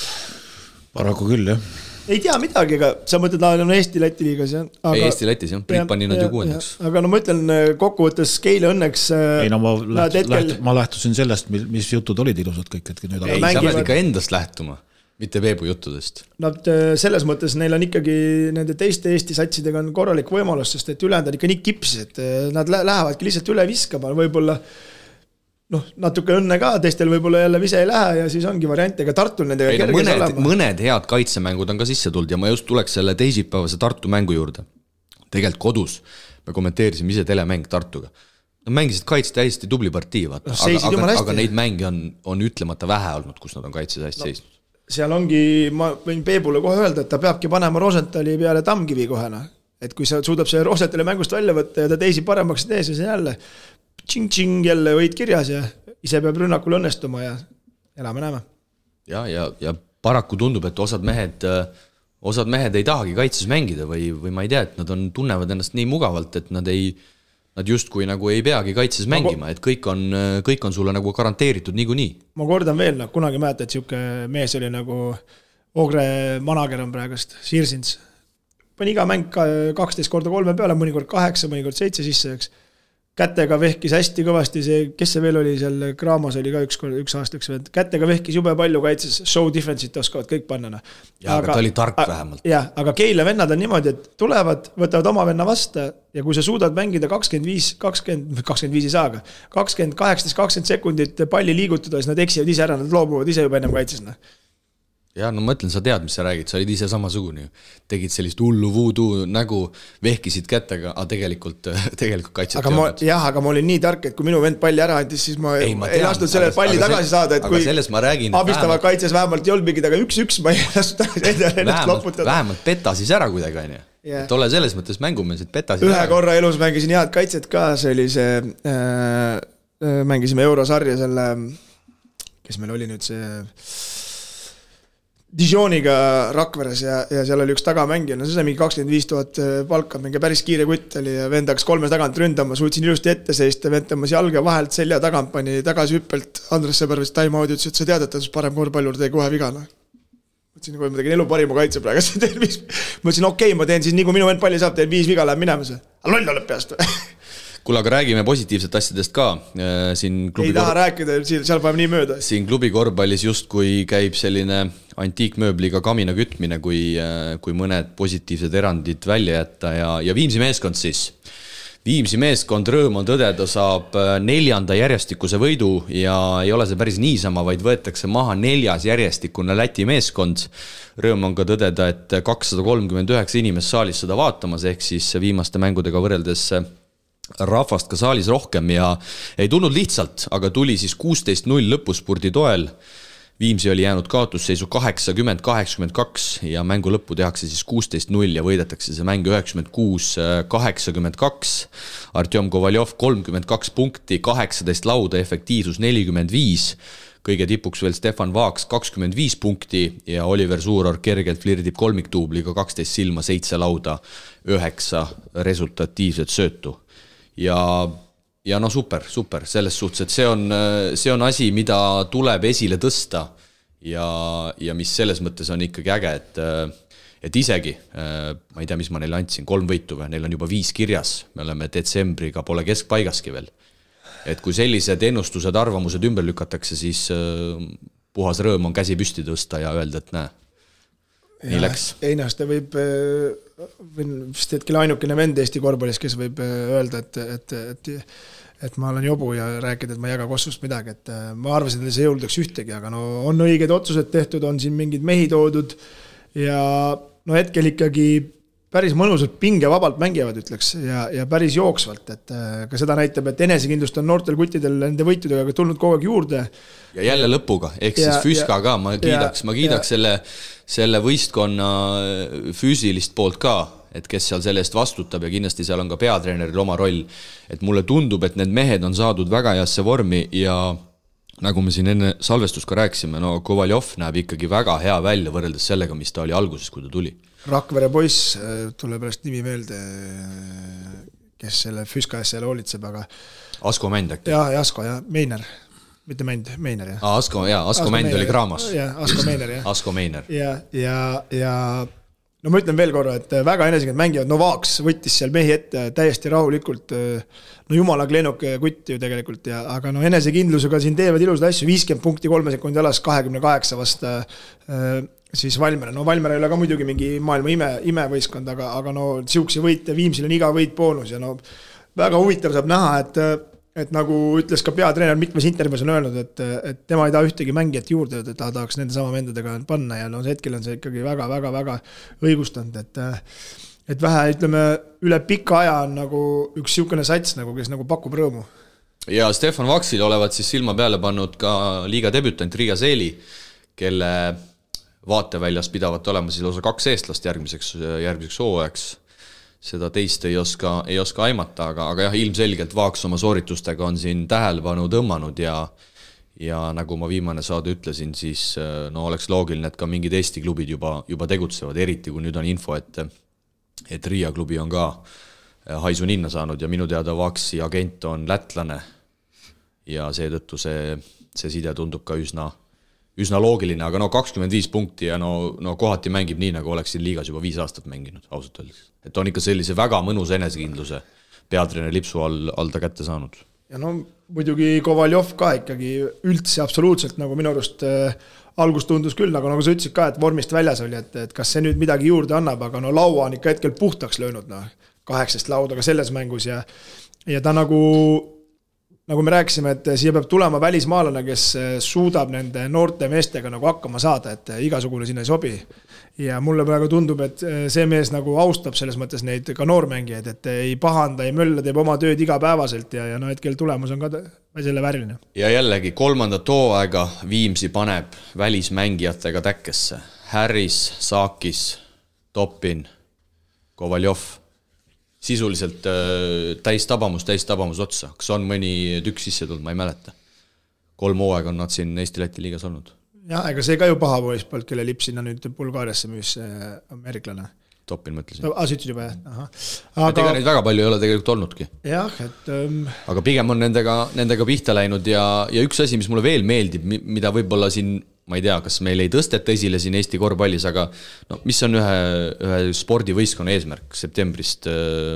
Paraku küll, jah. Ei tea midagi, aga sa mõtled, on Eesti-Läti liigas, jah? Ei, Eesti-Lätis, jah. Priit pani nad ju 6. Aga ma ütlen, kokkuvõttes Keila õnneks... Ei, no ma lähtusin sellest, mis jutud olid ilusad kõik. Ei, sa pead ikka endast lähtuma. Mitte Peebu juttudest. Nad selles mõttes neil on ikkagi nende teiste Eesti satsidega on korralik võimalus, sest et ülejäänud on ikka nii kipsis, et nad lähevadki lihtsalt üle viskama, võib-olla natuke õnne ka, teistel võib-olla jälle vise ei lähe ja siis ongi variant, ega Tartul nendega kerges olema. Mõned head kaitsemängud on ka sisse tulnud ja ma just tuleks selle teisipäevase Tartu mängu juurde. Tegelikult kodus me kommenteerisime ise telemäng Tartuga. Nad mängisid kaitset hästi tubli partii, aga neid mänge on ütlemata vähe olnud, kus nad on kaitses hästi seisnud. Seal ongi, ma võin Peebule kohe öelda, et ta peabki panema Rosentali peale Tammkivi kohena. Et kui sa suudab see Rosentali mängust välja võtta ja ta teisi paremaks tees ja see jälle tšing-tšing jälle võid kirjas ja ise peab rünnakul õnnestuma ja elame-näeme. Ja paraku tundub, et osad mehed ei tahagi kaitses mängida või ma ei tea, et nad tunnevad ennast nii mugavalt, et nad justkui nagu ei peagi kaitses mängima, et kõik on sulle nagu garanteeritud niikuinii. Ma kordan veel, kunagi mäeta, et siuke mees oli nagu Ogre manager on praegust, Sirsins. Pani iga mäng 12x3 peale, mõnikord 8, mõnikord 7 sisse, eks. Kätega vehkis hästi kõvasti see, kes see veel oli seal Graamos oli ka üks aastaks, kätega vehkis jube palju kaitses, show difference'it oskavad kõik panna. Aga ta oli tark vähemalt. Jah, aga Keila vennad on niimoodi, et tulevad, võtavad oma venna vasta ja kui sa suudad mängida 25 ei saaga, 18-20 sekundit palli liigutada, siis nad eksivad ise ära, nad loobuvad ise juba ennem kaitses. Ja no ma ütlen, sa tead, mis sa räägid, sa olid ise samasugune. Tegid sellist hullu voodoo nägu, vehkisid kättega, aga tegelikult kaitset aga ma olin nii tark, et kui minu vend palli ära andis, siis ma ei lastud selle palli tagasi saada, et kui abistavad kaitses vähemalt ei olnud mingid, aga 1-1 ma ei lastud ennast loputada. Vähemalt peta siis ära kuidagi, et ole selles mõttes mängumees, et peta siis ühe korra elus mängisin head kaitset ka, see oli see, mängisime Eurosarja selle, kes meil oli nüüd see Dijoniga Rakveres ja seal oli üks tagamängija, see sai mingi 25,000 palka, mingi päris kiire kutt oli ja vend hakkas 3 tagant ründama, suutsin ilusti ette seista, vend tõmbas jalga vahelt selja tagant, pani tagasi hüppelt, Andres Sõbervis time out ütles, et sa tead, et ta parem korvpallur tegi kohe vigana. Mõtlesin, kui ma tegin elu parima kaitse praegu, mõtlesin, okei, ma teen siis nii, kui minu vend palli saab, teen 5 viga, läheb minema see. Aga loll oleb peast. Kuule, aga räägime positiivset asjadest ka. Ei taha rääkida, seal paneb nii mööda. Siin klubi korvpallis just kui käib selline antiikmööbliga kamina kütmine, kui mõned positiivsed erandid välja jätta ja Viimsi meeskond siis. Viimsi meeskond rõõm on tõdeda saab 4. järjestikuse võidu ja ei ole see päris niisama, vaid võetakse maha 4. järjestikune Läti meeskond. Rõõm on ka tõdeda, et 239 inimest saalis seda vaatamas, ehk siis viimaste mängudega võrreldes rahvast ka saalis rohkem ja ei tulnud lihtsalt, aga tuli siis 16-0 lõpuspurdi toel. Viimsi oli jäänud kaotusseisu 80-82 ja mängu lõppu tehakse siis 16-0 ja võidetakse see mäng 96-82. Artjom Kovaljov 32 punkti, 18 lauda, efektiivsus 45. Kõige tipuks veel Stefan Vaaks 25 punkti ja Oliver Suuror kergelt flirdib kolmiktuubliga 12 silma, 7 lauda, 9 resultatiivset söötu. ja no super, selles suhtes, et see on asi, mida tuleb esile tõsta ja mis selles mõttes on ikkagi äge, et isegi, ma ei tea, mis ma neile andsin, 3 võitu või, neil on juba 5 kirjas, me oleme detsembriga, pole keskpaigaski veel. Et kui sellised ennustused, arvamused ümber lükatakse, siis puhas rõõm on käsi püsti tõsta ja öelda, et näe, nii läks. Einaste võib vist hetkel ainukene vend Eesti korvpallis, kes võib öelda, et ma olen jobu ja rääkida, et ma ei jaga Kossust midagi, et ma arvasin, et see jõuldaks ühtegi, aga no on õiged otsused tehtud, on siin mingid mehi toodud ja no hetkel ikkagi päris mõnusalt pingevabalt mängivad, ütleks, ja päris jooksvalt, et ka seda näitab, et enesekindlust on noortel kuttidel nende võitudega tulnud kogu aeg juurde. Ja jälle lõpuga, ehk siis Füska ka, ma kiidaks selle võistkonna füüsilist poolt ka, et kes seal selle eest vastutab ja kindlasti seal on ka peatreeneril oma roll, et mulle tundub, et need mehed on saadud väga heasse vormi ja nagu me siin enne salvestust ka rääkisime, no Kovaljov näeb ikkagi väga hea välja võrreldes sellega, mis ta oli alguses, kui ta tuli. Rakvere poiss, tuleb pärast nimi meelde, kes selle Füska ees seal hoolitseb, aga Asko Mänd äkki? Jah, Asko ja Meiner, mitte Mänd, Meiner, jah. Asko Mänd oli Kraamas. Jah, Asko Meiner, jah. Asko Meiner. Ja no ma ütlen veel korra, et väga enesekindlalt mängivad, no Vaaks võttis seal mehi ette täiesti rahulikult, no jumala kleenuk kutt ju tegelikult, aga no enesekindlusega siin teevad ilusad asju, 50 punkti 3 sekundi alas 28 vasta siis Valmere. No Valmere ei ole ka muidugi mingi maailma imevõistkond, aga no siukse võite, Viimsil on iga võit boonus ja no väga huvitav saab näha, et nagu ütles ka peatreener mitmes intervjuus on öelnud, et tema ei taha ühtegi mängijat juurde, et ta tahaks nende sama vendadega panna ja no hetkel on see ikkagi väga õigustanud, et vähe, ütleme, üle pika aja on nagu üks siukene sats, nagu, kes nagu pakub rõõmu. Ja Stefan Vaksil olevat siis silma peale pannud ka liiga debütant Riia Seeli, kelle vaateväljas pidavat olema siis lausa 2 eestlast järgmiseks hooajaks. Seda teist ei oska aimata, aga jah, ilmselgelt Vaaks oma sooritustega on siin tähelepanu tõmmanud ja nagu ma viimane saade ütlesin, siis no oleks loogiline, et ka mingid Eesti klubid juba tegutsevad, eriti kui nüüd on info, et Riia klubi on ka haisu ninna saanud ja minu teada Vaaksi agent on lätlane ja seetõttu see side tundub ka üsna loogiline, aga no 25 punkti ja no kohati mängib nii, nagu oleks siin liigas juba 5 aastat mänginud, ausalt öeldes. Et on ikka sellise väga mõnus enesekindluse peatreener lipsu all ta kätte saanud. Ja no muidugi Kovaljov ka ikkagi üldse absoluutselt nagu minu arust algus tundus küll, nagu sa ütlesid ka, et vormist väljas oli, et kas see nüüd midagi juurde annab, aga no laua on ikka hetkel puhtaks löönud, 8 laudaga selles mängus ja ta nagu me rääkisime, et siia peab tulema välismaalane, kes suudab nende noorte meestega nagu hakkama saada, et igasugune sinna ei sobi. Ja mulle praegu tundub, et see mees nagu austab selles mõttes neid ka noormängijaid, et ei pahanda, ei mölla, teeb oma tööd igapäevaselt ja no hetkel tulemus on ka selle vääriline. Ja jällegi 3. hooaega Viimsi paneb välismängijatega täkkesse. Harris, Saakis, Topin, Kovaljov. Sisuliselt täistabamus otsa. Kas on mõni tükk sisse tulnud, ma ei mäleta. 3 hooaega on nad siin Eesti-Läti liigas olnud. Jah, ega see ka ju paha poispalt, kelle lipp sinna nüüd Bulgaariasse müüs ameeriklane. Topin mõtlesin. Sa ütlesid juba, jah. Et ega neid väga palju ei ole tegelikult olnudki. Jah, et aga pigem on nendega pihta läinud ja üks asi, mis mulle veel meeldib, mida võib-olla siin, ma ei tea, kas meil ei tõsteta esile siin Eesti korvpallis, aga no, mis on ühe spordivõistkonna eesmärk septembrist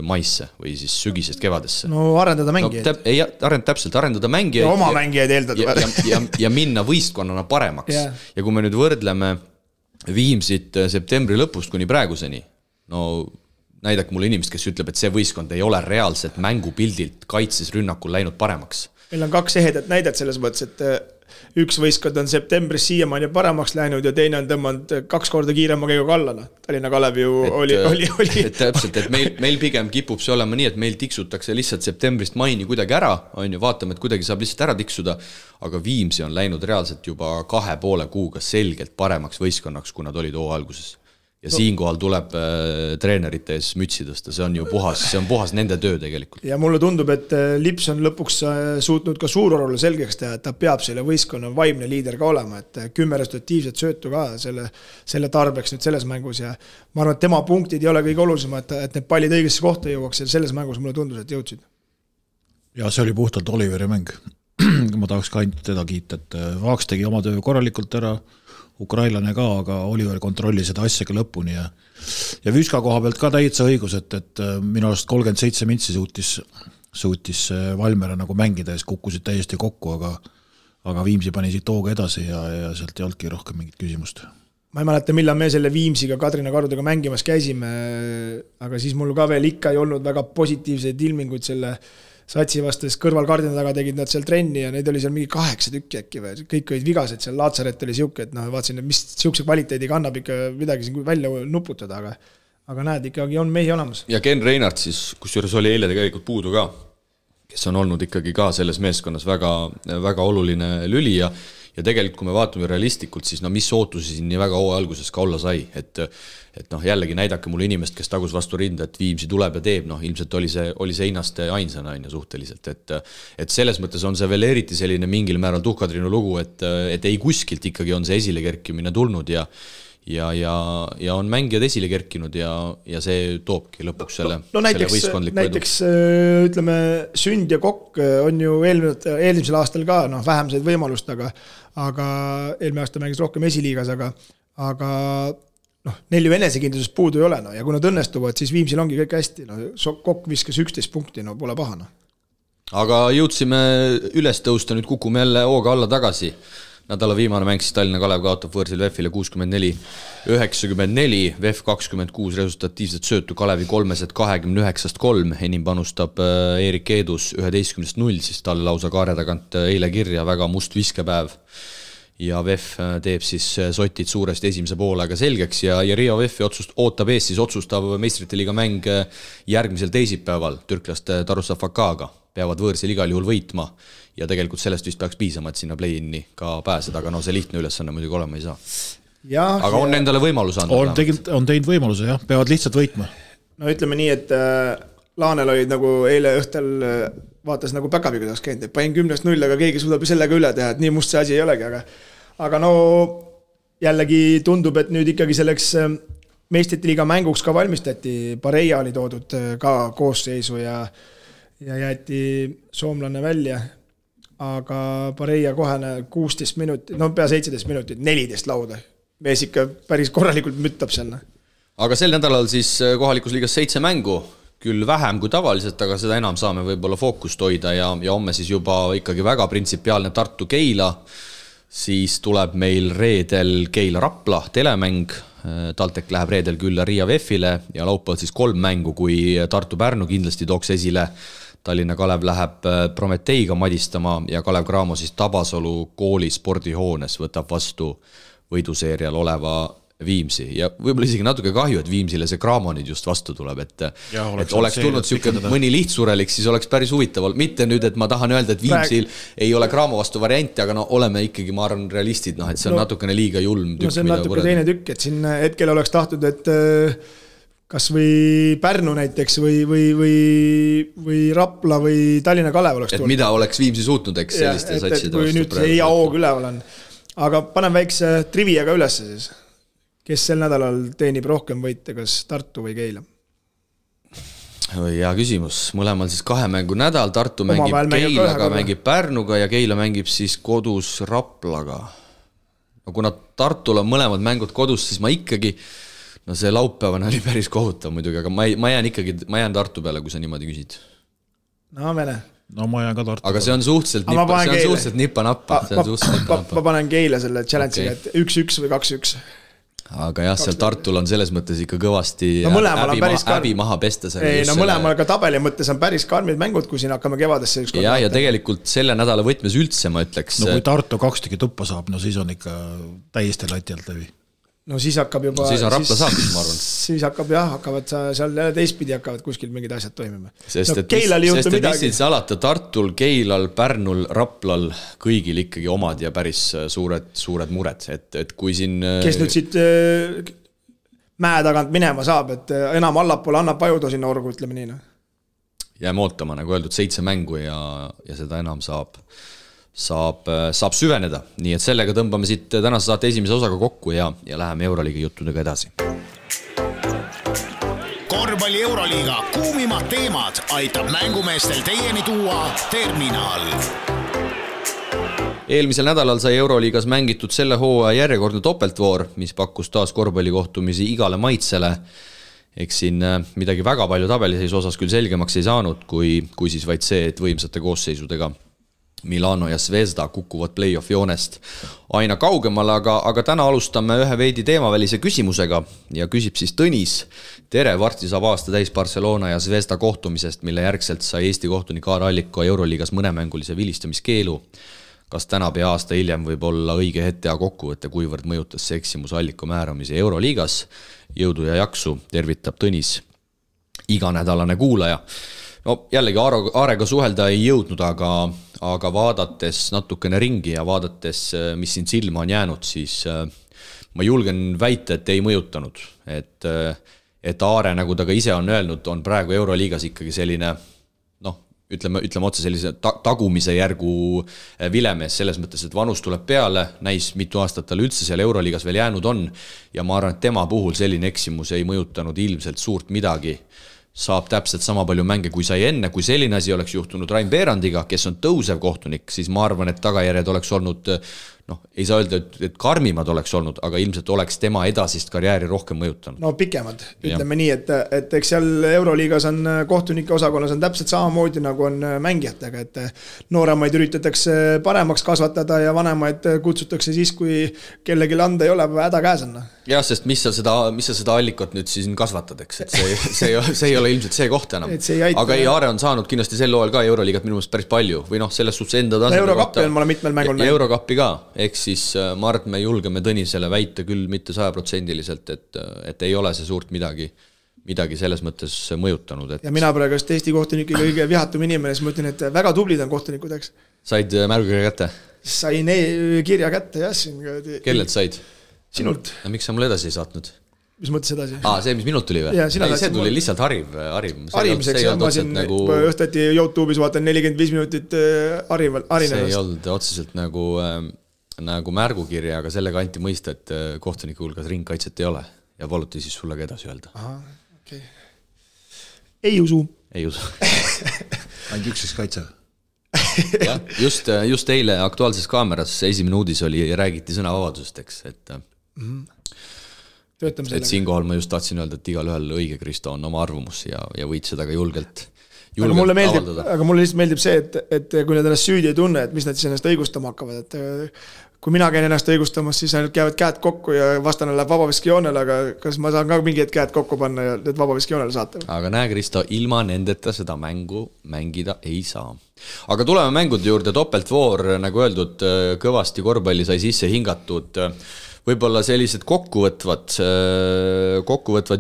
maisse või siis sügisest kevadesse? No arendada mängijaid. Arendada mängijaid. Ja oma mängijaid eeldada. Ja minna võistkonnana paremaks. Ja kui me nüüd võrdleme Viimsit septembri lõpust kuni praeguseni, no näidake mulle inimest, kes ütleb, et see võistkond ei ole reaalselt mängupildilt kaitses rünnakul läinud paremaks. Meil on 2 ehedat näidet selles mõttes, et üks võistkond on septembris siiamaani paremaks läinud ja teine on tõmmanud 2 korda kiirema käiguga alla. Tallinna Kalev ju oli. Täpselt, et meil pigem kipub see olema nii, et meil tiksutakse lihtsalt septembrist maini kuidagi ära, on ju, vaatame, et kuidagi saab lihtsalt ära tiksuda, aga Viimsi on läinud reaalselt juba 2,5 kuuga selgelt paremaks võistkonnaks, kui nad olid hoo alguses. Ja siinkohal tuleb treenerite ees mütsi tõsta, see on puhas nende töö tegelikult. Ja mulle tundub, et Lips on lõpuks suutnud ka Suurorule selgeks teha, et ta peab selle võistkonna vaimne liider ka olema, et 10 resultatiivset söötu ka selle tarbeks nüüd selles mängus ja ma arvan, et tema punktid ei ole kõige olulisem, et need pallid õigesse kohta jõuaks ja selles mängus mulle tundus, et jõudsid. Ja see oli puhtalt Oliveri mäng. Ma tahaks ka ainult teda kiita, et Vaaks tegi oma töö korralikult ära, ukrainlane ka, aga Oliver kontrolli seda asjaga lõpuni ja Vüska koha pealt ka täitsa õigus, et minu arust 37 mintsi suutis Valmera nagu mängida ja kukkusid täiesti kokku, aga Viimsi pani siit hooga edasi ja sealt ei olnudki rohkem mingit küsimust. Ma ei mäleta, millal me selle Viimsiga Kadrina Karudega mängimas käisime, aga siis mul ka veel ikka ei olnud väga positiivseid ilminguid selle satsi vastas kõrval kardina taga tegid nad seal trenni ja neid oli seal mingi 8 tükki äkki või, kõik olid vigased, seal Laatsaret oli siuke, et vaatasin, et mis siukse kvaliteediga annab ikka midagi siin välja nuputada, aga näed, ikkagi on mehi olemas. Ja Ken Reinart siis, kusjuures oli eile tegelikult puudu ka, kes on olnud ikkagi ka selles meeskonnas väga, väga oluline lüli ja tegelikult, kui me vaatame realistlikult, siis mis ootusi siin nii väga hooaja alguses ka olla sai, et jällegi näidake mulle inimest, kes tagus vastu rinda, et Viimsi tuleb ja teeb, ilmselt oli see Einaste ainsana suhteliselt, et selles mõttes on see veel eriti selline mingil määral Tuhkatrinu lugu, et ei kuskilt ikkagi on see esile kerkimine tulnud ja on mängijad esile kerkinud ja see toobki lõpuks selle võistkondliku näiteks ütleme, Sünd ja Kokk on ju eelmisel aastal ka vähem said võimalust, aga eelmine aasta mängis rohkem esiliigas, aga neil ju enesekindlusest puudu ei ole, ja kui nad õnnestuvad, siis Viimsil ongi kõik hästi, Kokk viskas 11 punkti, pole pahana. Aga jõudsime üles tõusta, nüüd kukume jälle hooga alla tagasi. Nädala viimane mäng siis Tallinna Kalev kaotab võõrsil VEF-ile 64-94, VEF 26 resultatiivset söötu Kalevi 329-3, enim panustab Eerik Eedus 11-0, siis talle lausa kaare tagant eile kirja, väga must viskepäev. Ja VEF teeb siis sotid suuresti esimese poolega selgeks ja Riia VEF-i ootab ees siis otsustav meistrite liiga mäng järgmisel teisipäeval türklaste Tarussa Fakaga. Peavad võõrsil igal juhul võitma ja tegelikult sellest vist peaks piisama, et sinna play-inni ka pääseda, aga see lihtne ülesanne muidugi olema ei saa. Aga on endale võimalus anda? On teinud võimaluse, jah, peavad lihtsalt võitma. No ütleme nii, et Laanel olid nagu eile õhtel vaatas nagu päkapiga taas käinud, et panin 10-0, aga keegi suudab sellega üle teha, et nii must see asi ei olegi, aga jällegi tundub, et nüüd ikkagi selleks meistrite liiga mänguks ka valmistati, Pareja oli toodud ka koosseisu ja jäeti soomlane välja, aga Pareja kohane 16 minutit, pea 17 minutit, 14 lauda. Mees ikka päris korralikult müttab selle. Aga sel nädalal siis kohalikus liigas 7 mängu, küll vähem kui tavaliselt, aga seda enam saame võib-olla fookust hoida ja homme siis juba ikkagi väga printsipiaalne Tartu Keila, siis tuleb meil reedel Keila Rapla telemäng, TalTech läheb reedel külla Riia VEF-ile ja laupäeval siis 3 mängu, kui Tartu Pärnu kindlasti tooks esile. Tallinna Kalev läheb Prometeiga madistama ja Kalev Cramo siis Tabasalu kooli spordihoones võtab vastu võiduseerial oleva Viimsi ja võib-olla isegi natuke kahju, et Viimsile see Cramo nüüd just vastu tuleb, et oleks tulnud mõni lihtsurelik, siis oleks päris huvitav. Mitte nüüd, et ma tahan öelda, et Viimsil ei ole Cramo vastu varianti, aga oleme ikkagi, ma arvan, realistid, et see on natukene liiga julm tükk. See on natuke teine tükk, et siin hetkel oleks tahtnud, et kas või Pärnu näiteks või Rapla või Tallinna Kalev oleks tulnud. Et mida oleks Viimsi suutnud, eks selliste satside vastu. Kui nüüd see hea hoog üleval on. Aga panen väikse triviaga üles siis. Kes sel nädalal teenib rohkem võite, kas Tartu või Keila? Hea küsimus. Mõlemal siis 2 mängu nädal. Tartu mängib Keilaga, mängib Pärnuga ja Keila mängib siis kodus Raplaga. Kuna Tartul on mõlemad mängud kodus, siis ma ikkagi, see laupäevane oli päris kohutav muidugi, aga ma jään Tartu peale, kui sa niimoodi küsid. Ma jään ka Tartu. Aga see on suhteliselt nippa-nappa. Ma panen Keila selle challenge'iga, et 1-1 või 2-1. Aga jah, seal Tartul on selles mõttes ikka kõvasti häbi maha pesta. Mõlemal ka tabeli mõttes on päris karmid mängud, kui siin hakkame kevadesse ükskord. Ja tegelikult selle nädala võtmes üldse, ma ütleks. Kui Tartu 2 tükki tuppa saab, siis on ikka täiesti lati alt läbi. Siis hakkab juba... Siis on Rapla saab, ma arvan. Siis hakkavad seal teistpidi hakkavad kuskil mingid asjad toimima. Sest et mis alata Tartul, Keilal, Pärnul, Raplal kõigil ikkagi omad ja päris suured mured. Et kui siin... Kes nüüd siit mäe tagant minema saab, et enam allapoole annab pajuda sinna orgu, ütleme nii. Jääme ootama, nagu öeldud, 7 mängu ja seda enam saab süveneda. Nii et sellega tõmbame siit tänase saate esimese osaga kokku ja läheme Euroliiga juttudega edasi. korvpalli Euroliiga kuumimad teemad aitab mängumeestel teieni tuua Terminal. Eelmisel nädalal sai Euroliigas mängitud selle hooaja järjekordne topeltvoor, mis pakkus taas korvpallikohtumisi igale maitsele. Eks siin midagi väga palju tabeliseisu osas küll selgemaks ei saanud, kui siis vaid see, et võimsate koosseisudega Milano ja Zvezda kukuvad play-off joonest aina kaugemale, aga täna alustame ühe veidi teemavälise küsimusega ja küsib siis Tõnis. Tere, varsti saab aasta täis Barcelona ja Zvezda kohtumisest, mille järgselt sai Eesti kohtunik Aar Alliko Euroliigas mõnemängulise vilistamiskeelu. Kas täna pea aasta hiljem võib olla õige hetk teha kokkuvõtte, kuivõrd mõjutas see eksimus Alliko määramise Euroliigas? Jõudu ja jaksu, tervitab Tõnis, iganädalane kuulaja. No jällegi Aarega suhelda ei jõudnud, aga vaadates natukene ringi ja vaadates, mis siin silma on jäänud, siis ma julgen väita, et ei mõjutanud. Et Aare, nagu ta ka ise on öelnud, on praegu Euroliigas ikkagi selline, ütleme otse sellise tagumise järgu vilemees selles mõttes, et vanus tuleb peale, näis mitu aastat tal üldse seal Euroliigas veel jäänud on ja ma arvan, et tema puhul selline eksimus ei mõjutanud ilmselt suurt midagi. Saab täpselt sama palju mänge kui sai enne, kui selline asi oleks juhtunud Rain Beerandiga, kes on tõusev kohtunik, siis ma arvan, et tagajärjed oleks olnud, ei saa öelda, et karmimad oleks olnud, aga ilmselt oleks tema edasist karjääri rohkem mõjutanud. No pikemad, ütleme nii, et eks seal Euroliigas on kohtunike osakonnas on täpselt samamoodi nagu on mängijatega, et nooremaid üritatakse paremaks kasvatada ja vanemaid kutsutakse siis, kui kellelegi anda ei ole, häda käes on. Jah, sest mis sa seda Allikot nüüd siis kasvatad, eks, et see ei ole ilmselt see koht enam. Aga ei, Aare on saanud kindlasti sel loel ka Euroliigat minu meelest päris palju või selles suhtes enda tasandil. Eurokappi on mulle mitmel mängul näinud. Eurokappi ka, eks siis ma arvan, et me julgeme Tõnisele väita küll mitte 100%, et ei ole see suurt midagi selles mõttes mõjutanud. Ja mina praegu Eesti kohtunike kõige vihatum inimene, siis ma ütlen, et väga tublid on kohtunikud, eks. Said märgukirja kätte? Sain kirja kätte, jah. Kellelt said? Sinult. Ja miks sa mulle edasi ei saatnud? Mis mõttes edasi? See, mis minult tuli või? See tuli lihtsalt harimiseks, ma siin õhtati YouTube'is vaatan 45 minutit harinevast. See ei olnud otseselt nagu märgukirja, aga sellega anti mõista, et kohtuniku hulgas ringkaitset ei ole ja paluti siis sulle ka edasi öelda. Okay. Ei usu. Ainult üks kaitse. Ja, just eile Aktuaalses kaameras esimene uudis oli ja räägiti sõnavabadusest, eks, et siinkohal ma just tahtsin öelda, et igal ühel õige Kristo on oma arvamus ja võid seda ka julgelt avaldada. Aga mulle lihtsalt meeldib see, et kui nad ennast süüdi ei tunne, et mis nad siis ennast õigustama hakkavad, et kui mina käin ennast õigustamas, siis ainult käivad käed kokku ja vastane läheb vabaviskijoonele, aga kas ma saan ka mingid käed kokku panna ja need vabaviskijoonele saata? Aga näe, Kristo, ilma nendeta seda mängu mängida ei saa. Aga tuleme mängude juurde, topeltvoor, nagu öeldud, kõvasti korvpalli sai sisse hingatud. Võib-olla sellised kokkuvõtvad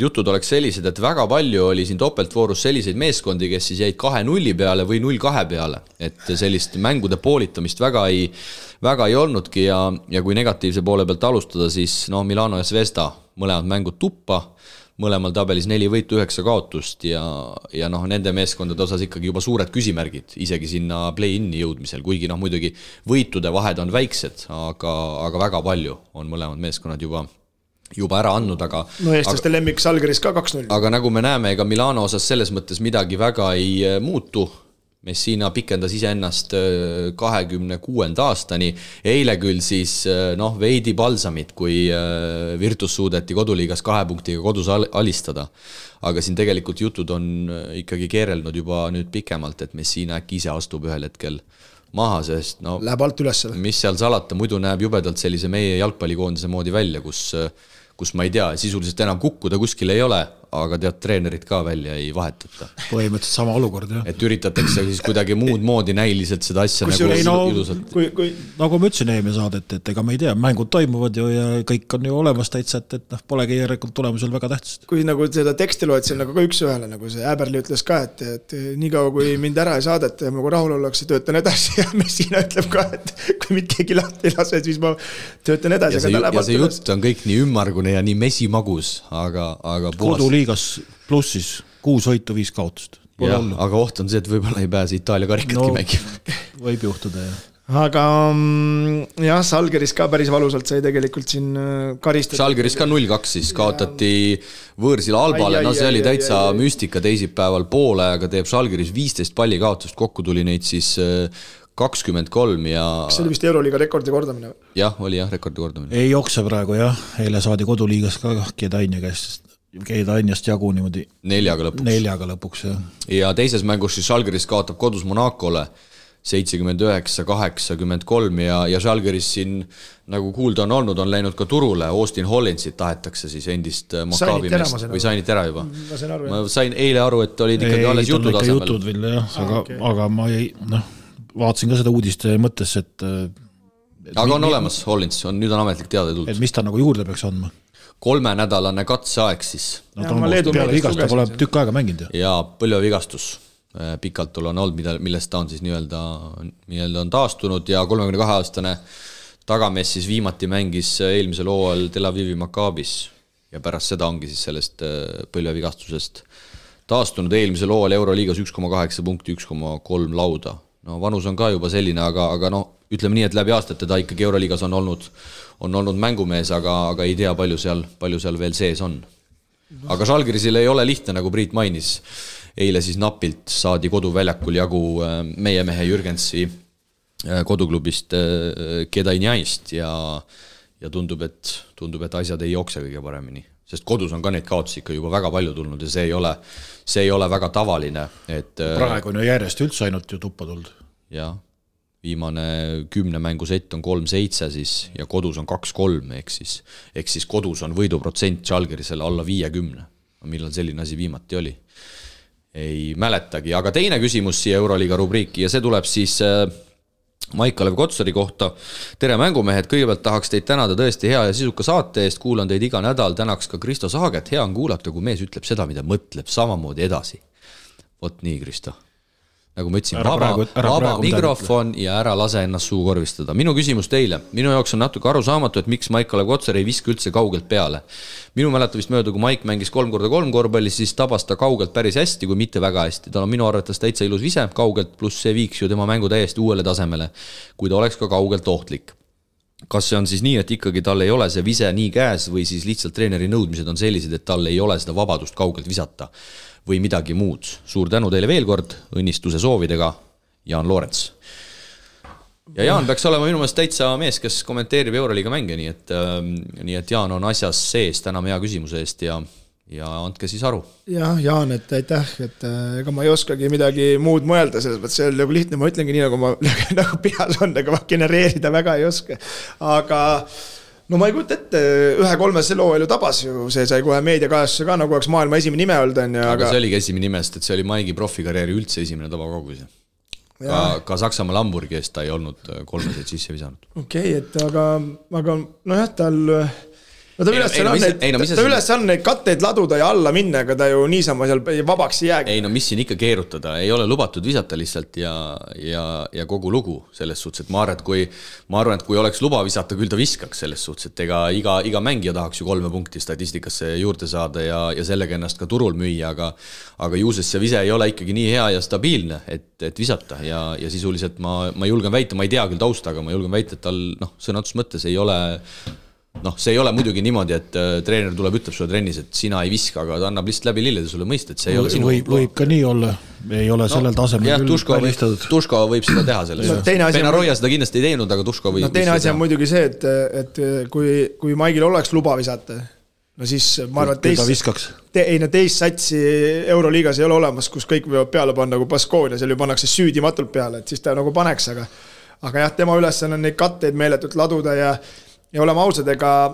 jutud oleks sellised, et väga palju oli siin topeltvoorus selliseid meeskondi, kes siis jäid 2-0 peale või 0-2 peale, et sellist mängude poolitamist väga ei olnudki ja kui negatiivse poole pealt alustada, siis Milano ja Zvezda mõlemad mängud tuppa, mõlemal tabelis 4 võitu, 9 kaotust ja nende meeskondade osas ikkagi juba suured küsimärgid, isegi sinna play-in'i jõudmisel, kuigi muidugi võitude vahed on väiksed, aga väga palju on mõlemad meeskonnad juba ära andnud, aga eestlaste lemmik Salgeris ka 2-0. Aga nagu me näeme, ega Milano osas selles mõttes midagi väga ei muutu. Messina pikendas iseennast 26. aastani. Eile küll siis veidi balsamit, kui Virtus suudeti koduliigas 2 punktiga kodus alistada. Aga siin tegelikult jutud on ikkagi keerelnud juba nüüd pikemalt, et Messina äkki ise astub ühel hetkel maha, sest läheb alt üles. Mis seal salata, muidu näeb jubedalt sellise meie jalgpallikoondise moodi välja, kus ma ei tea, sisuliselt enam kukkuda kuskil ei ole, aga tead, treenerid ka välja ei vahetata. Põhimõtteliselt sama olukord, jah. Et üritatakse siis kuidagi muud moodi näiliselt seda asja ilusalt. Nagu ma ütlesin eelmine saadet, et ega me ei tea, mängud toimuvad ju ja kõik on ju olemas täitsa, et polegi järelikult tulemusel väga tähtsast. Kui nagu seda teksti loed, see on nagu ka üks ühele, nagu see Äberli ütles ka, et nii kaua kui mind ära ei saadeta ja nagu rahul ollakse, töötan edasi ja Messina ütleb ka, et kui mind keegi lahti ei lase, siis ma töötan edasi. Ja see jutt on kõik nii ümmargune ja nii mesimagus, aga koduliigas plussis 6 võitu, 5 kaotust. Aga oht on see, et võib-olla ei pääse Itaalia karikatki mängima. Võib juhtuda, jah. aga jah, Žalgiris ka päris valusalt sai tegelikult siin karistada. Žalgiris ka 0-2 siis kaotati võõrsil Albale, no see oli täitsa müstika teisipäeval poole, aga teeb Žalgiris 15 palli kaotust, kokku tuli neid siis 23 ja... Kas see oli vist Euroliiga rekordi kordamine? Jah, oli jah, rekordi kordamine. Ei jokse praegu jah, eile saadi koduliigas ka Kedainjast jagu niimoodi 4 lõpuks jah. Ja teises mängus siis Žalgiris kaotab kodus Monacole 79-83 ja Žalgiris siin nagu kuulda on olnud, on läinud ka turule, Austin Hollandsit tahetakse siis endist Maccabi meest või sainit ära juba. Ma sain eile aru, et olid ikkagi alles jutud asemel. Jutud veel jah, aga ma ei, vaatasin ka seda uudiste mõttes, et aga on olemas Hollands, nüüd on ametlik teada tulnud. Et mis ta nagu juurde peaks andma? 3-nädalane katseaeg siis. No ta on peale vigast, ta pole tükk aega mänginud. Ja põlvevigastus. Pikalt on olnud, millest ta on siis nii-öelda on taastunud ja 32-aastane tagamees siis viimati mängis eelmisel hooajal Tel Avivi Maccabis ja pärast seda ongi siis sellest põlvevigastusest taastunud eelmisel hooajal Euroliigas 1,8 punkti, 1,3 lauda. No vanus on ka juba selline, aga no ütleme nii, et läbi aastate ta ikkagi Euroliigas on olnud mängumees, aga ei tea, palju seal veel sees on. Aga Žalgirisil ei ole lihtne, nagu Priit mainis. Eile siis napilt saadi koduväljakul jagu meie mehe Jürgensi koduklubist Kedainjaist ja tundub, et asjad ei jookse kõige paremini. Sest kodus on ka neid kaotusi ikka juba väga palju tulnud ja see ei ole väga tavaline. Et, praegu on ju järjest üldse ainult ju tuppa tulnud. Jah, viimane 10 mängusett on 3-7 siis ja kodus on 2-3 ehk siis kodus on võiduprotsent Žalgirisele alla 50. Millal selline asi viimati oli? Ei mäletagi, aga teine küsimus siia Euroliiga rubriiki ja see tuleb siis Maik-Kalev Kotsari kohta. Tere mängumehed, kõigepealt tahaks teid tänada tõesti hea ja sisuka saate eest, kuulan teid iga nädal, tänaks ka Kristo Saaget, hea on kuulata, kui mees ütleb seda, mida mõtleb, samamoodi edasi. Vot nii, Kristo. Nagu ma ütlesin, vaba mikrofon ja ära lase ennast suu korvistada. Minu küsimus teile. Minu jaoks on natuke arusaamatu, et miks Maik-Kalev Kotsar ei viska üldse kaugelt peale. Minu mäletavist mööda, kui Maik mängis 3x3 korvpallis, siis tabas ta kaugelt päris hästi, kui mitte väga hästi. Ta on minu arvates täitsa ilus vise kaugelt, pluss see viiks ju tema mängu täiesti uuele tasemele, kui ta oleks ka kaugelt ohtlik. Kas see on siis nii, et ikkagi tal ei ole see vise nii käes või siis lihtsalt treeneri nõudmised on sellised, et tal ei ole seda vabadust kaugelt visata või midagi muud. Suur tänu teile veel kord, õnnistuse soovidega, Jaan Loorents. Ja Jaan peaks olema minu meelest täitsa mees, kes kommenteerib Euroliiga mänge, nii et Jaan on asjas sees, täname hea küsimuse eest ja andke siis aru. Jah, Jaan, et aitäh, et ega ma ei oskagi midagi muud mõelda, selles mõttes see on nagu lihtne, ma ütlengi nii, nagu ma nagu peas on, aga ma genereerida väga ei oska. Aga no ma ei kujuta ette, 1-3 selle hooajal ju tabas ju, see sai kohe meediakajastuse ka, nagu oleks maailma esimene nime olnud. Aga see oligi esimene nimest, et see oli Maigi profikarjääri üldse esimene tabakaugus. Ka Saksamaa Hamburgi eest ta ei olnud 3 sisse visanud. Okei, et aga nojah, tal... No ta üles on neid katteid laduda ja alla minna, aga ta ju niisama seal vabaks ei jäägi. Ei no mis siin ikka keerutada, ei ole lubatud visata lihtsalt ja kogu lugu selles suhtes, et ma arvan, et kui oleks luba visata, küll ta viskaks selles suhtes, et iga mängija tahaks ju 3 punkti statistikasse juurde saada ja sellega ennast ka turul müüa, aga juuses see vise ei ole ikkagi nii hea ja stabiilne, et visata ja sisuliselt ma julgen väita, ma ei tea küll tausta, aga ma julgen väita, et tal sõnatus mõttes ei ole... see ei ole muidugi niimoodi, et treener tuleb, ütleb sulle trennis, et sina ei viska, aga ta annab lihtsalt läbi lillede sulle mõista, et see ei ole sinu... Võib ka nii olla, ei ole sellel tasemel küll välistatud. Tuško võib seda teha selles. Penaroia seda kindlasti ei teinud, aga Tuško võib... Teine asi on muidugi see, et kui Maigil oleks luba visata, no siis ma arvan, et teist satsi Euroliigas ei ole olemas, kus kõik võivad peale panna nagu Baskonia, seal ju pannakse süüdimatult peale, et siis ta nagu paneks, aga jah, tema üles on neid katteid meeletult laduda ja oleme ausad, ega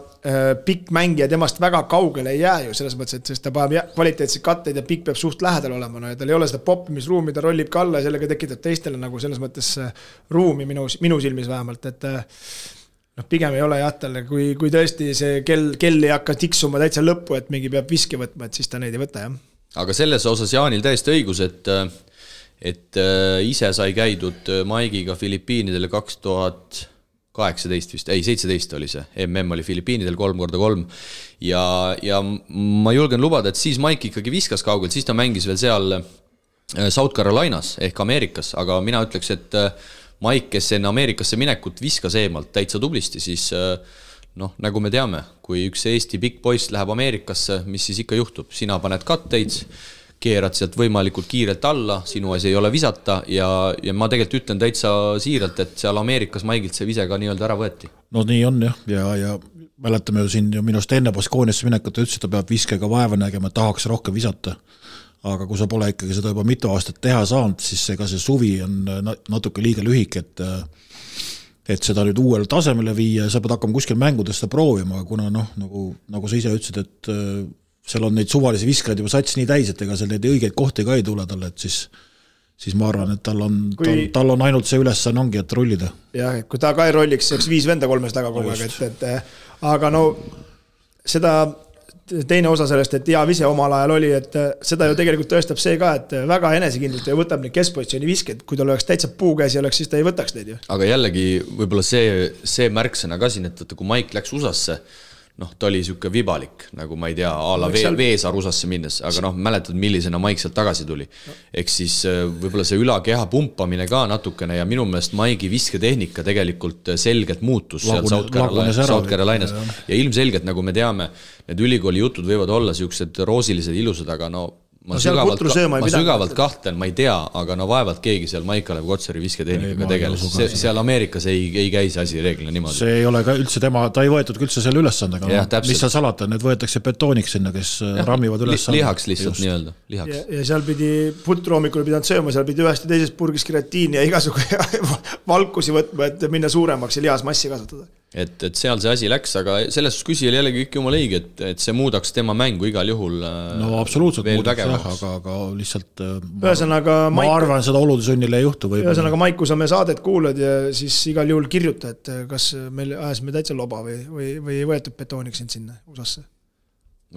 pikk mängija temast väga kaugele ei jää ju selles mõttes, et ta paneb kvaliteetseid katteid ja pikk peab suht lähedal olema, no ja tal ei ole seda poppimisruumi, ta rollib ka alla ja sellega tekitab teistele nagu selles mõttes ruumi minu silmis vähemalt, et pigem ei ole jah talle, kui tõesti see kell ei hakka tiksuma täitsa lõppu, et mingi peab viski võtma, et siis ta neid ei võta, jah. Aga selles osas Jaanil täiesti õigus, et ise sai käidud Maigiga Filipiinidele 2018 vist, 17 oli see, oli Filipiinidel 3x3 ja ma julgen lubada, et siis Maik ikkagi viskas kaugelt, siis ta mängis veel seal South Carolinas ehk Ameerikas, aga mina ütleks, et Maik, kes enne Ameerikasse minekut viskas eemalt täitsa tublisti, siis noh, nagu me teame, kui üks Eesti pikk poiss läheb Ameerikasse, mis siis ikka juhtub? Sina paned katteid, keerad sealt võimalikult kiirelt alla, sinu asi ei ole visata ja ma tegelikult ütlen täitsa siiralt, et seal Ameerikas Maigilt see vise ka nii-öelda ära võeti. No nii on jah, ja mäletame ju siin minust enne Baskooniasse minekut, ütles, et ta peab viskega vaeva nägema, tahaks rohkem visata. Aga kui sa pole ikkagi seda juba mitu aastat teha saanud, siis ega see suvi on natuke liiga lühik, et seda nüüd uuele tasemele viia, sa pead hakkama kuskil mängudest proovima, kuna noh, nagu sa ise ütlesid, et seal on neid suvalisi viskajaid juba sats nii täis, et ega seal neid õigeid kohti ka ei tule talle, et siis ma arvan, et tal on ainult see ülesanne ongi, et rullida. Jah, kui ta ka ei rolliks, see oleks 5 venda 3 taga kogu aeg, aga no seda teine osa sellest, et hea vise omal ajal oli, et seda ju tegelikult tõestab see ka, et väga enesekindlalt ja võtab neid keskpositsiooni visked, kui tal oleks täitsa puukäsi oleks, siis ta ei võtaks neid ju. Aga jällegi võib-olla see märksõna ka siin, et kui Maik läks USAsse, noh, ta oli siuke vibalik, nagu ma ei tea, ala Veesaar USAsse minnes, aga noh, mäletad, millisena Maik sealt tagasi tuli. Ehk siis võib-olla see ülakeha pumpamine ka natukene ja minu meelest Maigi visketehnika tegelikult selgelt muutus seal South Carolinas ja ilmselgelt, nagu me teame, need ülikooli jutud võivad olla siuksed roosilised ilusad, aga no ma sügavalt kahtlen, ma ei tea, aga no vaevalt keegi seal Maik-Kalev Kotsari visketehnikaga tegeles. Seal Ameerikas ei käi see asi reeglina niimoodi. See ei ole ka üldse tema, ta ei võetud üldse selle ülesandega. Mis seal salata, need võetakse betooniks sinna, kes rammivad ülesandega. Lihaks lihtsalt nii-öelda. Lihaks. Ja seal pidi putroomikul pidanud sööma, seal pidi ühest ja teisest purgis keratiini ja igasugu valkusi võtma, et minna suuremaks ja lihasmassi kasvatada. Et seal see asi läks, aga selles küsijal jällegi kõik jumal õige, et see muudaks tema mängu igal juhul no absoluutselt muudaks jah, aga lihtsalt ma arvan, seda olude sunnile ei juhtu. Ühesõnaga Maik, kui sa me saadet kuulad ja siis igal juhul kirjuta, et kas meil ajasime täitsa loba või ei võetud betooniks sind sinna USAsse?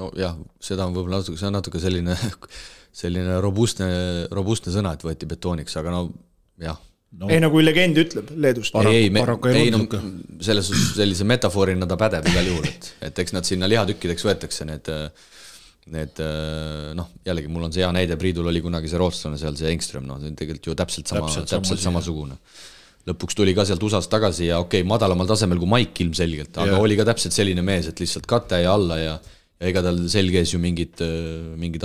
No jah, seda on võib-olla see on natuke selline robustne sõna, et võeti betooniks, aga no jah. No. Ei, kui legend ütleb Leedust. Sellise metafoorina ta pädeb igal juhul, et eks nad sinna lihatükkideks võetakse need noh, jällegi mul on see hea näide, Priidul oli kunagi see rootslane seal, see Engström, no see on tegelikult ju täpselt samasugune. Lõpuks tuli ka sealt USAst tagasi ja okei, madalamal tasemel kui Maik ilmselgelt, aga oli ka täpselt selline mees, et lihtsalt kate ja alla ja ega tal selgees ju mingid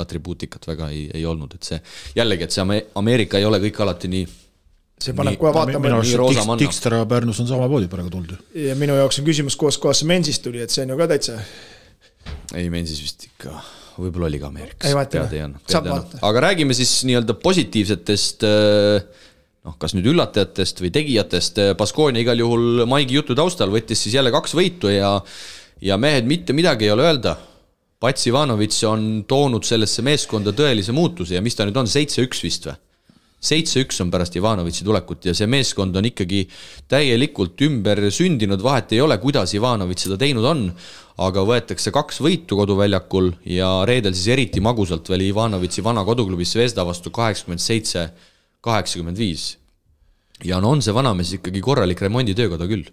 atribuutikat väga ei olnud, et see jällegi, et see Ameerika ei ole kõik alati nii see paneb kohe vaatama. Tikster ja Pärnus on sama poodi praegu tuldi. Ja minu jaoks on küsimus, kohas see Mensist tuli, et see on ju ka täitsa. Ei, Mensis vist ikka, võib-olla oli ka Ameerikas. Ei vaata, aga räägime siis nii-öelda positiivsetest, noh, kas nüüd üllatajatest või tegijatest. Baskonia igal juhul Maigi jutu taustal võttis siis jälle 2 võitu ja mehed mitte midagi ei ole öelda. Pats Ivanovic on toonud sellesse meeskonda tõelise muutuse ja mis ta nüüd on, 7-1 vist või? 7-1 on pärast Ivanovici tulekut ja see meeskond on ikkagi täielikult ümber sündinud, vahet ei ole, kuidas Ivanovic seda teinud on, aga võetakse 2 võitu koduväljakul ja reedel siis eriti magusalt veel Ivanovici vana koduklubis Zvezda vastu 87-85. Ja no on see vanamees ikkagi korralik remonditöökoda küll.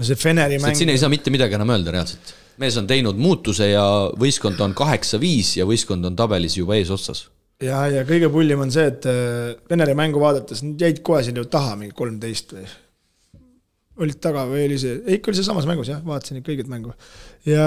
See Feneri mäng... Siin ei saa mitte midagi enam öelda reaalselt. Mees on teinud muutuse ja võistkond on 8-5 ja võistkond on tabelis juba ees otsas. Ja kõige pullim on see, et Veneri mängu vaadates jäid kohe siin ju taha mingi 13 või olid taga või oli see, ikka oli see samas mängus jah, vaatasin kõigit mängu ja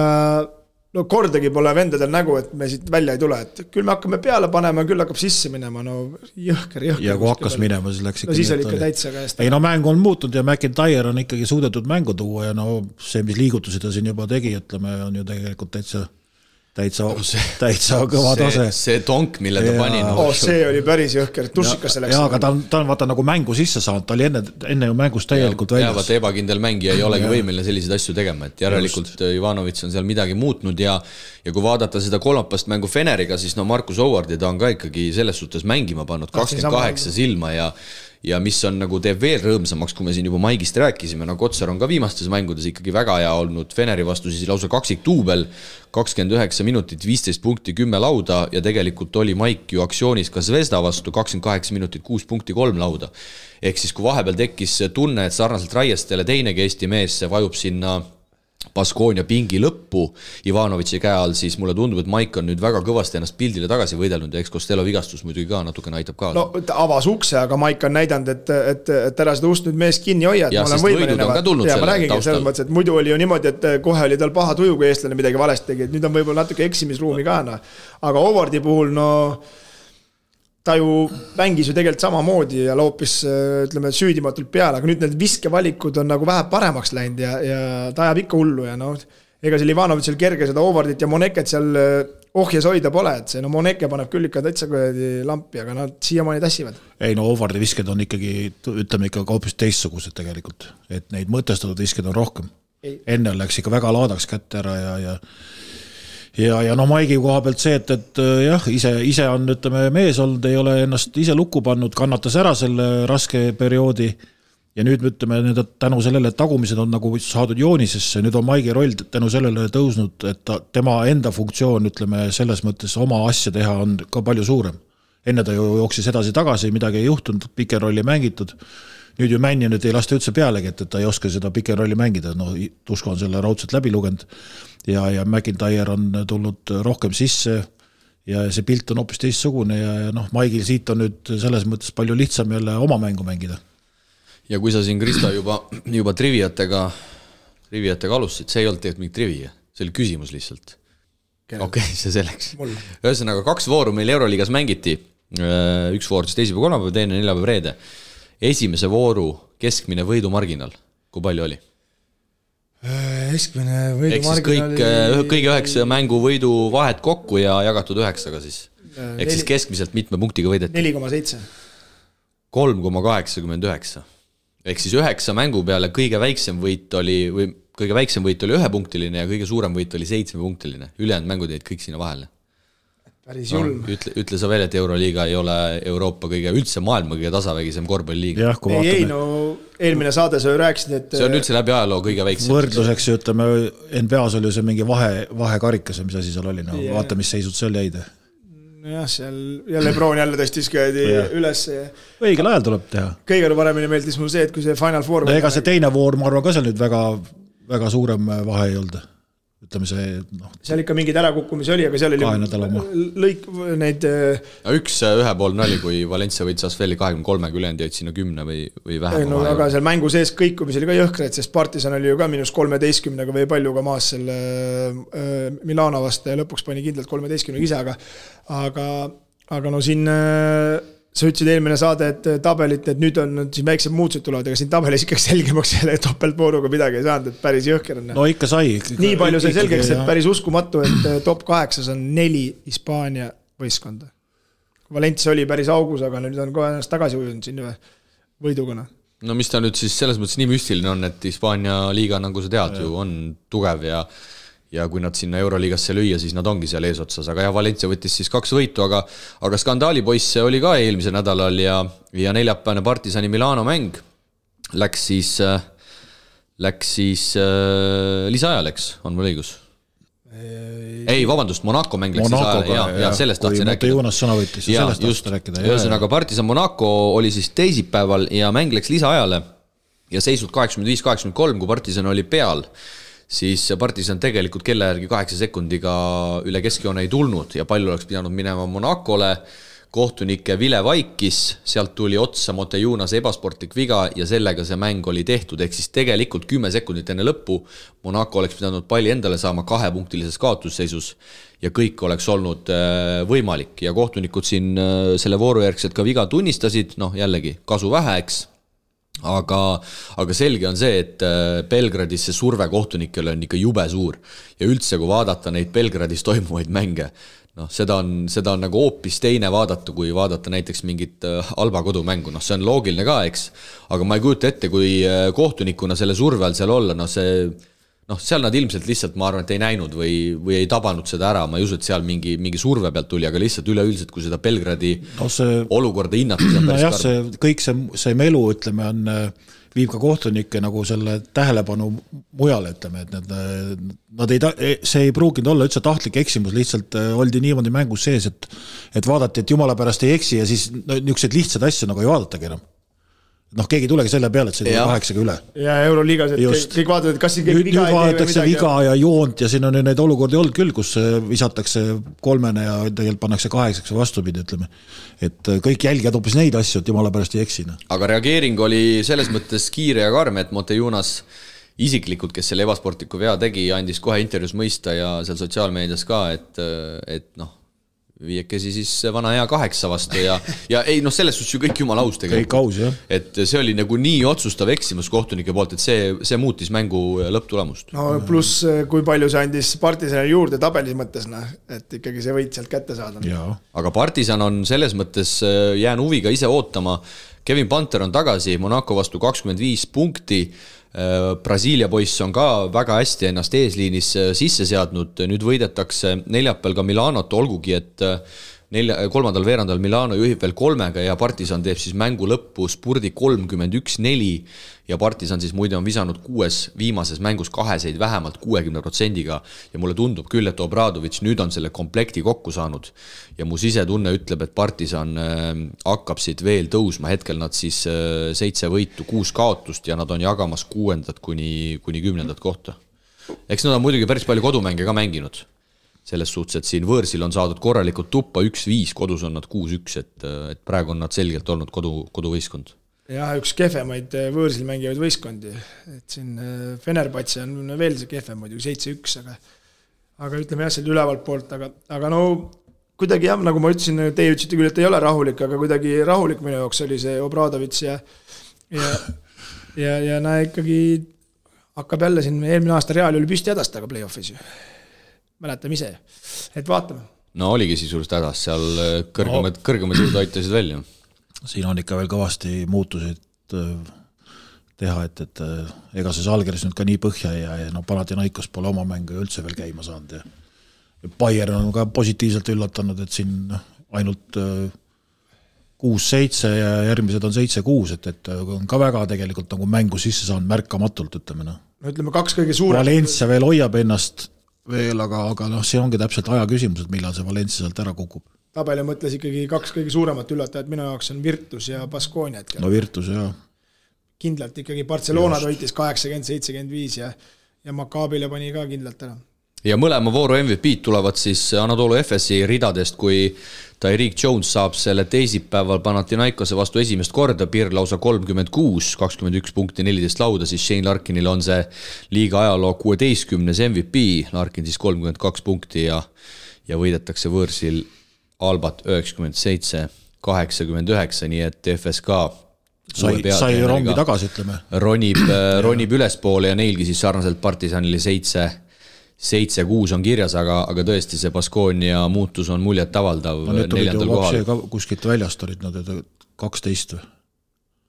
no kordagi pole vendadel nägu, et me siit välja ei tule, et küll me hakkame peale panema, küll hakkab sisse minema, no jõhker. Ja kui hakkas minema, siis läks ikka. No siis oli ikka täitsa käest. Ei no mäng on muutunud ja McIntyre on ikkagi suudetud mängu tuua ja no see, mis liigutusi ta siin juba tegi, ütleme, on ju tegelikult täitsa kõva tase. See tonk, mille ta pani. See oli päris jõhker, tussikas selleks. Jaa, aga ta on vaata nagu mängu sisse saanud, ta oli enne ju mängust täielikult väljas. Vaata ebakindel mängija ei olegi võimeline selliseid asju tegema, et järelikult Ivanovic on seal midagi muutnud ja kui vaadata seda kolmapast mängu Feneriga, siis no Markus Howard ta on ka ikkagi selles suhtes mängima pannud 28 silma ja mis on nagu teeb veel rõõmsamaks, kui me siin juba Maigist rääkisime, no Kotsar on ka viimastes mängudes ikkagi väga hea olnud Feneri vastu, siis lausa kaksik duubel, 29 minutit, 15 punkti, 10 lauda ja tegelikult oli Maik ju aktsioonis ka Zvezda vastu, 28 minutit, 6 punkti, 3 lauda. Ehk siis kui vahepeal tekkis tunne, et sarnaselt Raiestele teinegi Eesti mees vajub sinna Baskonia pingi lõppu Ivanovitši käe all, siis mulle tundub, et Maik on nüüd väga kõvasti ennast pildile tagasi võidelnud ja eks Costello vigastus muidugi ka natukene aitab kaasa. No ta avas ukse, aga Maik on näidanud, et ära seda ust nüüd mees kinni hoia. Ja sest võidud on ka tulnud selle taustal. Mõttes, et muidu oli ju niimoodi, et kohe oli tal paha tuju, kui eestlane midagi valesti tegi, et nüüd on võib-olla natuke eksimisruumi ka. No. Aga Howardi puhul, ta ju mängis ju tegelikult samamoodi ja loopis, ütleme, süüdimatult peale, aga nüüd need viskevalikud on nagu vähe paremaks läinud ja ta ajab ikka hullu ja ega seal Ivanovitšil kerge seda Howardit ja Moneket seal ohjes hoida pole, et see Moneke paneb küll ikka täitsa lampi, aga nad siiamaani tassivad. Ei, Howardi visked on ikkagi, ütleme ikka hoopis teistsugused tegelikult, et neid mõtestatud visked on rohkem. Enne läks ikka väga laadaks kätte ära ja Maigi koha pealt see, et jah, ise on, ütleme, mees olnud, ei ole ennast ise lukku pannud, kannatas ära selle raske perioodi ja nüüd ütleme, tänu sellele, et tagumised on nagu saadud joonisesse, nüüd on Maigi roll tänu sellele tõusnud, et tema enda funktsioon, ütleme, selles mõttes oma asja teha on ka palju suurem. Enne ta ju jooksis edasi tagasi, midagi ei juhtunud, piken rolli mängitud. Nüüd ju Männi nüüd ei lasta üldse pealegi, et ta ei oska seda piken rolli mängida. Tusko on selle raudselt läbi lugenud ja McIntyre on tulnud rohkem sisse ja see pilt on hoopis teistsugune ja Maigil siit on nüüd selles mõttes palju lihtsam jälle oma mängu mängida. Ja kui sa siin, Kristo, juba triviatega alustasid, see ei olnud tegelikult mingi trivia, see oli küsimus lihtsalt. Okei, see selleks. Ühesõnaga 2 vooru meil Euroliigas mängiti, üks voor siis teisipäev, kolmapäev, teine neljapäev, reede. Esimese vooru keskmine võidumarginal, kui palju oli? Keskmine võidumarginal oli... Kõige 9 mängu võidu vahet kokku ja jagatud 9-ga siis. Ehk siis keskmiselt mitme punktiga võideti? 4,7. 3,89. Ehk siis 9 mängu peale kõige väiksem võit oli 1-punktiline ja kõige suurem võit oli 7-punktiline. Ülejäänud mängud jäid kõik sinna vahele. Päris julm. Ütle sa veel, et Euroliiga ei ole Euroopa kõige, üldse maailma kõige tasavägisem korvpalliliiga. Ei, eelmine saade sa ju rääkisid, et... See on üldse läbi ajaloo kõige väiksem. Võrdluseks, ütleme, NBA-s oli see mingi vahekarikas, mis asi seal oli. Vaata, mis seisud seal jäid. Jah, seal Lebron jälle tõstis käidi üles. Õigel ajal tuleb teha. Kõige paremini meeldis mul see, et kui see Final Four... Ega see teine voor, ma arvan, ka seal nüüd väga suurem vahe ei olnud. Ütleme see... Seal ikka mingid ärakukkumisi oli, aga seal oli lõik neid... Üks ühepoolne oli, kui Valencia võitis Asfeli 23, ülejäänud jäid sinna 10 või vähem. Aga seal mängu sees kõikumis oli ka jõhkred, sest Partisan oli ju ka -13 või palju ka maas selle Milano vastu ja lõpuks pani kindlalt 13 ise, aga siin... Sa ütlesid eelmine saade, et tabelit, et nüüd on siin väiksed muutused tulevad, aga siin tabelis ikkagi selgemaks selle topeltpooruga midagi ei saanud, et päris jõhker on. No ikka sai. Nii palju sai selgeks, et päris uskumatu, et top 8 on 4 Hispaania võistkonda. Valencia oli päris augus, aga nüüd on kohe ennast tagasi ujunud siin võidugana. No mis ta nüüd siis selles mõttes nii müstiline on, et Hispaania liiga, nagu sa tead ju, on tugev ja kui nad sinna Euroliigasse lüüa, siis nad ongi seal eesotsas, aga Valencia võttis siis 2 võitu, aga skandaalipoisse oli ka eelmise nädalal ja neljapäevane Partisani Milano mäng läks siis lisaajal, on mul õigus? Ei, vabandust, Monaco mäng läks lisaajal, ja sellest tahtsin rääkida. Jonas sõna võttis, sellest tahtsin rääkida. Ühesõnaga Partisan Monaco oli siis teisipäeval ja mäng läks lisaajale ja seisud 85-83, kui Partisan oli peal, siis Partisan tegelikult kella järgi 8 sekundiga üle keskjoone ei tulnud ja palju oleks pidanud minema Monacole. Kohtunike Vile vaikis, sealt tuli otsa Montejunase ebasportlik viga ja sellega see mäng oli tehtud. Ehk siis tegelikult 10 sekundit enne lõppu Monaco oleks pidanud palli endale saama 2-punktilises kaotusseisus ja kõik oleks olnud võimalik. Ja kohtunikud siin selle voorujärgselt ka viga tunnistasid, jällegi kasu vähe, eks. Aga selge on see, et Belgradis see surve kohtunikele on ikka jube suur ja üldse kui vaadata neid Belgradis toimuvaid mänge, seda on nagu hoopis teine vaadata, kui vaadata näiteks mingit Alba kodumängu, see on loogiline ka, eks, aga ma ei kujuta ette, kui kohtunikuna selle surve all seal olla, seal nad ilmselt lihtsalt, ma arvan, et ei näinud või ei tabanud seda ära, ma ei usu, et seal mingi surve pealt tuli, aga lihtsalt üleüldiselt, kui seda Belgradi olukorda hinnata, see on päris karm. Kõik see melu, ütleme, viib ka kohtunikke nagu selle tähelepanu mujale, ütleme, et see ei pruuginud olla üldse tahtlik eksimus, lihtsalt oldi niimoodi mängus sees, et vaadati, et jumala pärast ei eksi ja siis niisugused lihtsad asju nagu ei vaadatagi enam. noh, keegi ei tulegi selle peale, et see tuli 8 üle. Ja Euroliigas, et kõik vaatavad, et kas siin keegi viga nüüd vaadatakse viga ja joont ja siin on neid olukordi olnud küll, kus visatakse 3 ja tegelikult pannakse 8 vastupidi, ütleme. Et kõik jälgijad hoopis neid asju, et jumala pärast ei eksina. Aga reageering oli selles mõttes kiire ja karm, et Montejunas isiklikult, kes selle ebasportliku vea tegi, andis kohe intervjuus mõista ja seal sotsiaalmeedias ka, et noh, viiekesi siis vana hea 8 vastu ja ei, noh, selles suhtes ju kõik jumala aus tegelikult. Kõik aus, jah. Et see oli nagu nii otsustav eksimus kohtunike poolt, et see muutis mängu lõpptulemust. No pluss, kui palju see andis Partisanile juurde tabelis mõttes, et ikkagi see võit sealt kätte saada. Aga Partisan on selles mõttes jään huviga ise ootama. Kevin Panter on tagasi, Monaco vastu 25 punkti. Brasiilia poiss on ka väga hästi ennast eesliinis sisse seadnud, nüüd võidetakse neljapäeval ka Milanot, olgugi et 3. veerandal Milano juhib veel 3 ja Partisan teeb siis mängu lõppu spurdi 31-4 ja Partisan siis muide on visanud 6 viimases mängus 2 vähemalt 60%-ga ja mulle tundub küll, et Obradovic nüüd on selle komplekti kokku saanud ja mu sisetunne ütleb, et Partisan hakkab siit veel tõusma, hetkel nad siis 7 võitu, 6 kaotust ja nad on jagamas 6. kuni 10. kohta. Eks nad on muidugi päris palju kodumänge ka mänginud. Selles suhtes, et siin võõrsil on saadud korralikult tuppa 1-5, kodus on nad 6-1, et praegu on nad selgelt olnud koduvõistkond. Jah, üks kehvemaid võõrsil mängivaid võistkondi, et siin Fenerbahce on veel see kehvem muidugi 7-1, aga ütleme jah, seal ülevalt poolt, aga no kuidagi jah, nagu ma ütlesin, teie ütlesite küll, et ei ole rahulik, aga kuidagi rahulik minu jaoks oli see Obradovic ja näe ikkagi hakkab jälle siin eelmine aasta Reali oli püsti hädast, aga play-offis ju. Mäletame ise, et vaatame. No oligi sisuliselt hädas, seal kõrgemad jõud aitasid välja. Siin on ikka veel kõvasti muutusid teha, et ega see Žalgiris nüüd ka nii põhja ja Panathinaikos pole oma mängu üldse veel käima saanud. Ja Bayern on ka positiivselt üllatanud, et siin ainult 6-7 ja järgmised on 7-6, et on ka väga tegelikult nagu mängu sisse saanud märkamatult, ütleme. No ütleme 2 kõige suurem. Valencia veel hoiab ennast veel, aga see ongi täpselt aja küsimus, et millal see Valencia sealt ära kukub. Tabeli mõtles ikkagi 2 kõige suuremat üllatajat, minu jaoks on Virtus ja Baskonia. No Virtus, jah. Kindlalt ikkagi Barcelona toitis 80-75 ja Maccabile pani ka kindlalt ära. Ja mõlema vooru MVP tulevad siis Anadolu Efesi ridadest, kui Tyreek Jones saab selle teisipäeval Panathinaikose vastu esimest korda, Pirr lausa 36, 21 punkti, 14 lauda, siis Shane Larkinil on see liiga ajaloo 16. MVP, Larkin siis 32 punkti ja võidetakse võõrsil Albat 97, 89, nii et FSK sai rongi tagasi, ütleme. Ronib ülespoole ja neilgi siis sarnaselt Partisanile 7-6 on kirjas, aga tõesti see Baskonia muutus on muljet avaldav no, 4. kohal. Kuskilt väljast olid nad 12 või?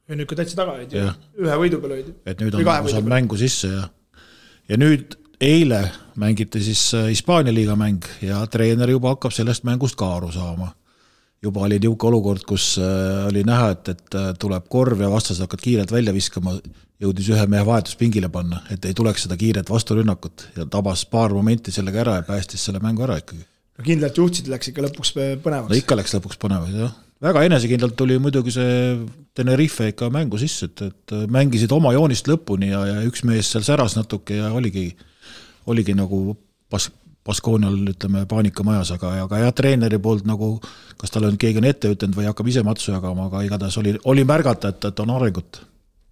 Ja nüüd ka täitsa taga olid ju, ühe võidu peal olid. Et nüüd on saanud mängu sisse ja nüüd eile mängiti siis Hispaania liiga mäng ja treener juba hakkab sellest mängust ka aru saama. Juba oli niuke olukord, kus oli näha, et tuleb korv ja vastased hakkad kiiret välja viskama, jõudis ühe mehe vahetuspingile panna, et ei tuleks seda kiiret vasturünnakut ja tabas paar momenti sellega ära ja päästis selle mängu ära ikkagi. No kindlalt juhtsid läks ikka lõpuks põnevaks. No ikka läks lõpuks põnevaks, jah. Väga enesekindlalt tuli muidugi see Tenerife ikka mängu sisse, et mängisid oma joonist lõpuni ja üks mees seal säras natuke ja oligi nagu Baskoonial, ütleme, paanikamajas, aga treeneri poolt nagu, kas tal on keegi on ette ütlenud või hakkab ise matsu jagama, aga igatahes oli märgata, et on arengut.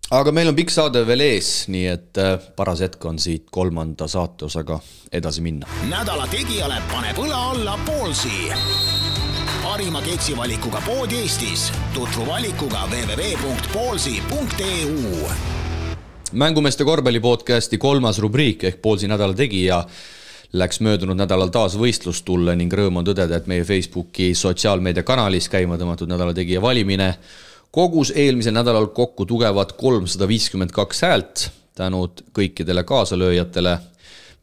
Aga meil on pikk saade veel ees, nii et paras hetk on siit 3. saateosaga edasi minna. Nädala tegijale paneb õla alla Poolsi. Parima keksivalikuga pood Eestis. Tutvu valikuga www.poolsi.eu. Mängumeeste korvpallipodcasti 3. rubriik ehk Poolsi nädala tegija läks möödunud nädalal taas võistlustulle ning rõõm on tõdeda, et meie Facebooki sotsiaalmeedia kanalis käima tõmmatud nädala tegija valimine kogus eelmisel nädalal kokku tugevad 352 häält. Tänud kõikidele kaasalööjatele.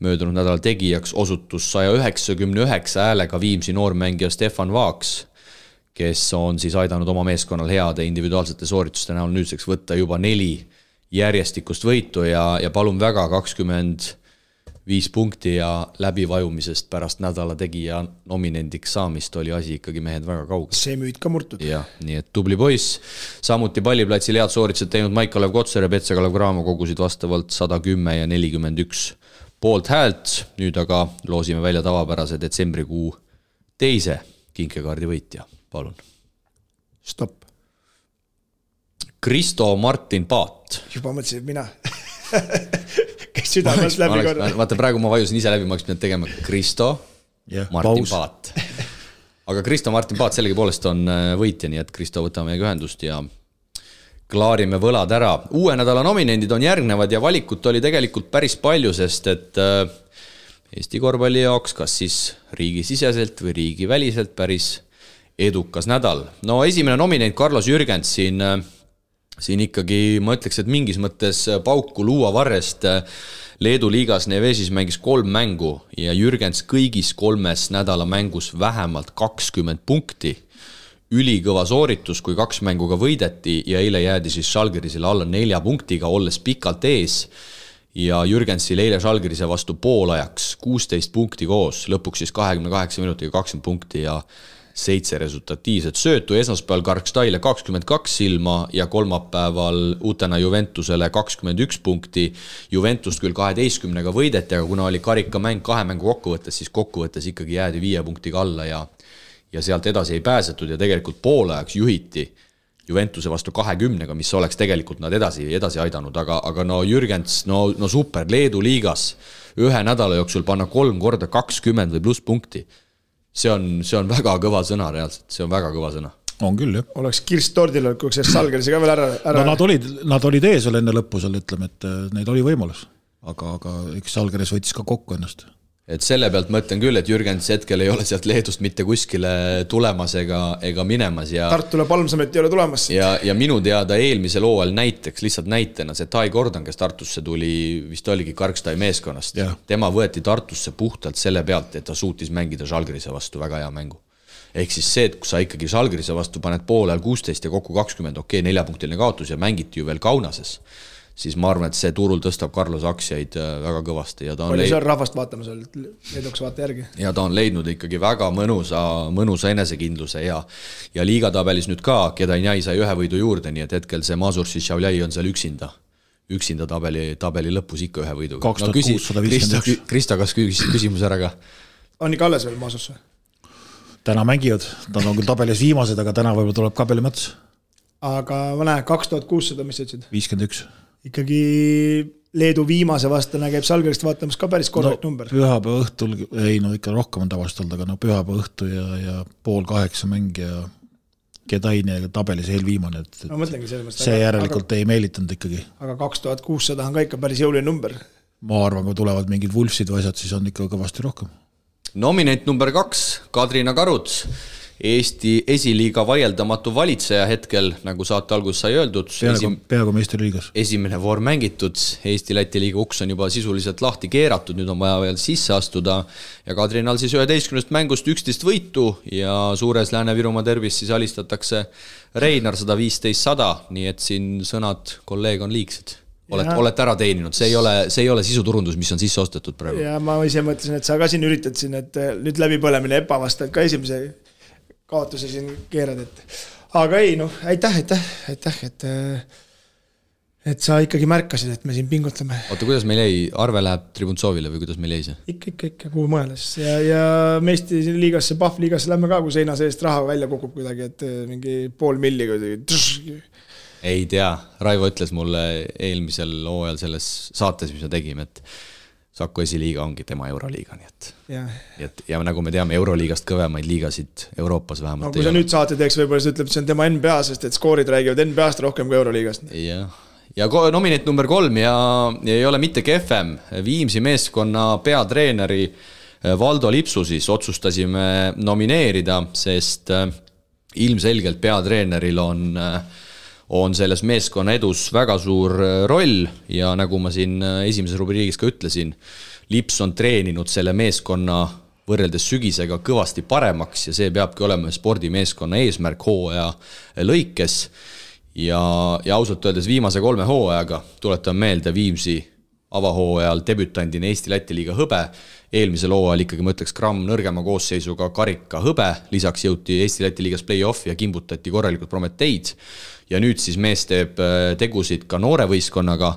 Möödunud nädala tegijaks osutus 199 häälega Viimsi noormängija Stefan Vaaks, kes on siis aidanud oma meeskonnal heade individuaalsete soorituste näol nüüdseks võtta juba 4 järjestikust võitu ja palun väga 20 5 punkti ja läbivajumisest pärast nädala tegija nominendiks saamist oli asi ikkagi mehed väga kaugel. See müüd ka murtud. Jah, nii et tubli poiss. Samuti palliplatsil head sooritused teinud Maik-Kalev Kotsar ja Petsa-Kalev Cramo kogusid vastavalt 110 ja 41 poolt häält. Nüüd aga loosime välja tavapärase detsembrikuu teise kinkekaardi võitja. Palun. Stopp. Kristo Martin Paat. Juba mõtlesin, et mina. Kes südamas läbi korda. Vaata, praegu ma vajusin ise läbi, ma oleks pidanud tegema Kristo Martin Paat. Aga Kristo Martin Paat sellegi poolest on võitja, nii et Kristo võtame meiega ühendust ja klaarime võlad ära. Uue nädala nominendid on järgnevad ja valikut oli tegelikult päris palju, sest et Eesti korvpalli jaoks kas siis riigisiseselt või riigiväliselt päris edukas nädal. No esimene nominent Carlos Jürgens siin ikkagi, ma ütleks, et mingis mõttes pauku luua varrest Leedu liigas Nevesis mängis 3 mängu ja Jürgens kõigis 3 nädala mängus vähemalt 20 punkti. Ülikõva sooritus, kui 2 mänguga võideti ja eile jäädi siis Žalgirisele alla 4 punktiga, olles pikalt ees. Ja Jürgensil eile Žalgirise vastu poolajaks 16 punkti koos, lõpuks siis 28 minutiga 20 punkti ja 7 resultatiivset söötu, esmaspäeval Karkstaile 22 silma ja kolmapäeval uutena Juventusele 21 punkti. Juventust küll 12-ga võideti, aga kuna oli karikamäng 2 mängu kokkuvõttes, siis kokkuvõttes ikkagi jäädi 5 punktiga alla ja sealt edasi ei pääsetud ja tegelikult poolajaks juhiti Juventuse vastu 20-ga, mis oleks tegelikult nad edasi aidanud, aga no Jürgens, no super, Leedu liigas ühe nädala jooksul panna 3 korda 20 või pluss punkti. See on väga kõva sõna reaalselt, see on väga kõva sõna. On küll, jah. Oleks kirst tordil, kui see Žalgirise ka veel ära. No nad olid ees veel enne lõppu seal, ütleme, et neid oli võimalus, aga üks Žalgiris võttis ka kokku ennast. Et selle pealt mõtlen küll, et Jürgens hetkel ei ole sealt Leedust mitte kuskile tulemas ega minemas. Tartule Palmsamet ei ole tulemas. Ja minu teada eelmisel hooajal näiteks, lihtsalt näitena, see Tai Gordon, kes Tartusse tuli, vist oligi Karkstai meeskonnast. Tema võeti Tartusse puhtalt selle pealt, et ta suutis mängida Žalgirise vastu väga hea mängu. Ehk siis see, et kui sa ikkagi Žalgirise vastu paned poolel 16 ja kokku 20, 4-punktiline kaotus ja mängiti ju veel Kaunases, siis ma arvan, et see turul tõstab Carlos aktsiaid väga kõvasti. Oli seal rahvast vaatamas, leeduks vaata järgi. Ja ta on leidnud ikkagi väga mõnusa enesekindluse ja liigatabelis nüüd ka, Kedainjai sai 1 võidu juurde, nii et hetkel see Mazur Šišavljai on seal üksinda tabeli lõpus ikka 1 võiduga. 2651. Krista, kas küsimus ära ka? On ikka alles veel Mazursse? Täna mängivad, nad on küll tabelis viimased, aga täna võib-olla tuleb kabeli mõttes. Aga ma näen, 2600, mis sa ütlesid? 51. Ikkagi Leedu viimase vastane käib Žalgirist vaatamas ka päris korrekt number. Pühapäeva õhtul, ikka rohkem on tavaliselt olnud, aga pühapäeva õhtu ja 7:30 mäng ja Kedaini tabelis eelviimane. No mõtlengi sellest. See järelikult ei meelitanud ikkagi. Aga 2600 on ka ikka päris jõuline number. Ma arvan, kui tulevad mingid Wolfsid või asjad, siis on ikka kõvasti rohkem. Nominent number 2, Kadrina Karuts. Eesti esiliiga vaieldamatu valitseja hetkel, nagu saate algus sai öeldud. Peaaegu meistriliigas. Esimene voor mängitud, Eesti-Läti liiga uks on juba sisuliselt lahti keeratud, nüüd on vaja veel sisse astuda. Ja Kadrinal siis 11 mängust 11 võitu ja suures Lääne-Virumaa derbis siis alistatakse Reinar 115-100, nii et siin sõnad kolleeg on liigsed. Olete ära teeninud, see ei ole sisuturundus, mis on sisse ostetud praegu. Ja ma ise mõtlesin, et sa ka siin üritad siin, et nüüd läbipõlemine ebavastad ka esimese kaotuse siin keerad, aga ei, aitäh, et sa ikkagi märkasid, et me siin pingutleme. Oota, kuidas meil jäi? Arve läheb Tribuntsovile või kuidas meil jäi see? Ikka, kuhu mõeles. Ja meesti liigasse, Pahv liigasse lähme ka, kui seina seest raha välja kukub kuidagi, et mingi 500 000 ei tea, Raivo ütles mulle eelmisel hooajal selles saates, mis me tegime, et Saku esiliiga ongi tema Euroliiga, nii et ja nagu me teame, Euroliigast kõvemaid liigasid Euroopas vähemalt. No kui sa nüüd saate teeks, võib-olla sa ütleb, et see on tema NBA, sest et skoorid räägivad NBA-st rohkem kui Euroliigast. Ja nominent number 3 ja ei ole mitte kefem. Viimsi meeskonna peatreeneri Valdo Lipsu siis otsustasime nomineerida, sest ilmselgelt peatreeneril on selles meeskonna edus väga suur roll ja nagu ma siin esimeses rubriigis ka ütlesin, Lips on treeninud selle meeskonna võrreldes sügisega kõvasti paremaks ja see peabki olema spordimeeskonna eesmärk hooaja lõikes ja ausalt öeldes viimase 3 hooajaga tuletan meelde Viimsi avahooajal debütandina Eesti-Läti liiga hõbe, eelmisel hooajal ikkagi ma ütleks gramm nõrgema koosseisuga karika hõbe, lisaks jõuti Eesti-Läti liigas play-off ja kimbutati korralikult Prometeid ja nüüd siis mees teeb tegusid ka noore võistkonnaga.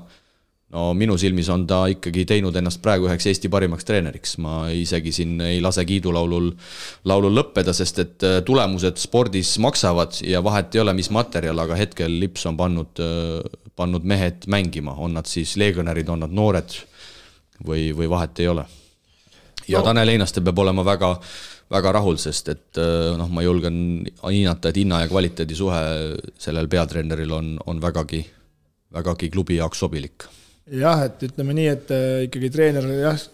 No minu silmis on ta ikkagi teinud ennast praegu üheks Eesti parimaks treeneriks. Ma isegi siin ei lase kiidulaulul lõppeda, sest et tulemused spordis maksavad ja vahet ei ole, mis materjal, aga hetkel Lips on pannud mehed mängima. On nad siis legionärid, on nad noored või vahet ei ole. Ja Tanel Einaste peab olema väga, väga rahul, sest et ma julgen hinnata, et hinna ja kvaliteedi suhe sellel peatreeneril on vägagi klubi jaoks sobilik. Jah, et ütleme nii, et ikkagi treener,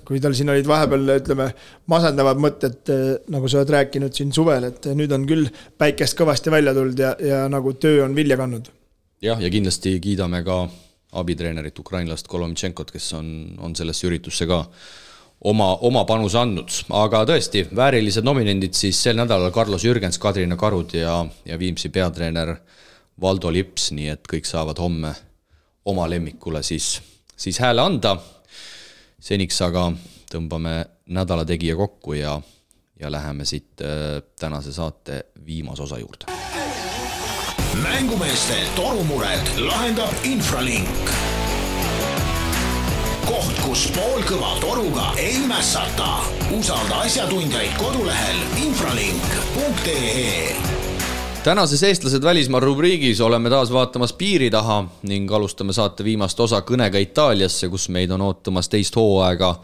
kui tal siin olid vahepeal, ütleme, masendavad mõtted, nagu sa oled rääkinud siin suvel, et nüüd on küll päikest kõvasti välja tulnud ja nagu töö on vilja kannud. Jah, ja kindlasti kiidame ka abitreenerit ukrainlast Kolomtšenkot, kes on sellesse üritusse ka oma panuse andnud. Aga tõesti, väärilised nominendid siis sel nädalal Carlos Jürgens, Kadrina Karud ja Viimsi peatreener Valdo Lips, nii et kõik saavad homme oma lemmikule siis hääle anda. Seniks aga tõmbame nädala tegija kokku ja läheme siit tänase saate viimase osa juurde. Mängumeeste torumured lahendab Infralink. Koht, kus poolkõva toruga ei mässata. Usalda asjatundjaid kodulehel infralink.ee. Tänases eestlased välismaa rubriigis oleme taas vaatamas piiri taha ning alustame saate viimast osa kõnega Itaaliasse, kus meid on ootamas teist hooaega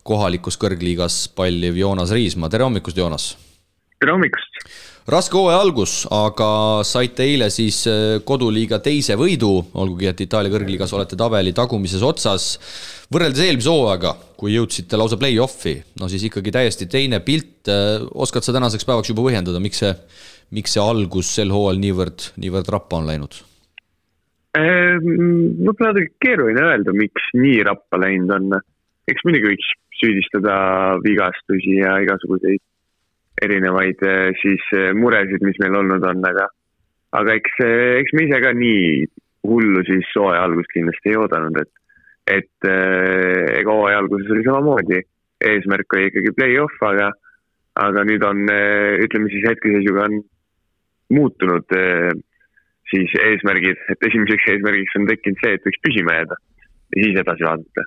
kohalikus kõrgliigas palliv Joonas Riismaa. Tere hommikust, Joonas! Tere hommikust! Raske hooaja algus, aga saite eile siis koduliiga teise võidu, olgugi et Itaalia kõrgliigas olete tabeli tagumises otsas. Võrreldes eelmise hooaega, kui jõudsite lausa play-offi, no siis ikkagi täiesti teine pilt. Oskad sa tänaseks päevaks juba põhjendada, miks see algus sel hooajal niivõrd rappa on läinud? Võib-olla keeruline öelda, miks nii rappa läinud on. Eks muidugi võiks süüdistada vigastusi ja igasuguseid erinevaid siis muresid, mis meil olnud on, aga eks me ise ka nii hullu siis hooaja algust kindlasti ei oodanud, et ega hooaja alguses oli samamoodi. Eesmärk oli ikkagi play-off, aga nüüd on, ütleme siis hetkeseisuga on muutunud siis eesmärgid, et esimeseks eesmärgiks on tekkinud see, et võiks püsima jääda ja siis edasi vaadata.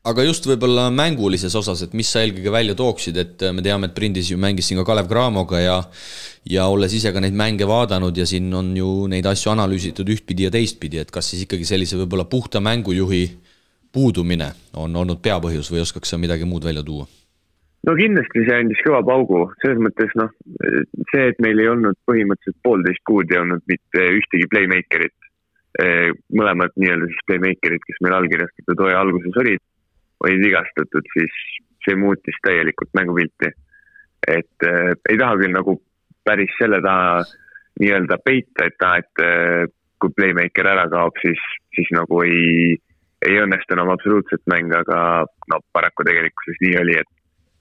Aga just võib-olla mängulises osas, et mis sa eelkõige välja tooksid, et me teame, et Prindis ju mängis siin ka Kalev Cramoga ja olles ise ka neid mänge vaadanud ja siin on ju neid asju analüüsitud ühtpidi ja teistpidi, et kas siis ikkagi sellise võib-olla puhta mängujuhi puudumine on olnud peapõhjus või oskaks sa midagi muud välja tuua? No kindlasti see andis kõva paugu, selles mõttes see, et meil ei olnud põhimõtteliselt 1,5 kuud ei olnud mitte ühtegi playmakerit, mõlemad nii-öelda siis playmakerid, kes meil allkirjastatud hooaja alguses olid vigastatud, siis see muutis täielikult mängupilti. Et ei taha küll nagu päris selle taha nii-öelda peita, et kui playmaker ära kaob, siis nagu ei õnnestu enam absoluutselt mäng, aga paraku tegelikkuses nii oli,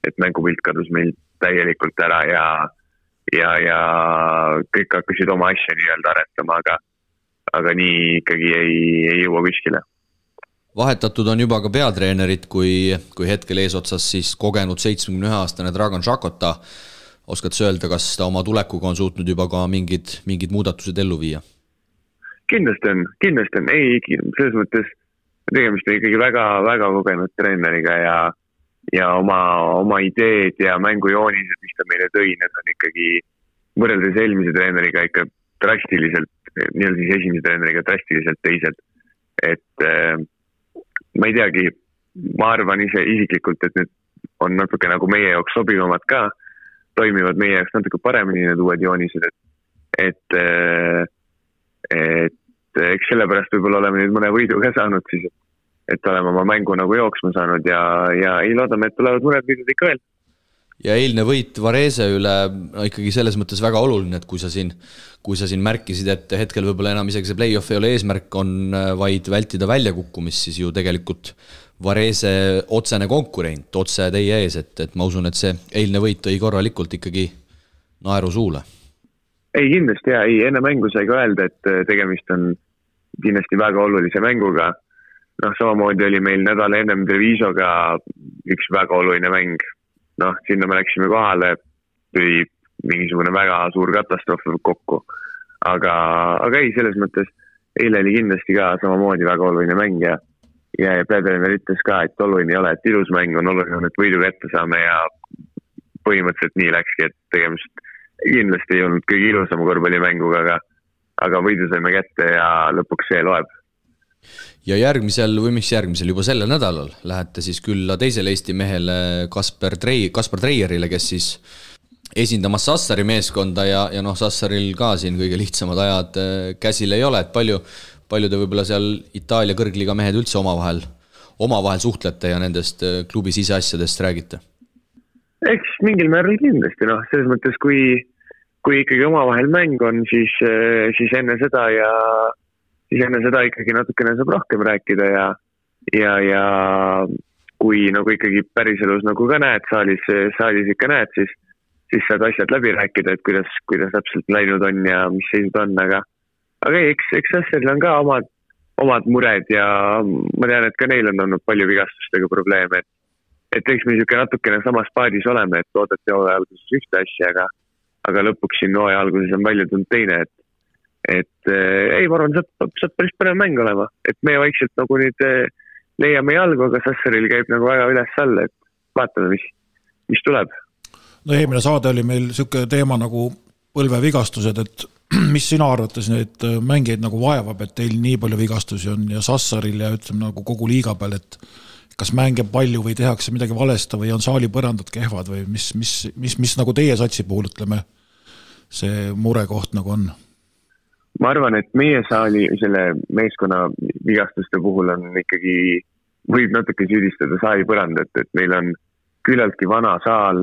et mängupilt kadus meil täielikult ära ja kõik hakkasid oma asja nii-öelda aretama, aga nii ikkagi ei jõua kuskile. Vahetatud on juba ka peatreenerid, kui hetkel eesotsas siis kogenud 71-aastane Dragan Šakota. Oskad sa öelda, kas ta oma tulekuga on suutnud juba ka mingid muudatused ellu viia? Kindlasti on. Ei, selles mõttes tegemist on ikkagi väga, väga kogenud treeneriga ja oma ideed ja mängujoonised, mis ta meile tõi, need on ikkagi võrreldes eelmise treeneriga ikka drastiliselt, nii-öelda siis esimese treeneriga drastiliselt teised. Et ma ei teagi, ma arvan isiklikult, et need on natuke nagu meie jaoks sobivamad ka, toimivad meie jaoks natuke paremini need uued joonised, et eks sellepärast võib-olla oleme nüüd mõne võidu ka saanud siis, et oleme oma mängu nagu jooksma saanud ja ei loodame, et tulevad mõned võidud ikka veel. Ja eilne võit Varese üle ikkagi selles mõttes väga oluline, et kui sa siin märkisid, et hetkel võib-olla enam isegi see play-off ei ole eesmärk, on vaid vältida väljakukkumist, siis ju tegelikult Varese otsene konkurent, otse teie ees, et ma usun, et see eilne võit tõi korralikult ikkagi naeru suule. Ei, kindlasti enne mängu sai ka öelda, et tegemist on kindlasti väga olulise mänguga, noh, samamoodi oli meil nädal ennem Trevisoga üks väga oluline mäng. Noh, sinna me läksime kohale, tuli mingisugune väga suur katastroof kokku. Aga ei, selles mõttes eile oli kindlasti ka samamoodi väga oluline mäng ja peatreener ütles ka, et oluline ei ole, et ilus mäng on oluline, et võidu kätte saame ja põhimõtteliselt nii läkski, et tegemist kindlasti ei olnud kõige ilusama korvpallimänguga, aga võidu saime kätte ja lõpuks see loeb. Ja järgmisel juba sellel nädalal lähete siis külla teisele Eesti mehele Kaspar Treierile, kes siis esindamas Sassari meeskonda ja noh, Sassaril ka siin kõige lihtsamad ajad käsil ei ole, et palju te võib-olla seal Itaalia kõrgliiga mehed üldse omavahel suhtlete ja nendest klubi siseasjadest räägite? Eks mingil määral kindlasti, noh, selles mõttes, kui ikkagi omavahel mäng on, siis enne seda ikkagi natukene saab rohkem rääkida ja kui nagu ikkagi päriselus nagu ka näed, saalis ikka näed, siis saad asjad läbi rääkida, et kuidas täpselt läinud on ja mis seisud on, aga eks Sassaril on ka omad mured ja ma tean, et ka neil on olnud palju vigastustega probleeme, et eks me niisugune natukene samas paadis oleme, et oodati hooaja alguses ühte asja, aga lõpuks siin hooaja alguses on palju tulnud teine, et ei, ma arvan, saab päris põnev mäng olema, et me vaikselt nagu nüüd leiame jalgu, aga Sassaril käib nagu väga üles-alla, et vaatame, mis tuleb. No eelmine saade oli meil niisugune teema nagu põlvevigastused, et mis sina arvates need mängijaid nagu vaevab, et teil nii palju vigastusi on ja Sassaril ja ütleme nagu kogu liiga peal, et kas mänge palju või tehakse midagi valesta või on saali põrandad kehvad või mis nagu teie satsi puhul, ütleme, see murekoht nagu on? Ma arvan, et meie saali selle meeskonna vigastuste puhul on ikkagi, võib natuke süüdistada saali põrandat, et meil on küllaltki vana saal,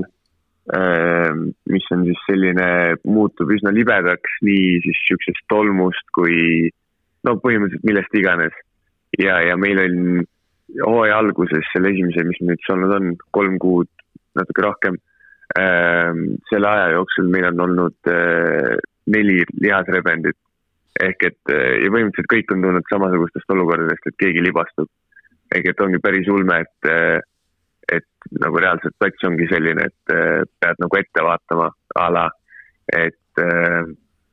mis on siis selline, muutub üsna libedaks nii siis siuksest tolmust kui no põhimõtteliselt millest iganes. Ja meil on hooaja alguses selle esimese, mis nüüd olnud on 3 kuud, natuke rohkem, selle aja jooksul meil on olnud 4 lihasrebendit. Ehk et ja põhimõtteliselt kõik on tulnud samasugustest olukordadest, et keegi libastub. Ehk et ongi päris ulme, et nagu reaalselt plats ongi selline, et pead nagu ette vaatama ala, et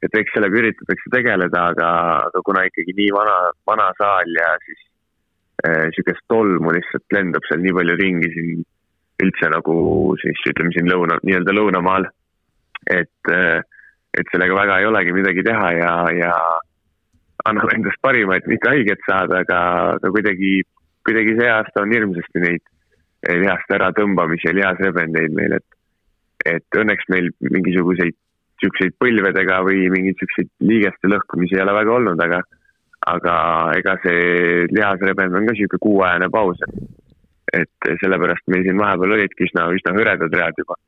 eks sellega üritatakse tegeleda, aga kuna ikkagi nii vana saal ja siis siukest tolmu lihtsalt lendab seal nii palju ringi siin üldse nagu siis ütleme siin nii-öelda lõunamaal, et sellega väga ei olegi midagi teha ja annab endast parima, et mitte haiget saada, aga kuidagi see aasta on hirmsasti neid lihast ära tõmbamisi ja lihasrebendeid meil, et õnneks meil mingisuguseid siukseid põlvedega või mingeid siukseid liigeste lõhkumisi ei ole väga olnud, aga ega see lihasrebend on ka siuke 6-ajane paus, et sellepärast meil siin vahepeal olidki üsna hõredad read juba.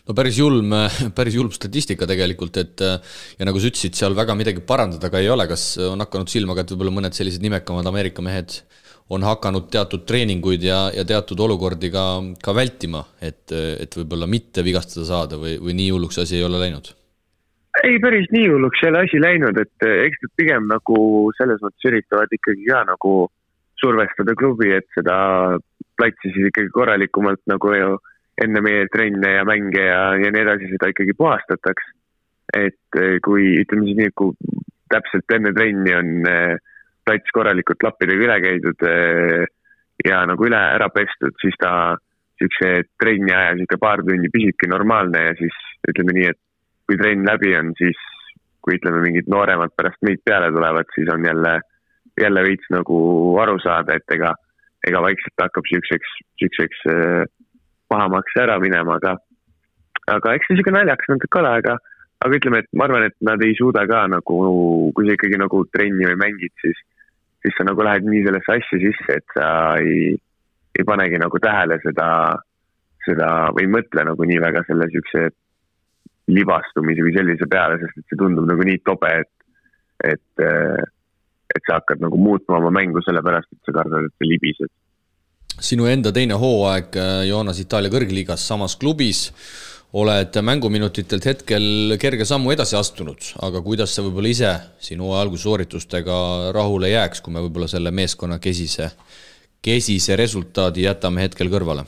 No päris julm statistika tegelikult, et ja nagu sa ütlesid, seal väga midagi parandada ka ei ole, kas on hakanud silmaga, et võib-olla mõned sellised nimekamad Ameerika mehed on hakanud teatud treeninguid ja teatud olukordi ka vältima, et võib-olla mitte vigastada saada või nii hulluks asi ei ole läinud? Ei, päris nii hulluks ei ole asi läinud, et eks nad pigem nagu selles mõttes üritavad ikkagi ka nagu survestada klubi, et seda platsi siis ikkagi korralikumalt nagu enne meie trenne ja mänge ja nii edasi seda ikkagi puhastataks. Et kui ütleme siis nii, kui täpselt enne trenni on plats korralikult lappidega üle käidud ja nagu üle ära pestud, siis ta siukse trenni aja siuke paar tundi püsibki normaalne ja siis ütleme nii, et kui trenn läbi on, siis kui ütleme mingid nooremad pärast meid peale tulevad, siis on jälle veits nagu aru saada, et ega vaikselt hakkab siukseks pahamaks ära minema, aga eks see siuke naljaks natuke ole, aga ütleme, et ma arvan, et nad ei suuda ka nagu, kui sa ikkagi nagu trenni või mängid, siis sa nagu lähed nii sellesse asja sisse, et sa ei panegi nagu tähele seda või mõtle nagu nii väga selle siukse libastumise või sellise peale, sest et see tundub nagu nii tobe, et sa hakkad nagu muutma oma mängu sellepärast, et sa kardad, et sa libised. Sinu enda teine hooaeg Joonas Itaalia kõrgliigas samas klubis oled mänguminutitelt hetkel kerge sammu edasi astunud, aga kuidas sa võib-olla ise sinu algussooritustega rahule jääks, kui me võib-olla selle meeskonna kesise resultaadi jätame hetkel kõrvale?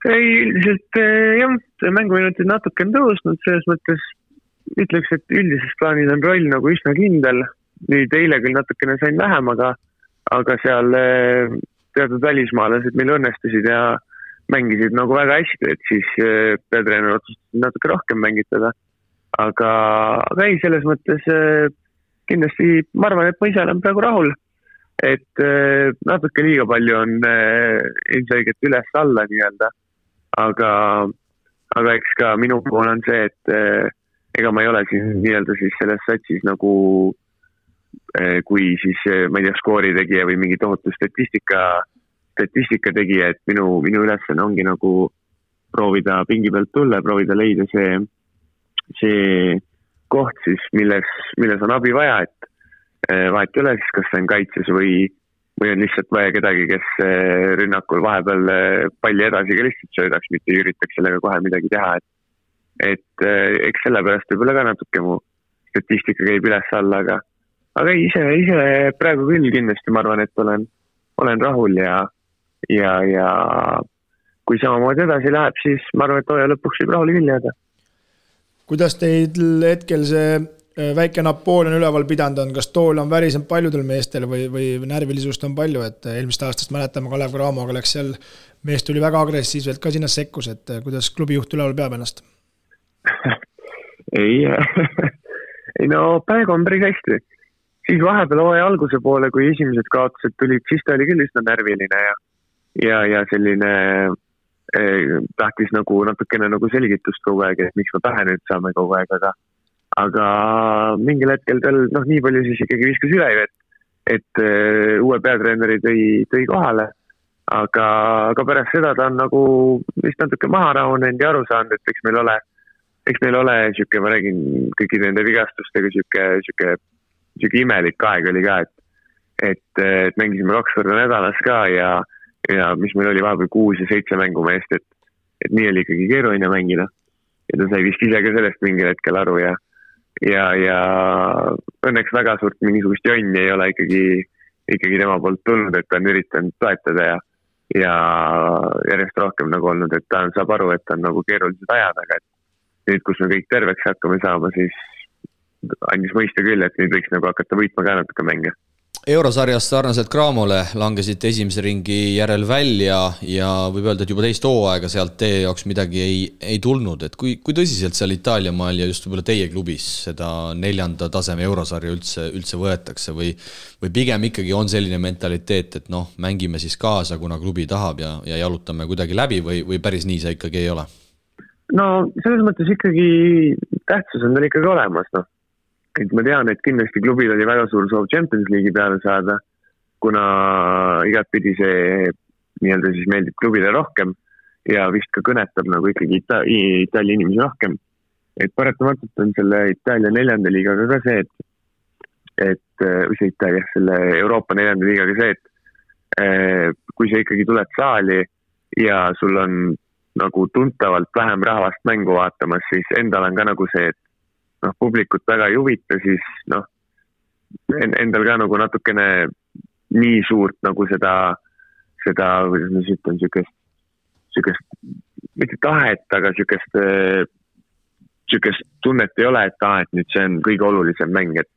Üldiselt jah, mänguminutid natuke on tõusnud, selles mõttes ütleks, et üldises plaanis on roll nagu üsna kindel. Nüüd eile küll natukene sain vähem, aga seal teatud välismaalased meil õnnestusid ja mängisid nagu väga hästi, et siis peatreener otsustasid natuke rohkem mängitada. Aga ei, selles mõttes kindlasti ma arvan, et ma ise olen praegu rahul, et natuke liiga palju on ilmselgelt üles-alla nii-öelda, aga eks ka minu pool on see, et ega ma ei ole siin nii-öelda siis selles satsis nagu kui siis, ma ei tea, skoori tegija või mingi tohutu statistika tegija, et minu ülesanne ongi nagu proovida pingi pealt tulla, proovida leida see koht siis, milles on abi vaja, et vahet ei ole siis, kas see on kaitses või on lihtsalt vaja kedagi, kes rünnakul vahepeal palli edasi ka lihtsalt söödaks, mitte ei üritaks sellega kohe midagi teha, et eks sellepärast võib-olla ka natuke mu statistika käib üles-alla, aga ise praegu küll kindlasti ma arvan, et olen rahul ja kui samamoodi edasi läheb, siis ma arvan, et hooaja lõpuks võib rahul küll jääda. Kuidas teid hetkel see väike Napoleon üleval pidanud on, kas tool on värisem paljudel meestel või närvilisust on palju, et eelmist aastast mäletame Kalev Cramoga läks seal, mees tuli väga agressiivselt ka sinna sekkus, et kuidas klubi juht üleval peab ennast? ei no praegu on päris hästi. Siis vahepeal hooaja alguse poole, kui esimesed kaotused tulid, siis ta oli küll üsna närviline ja selline tahtis nagu natukene nagu selgitust kogu aeg, et miks ma pähe nüüd saame kogu aeg, aga mingil hetkel tal nii palju siis ikkagi viskas üle, et uue peatreeneri tõi kohale, aga pärast seda ta on nagu vist natuke maha rahunenud ja aru saanud, et eks meil ole siuke, ma räägin kõikide nende vigastustega siuke imelik aeg oli ka, et mängisime 2 korda nädalas ka ja mis meil oli vahepeal 6 ja 7 mängumeest, et nii oli ikkagi keeruline mängida ja ta sai vist ise ka sellest mingil hetkel aru ja õnneks väga suurt mingisugust jonni ei ole ikkagi tema poolt tulnud, et ta on üritanud toetada ja järjest rohkem nagu olnud, et ta saab aru, et on nagu keerulised ajad, aga et nüüd, kus me kõik terveks hakkame saama, siis andis mõista küll, et nüüd võiks nagu hakata võitma ka natuke mänge. Eurosarjas sarnaselt Cramole langesite esimese ringi järel välja ja võib öelda, et juba teist hooaega sealt teie jaoks midagi ei tulnud, et kui tõsiselt seal Itaalia maal ja just võib-olla teie klubis seda 4. taseme Eurosarja üldse võetakse või pigem ikkagi on selline mentaliteet, et mängime siis kaasa, kuna klubi tahab ja jalutame kuidagi läbi või päris nii see ikkagi ei ole? No selles mõttes ikkagi tähtsus on tal ikkagi olemas, et ma tean, et kindlasti klubil oli väga suur soov Champions League'i peale saada, kuna igatpidi see nii-öelda siis meeldib klubile rohkem ja vist ka kõnetab nagu ikkagi Itaalia inimesi rohkem. Et paratamatult on selle Itaalia 4. liigaga ka see, selle Euroopa 4. liigaga see, et kui sa ikkagi tuled saali ja sul on nagu tuntavalt vähem rahvast mängu vaatamas, siis endal on ka nagu see, et publikut väga ei huvita, siis endal ka nagu natukene nii suurt nagu seda, kuidas ma siis ütlen, sükest, mitte tahet, aga sükest tunnet ei ole, et nüüd see on kõige olulisem mäng, et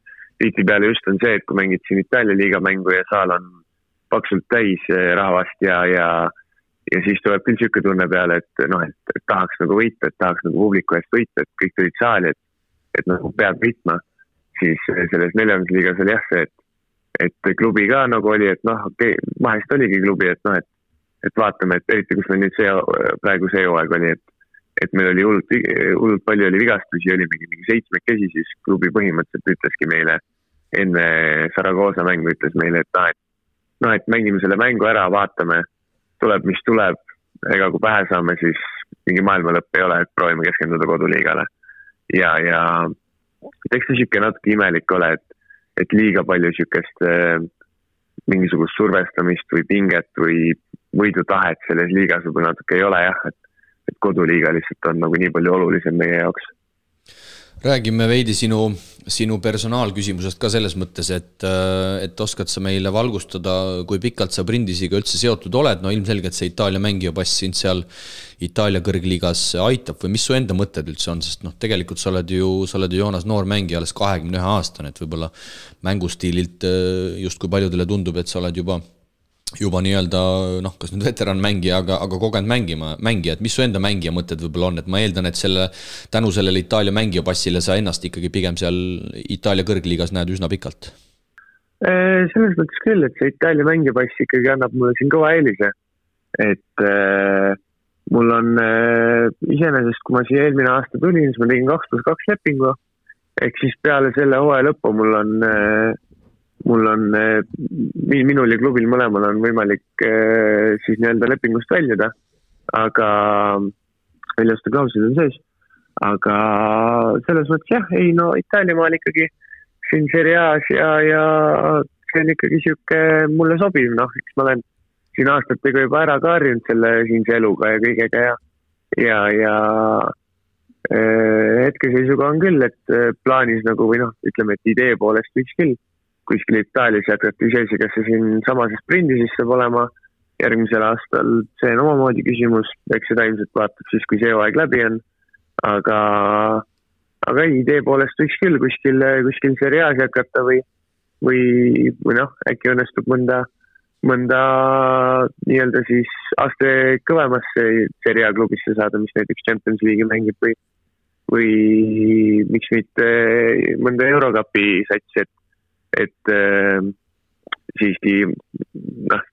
tihti peale just on see, et kui mängid siin Itaalia liiga mängu ja saal on paksult täis rahvast ja siis tuleb küll süke tunne peale, et tahaks nagu võita, et tahaks nagu publiku eest võita, et kõik tulid saali, et nagu peab võitma, siis selles 4. liigas oli jah see, et klubi ka nagu oli, et vahest oligi klubi, et vaatame, et eriti kus meil nüüd praegu see hooaeg oli, et meil oli hullult palju oli vigastusi, oli mingi 7 kesi, siis klubi põhimõtteliselt ütleski meile enne Saragossa mängu ütles meile, et mängime selle mängu ära, vaatame, tuleb mis tuleb, ega kui pähe saame, siis mingi maailma lõpp ei ole, et proovime keskenduda koduliigale. Ja eks see siuke natuke imelik ole, et liiga palju siukest mingisugust survestamist või pinget või võidutahet selles liigas võib natuke ei ole jah, et koduliiga lihtsalt on nagu nii palju olulisem meie jaoks. Räägime veidi sinu personaalküsimusest ka selles mõttes, et oskad sa meile valgustada, kui pikalt sa Brindisiga üldse seotud oled, no ilmselgelt see Itaalia mängija pass sind seal Itaalia kõrgliigas aitab või mis su enda mõtted üldse on, sest tegelikult sa oled ju Joonas noor mängija, alles 21 aastane, et võib-olla mängustiililt just kui paljudele tundub, et sa oled juba nii-öelda, kas nüüd veteran mängija, aga kogenud mängija, et mis su enda mängija mõtted võib-olla on, et ma eeldan, et tänu sellele Itaalia mängija passile sa ennast ikkagi pigem seal Itaalia kõrgliigas näed üsna pikalt. Selles mõttes küll, et see Itaalia mängija pass ikkagi annab mulle siin kõva eelise, et mul on iseenesest, kui ma siia eelmine aasta tulin, siis ma tegin 2+2 lepingu, ehk siis peale selle hooaja lõppu minul ja klubil mõlemal on võimalik siis nii-öelda lepingust väljuda, aga väljaste klauslid on sees, aga selles mõttes jah, Itaalia maal ikkagi siin Serie A's ja see on ikkagi siuke mulle sobiv, eks ma olen siin aastatega juba ära kaarinud selle siinse eluga ja kõigega ja hetkeseisuga on küll, et plaanis nagu või ütleme, et idee poolest võiks küll kuskil Itaalias jätkata iseasi, kas see siin samases Brindis saab olema järgmisel aastal, see on omamoodi küsimus, eks seda ilmselt vaatab siis, kui see aeg läbi on, aga idee poolest võiks küll kuskil Serie A's jätkata või äkki õnnestub mõnda nii-öelda siis aste kõvemasse Serie A klubisse saada, mis näiteks Champions League'i mängib või miks mitte mõnda Eurocupi satsi, et siiski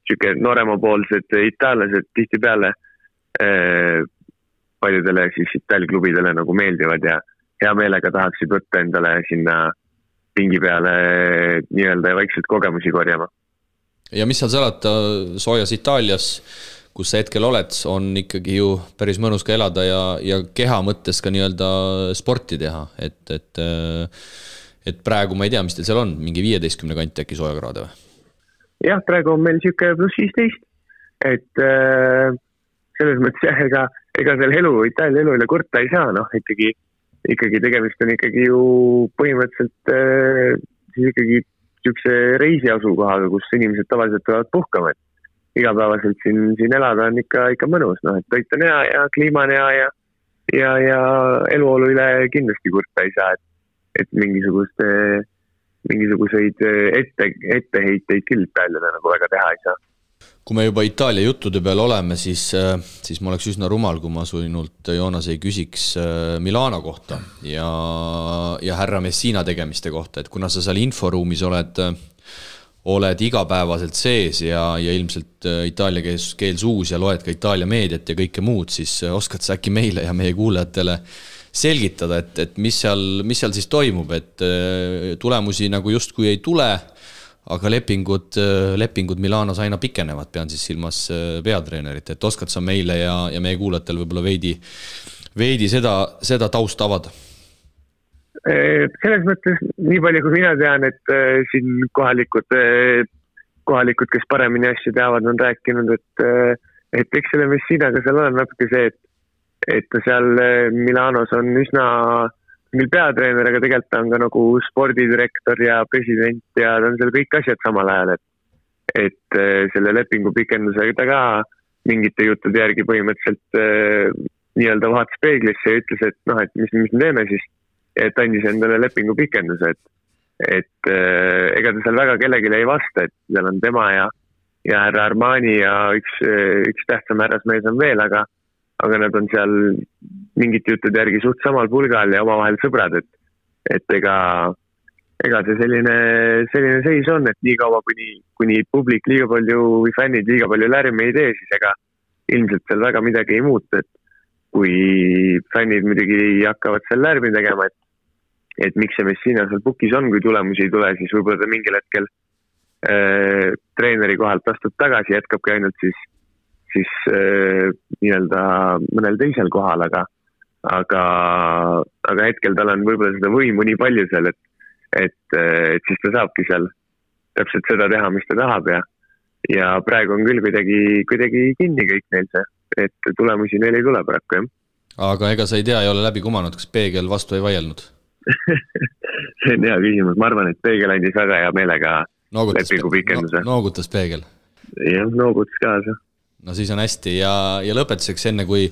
siuke nooremapoolsed itaallased tihtipeale paljudele siis Itaalia klubidele nagu meeldivad ja hea meelega tahaksid võtta endale sinna pingi peale nii-öelda ja vaikselt kogemusi korjama. Ja mis seal salata soojas Itaalias, kus sa hetkel oled, on ikkagi ju päris mõnus ka elada ja keha mõttes ka nii-öelda sporti teha, et praegu ma ei tea, mis teil seal on, mingi 15 kanti äkki soojakraade või? Jah, praegu on meil siuke +15, et selles mõttes ega seal Itaalia elu üle kurta ei saa, ikkagi tegemist on ikkagi ju põhimõtteliselt siis ikkagi siukse reisiasukohaga, kus inimesed tavaliselt tulevad puhkama, et igapäevaselt siin elada on ikka mõnus, et toit on hea ja kliima on hea ja eluolu üle kindlasti kurta ei saa, et mingisuguseid etteheiteid küll Itaaliale nagu väga teha ei saa. Kui me juba Itaalia juttude peal oleme, siis ma oleks üsna rumal, kui ma sinult, Joonas, ei küsiks Milano kohta ja härra Messina tegemiste kohta, et kuna sa seal inforuumis oled igapäevaselt sees ja ilmselt itaalia keel suus ja loed ka Itaalia meediat ja kõike muud, siis oskad sa äkki meile ja meie kuulajatele selgitada, et mis seal siis toimub, et tulemusi nagu justkui ei tule, aga lepingud Milanos aina pikenevad, pean siis silmas peatreenerit, et oskad sa meile ja meie kuulajatel võib-olla veidi seda taust avada? Selles mõttes nii palju kui mina tean, et siin kohalikud, kes paremini asju teavad, on rääkinud, et eks selle Messinaga seal on natuke see, et ta seal Milanos on üsna mil peatreener, aga tegelikult ta on ka nagu spordidirektor ja president ja ta on seal kõik asjad samal ajal, et selle lepingu pikendusega ta ka mingite juttude järgi põhimõtteliselt nii-öelda vaatas peeglisse ja ütles, et mis me teeme siis, et andis endale lepingu pikenduse, et ega ta seal väga kellelegi ei vasta, et seal on tema ja härra Armani ja üks tähtsam härrasmees on veel, aga nad on seal mingite juttude järgi suht samal pulgal ja omavahel sõbrad, et ega see selline seis on, et nii kaua kuni publik liiga palju või fännid liiga palju lärmi ei tee, siis ega ilmselt seal väga midagi ei muutu, et kui fännid muidugi hakkavad seal lärmi tegema, et miks see Messina seal pukis on, kui tulemusi ei tule, siis võib-olla ta mingil hetkel treeneri kohalt astub tagasi, jätkabki ainult siis nii-öelda mõnel teisel kohal, aga hetkel tal on võib-olla seda võimu nii palju seal, et siis ta saabki seal täpselt seda teha, mis ta tahab ja praegu on küll kuidagi kinni kõik neil see, et tulemusi neil ei tule paraku, jah. Aga ega sa ei tea, ei ole läbi kumanud, kas Peegel vastu ei vaielnud? See on hea küsimus, ma arvan, et Peegel andis väga hea meelega lepingu pikenduse. Noogutas Peegel? Jah, noogutas kaasa. No siis on hästi ja lõpetuseks enne, kui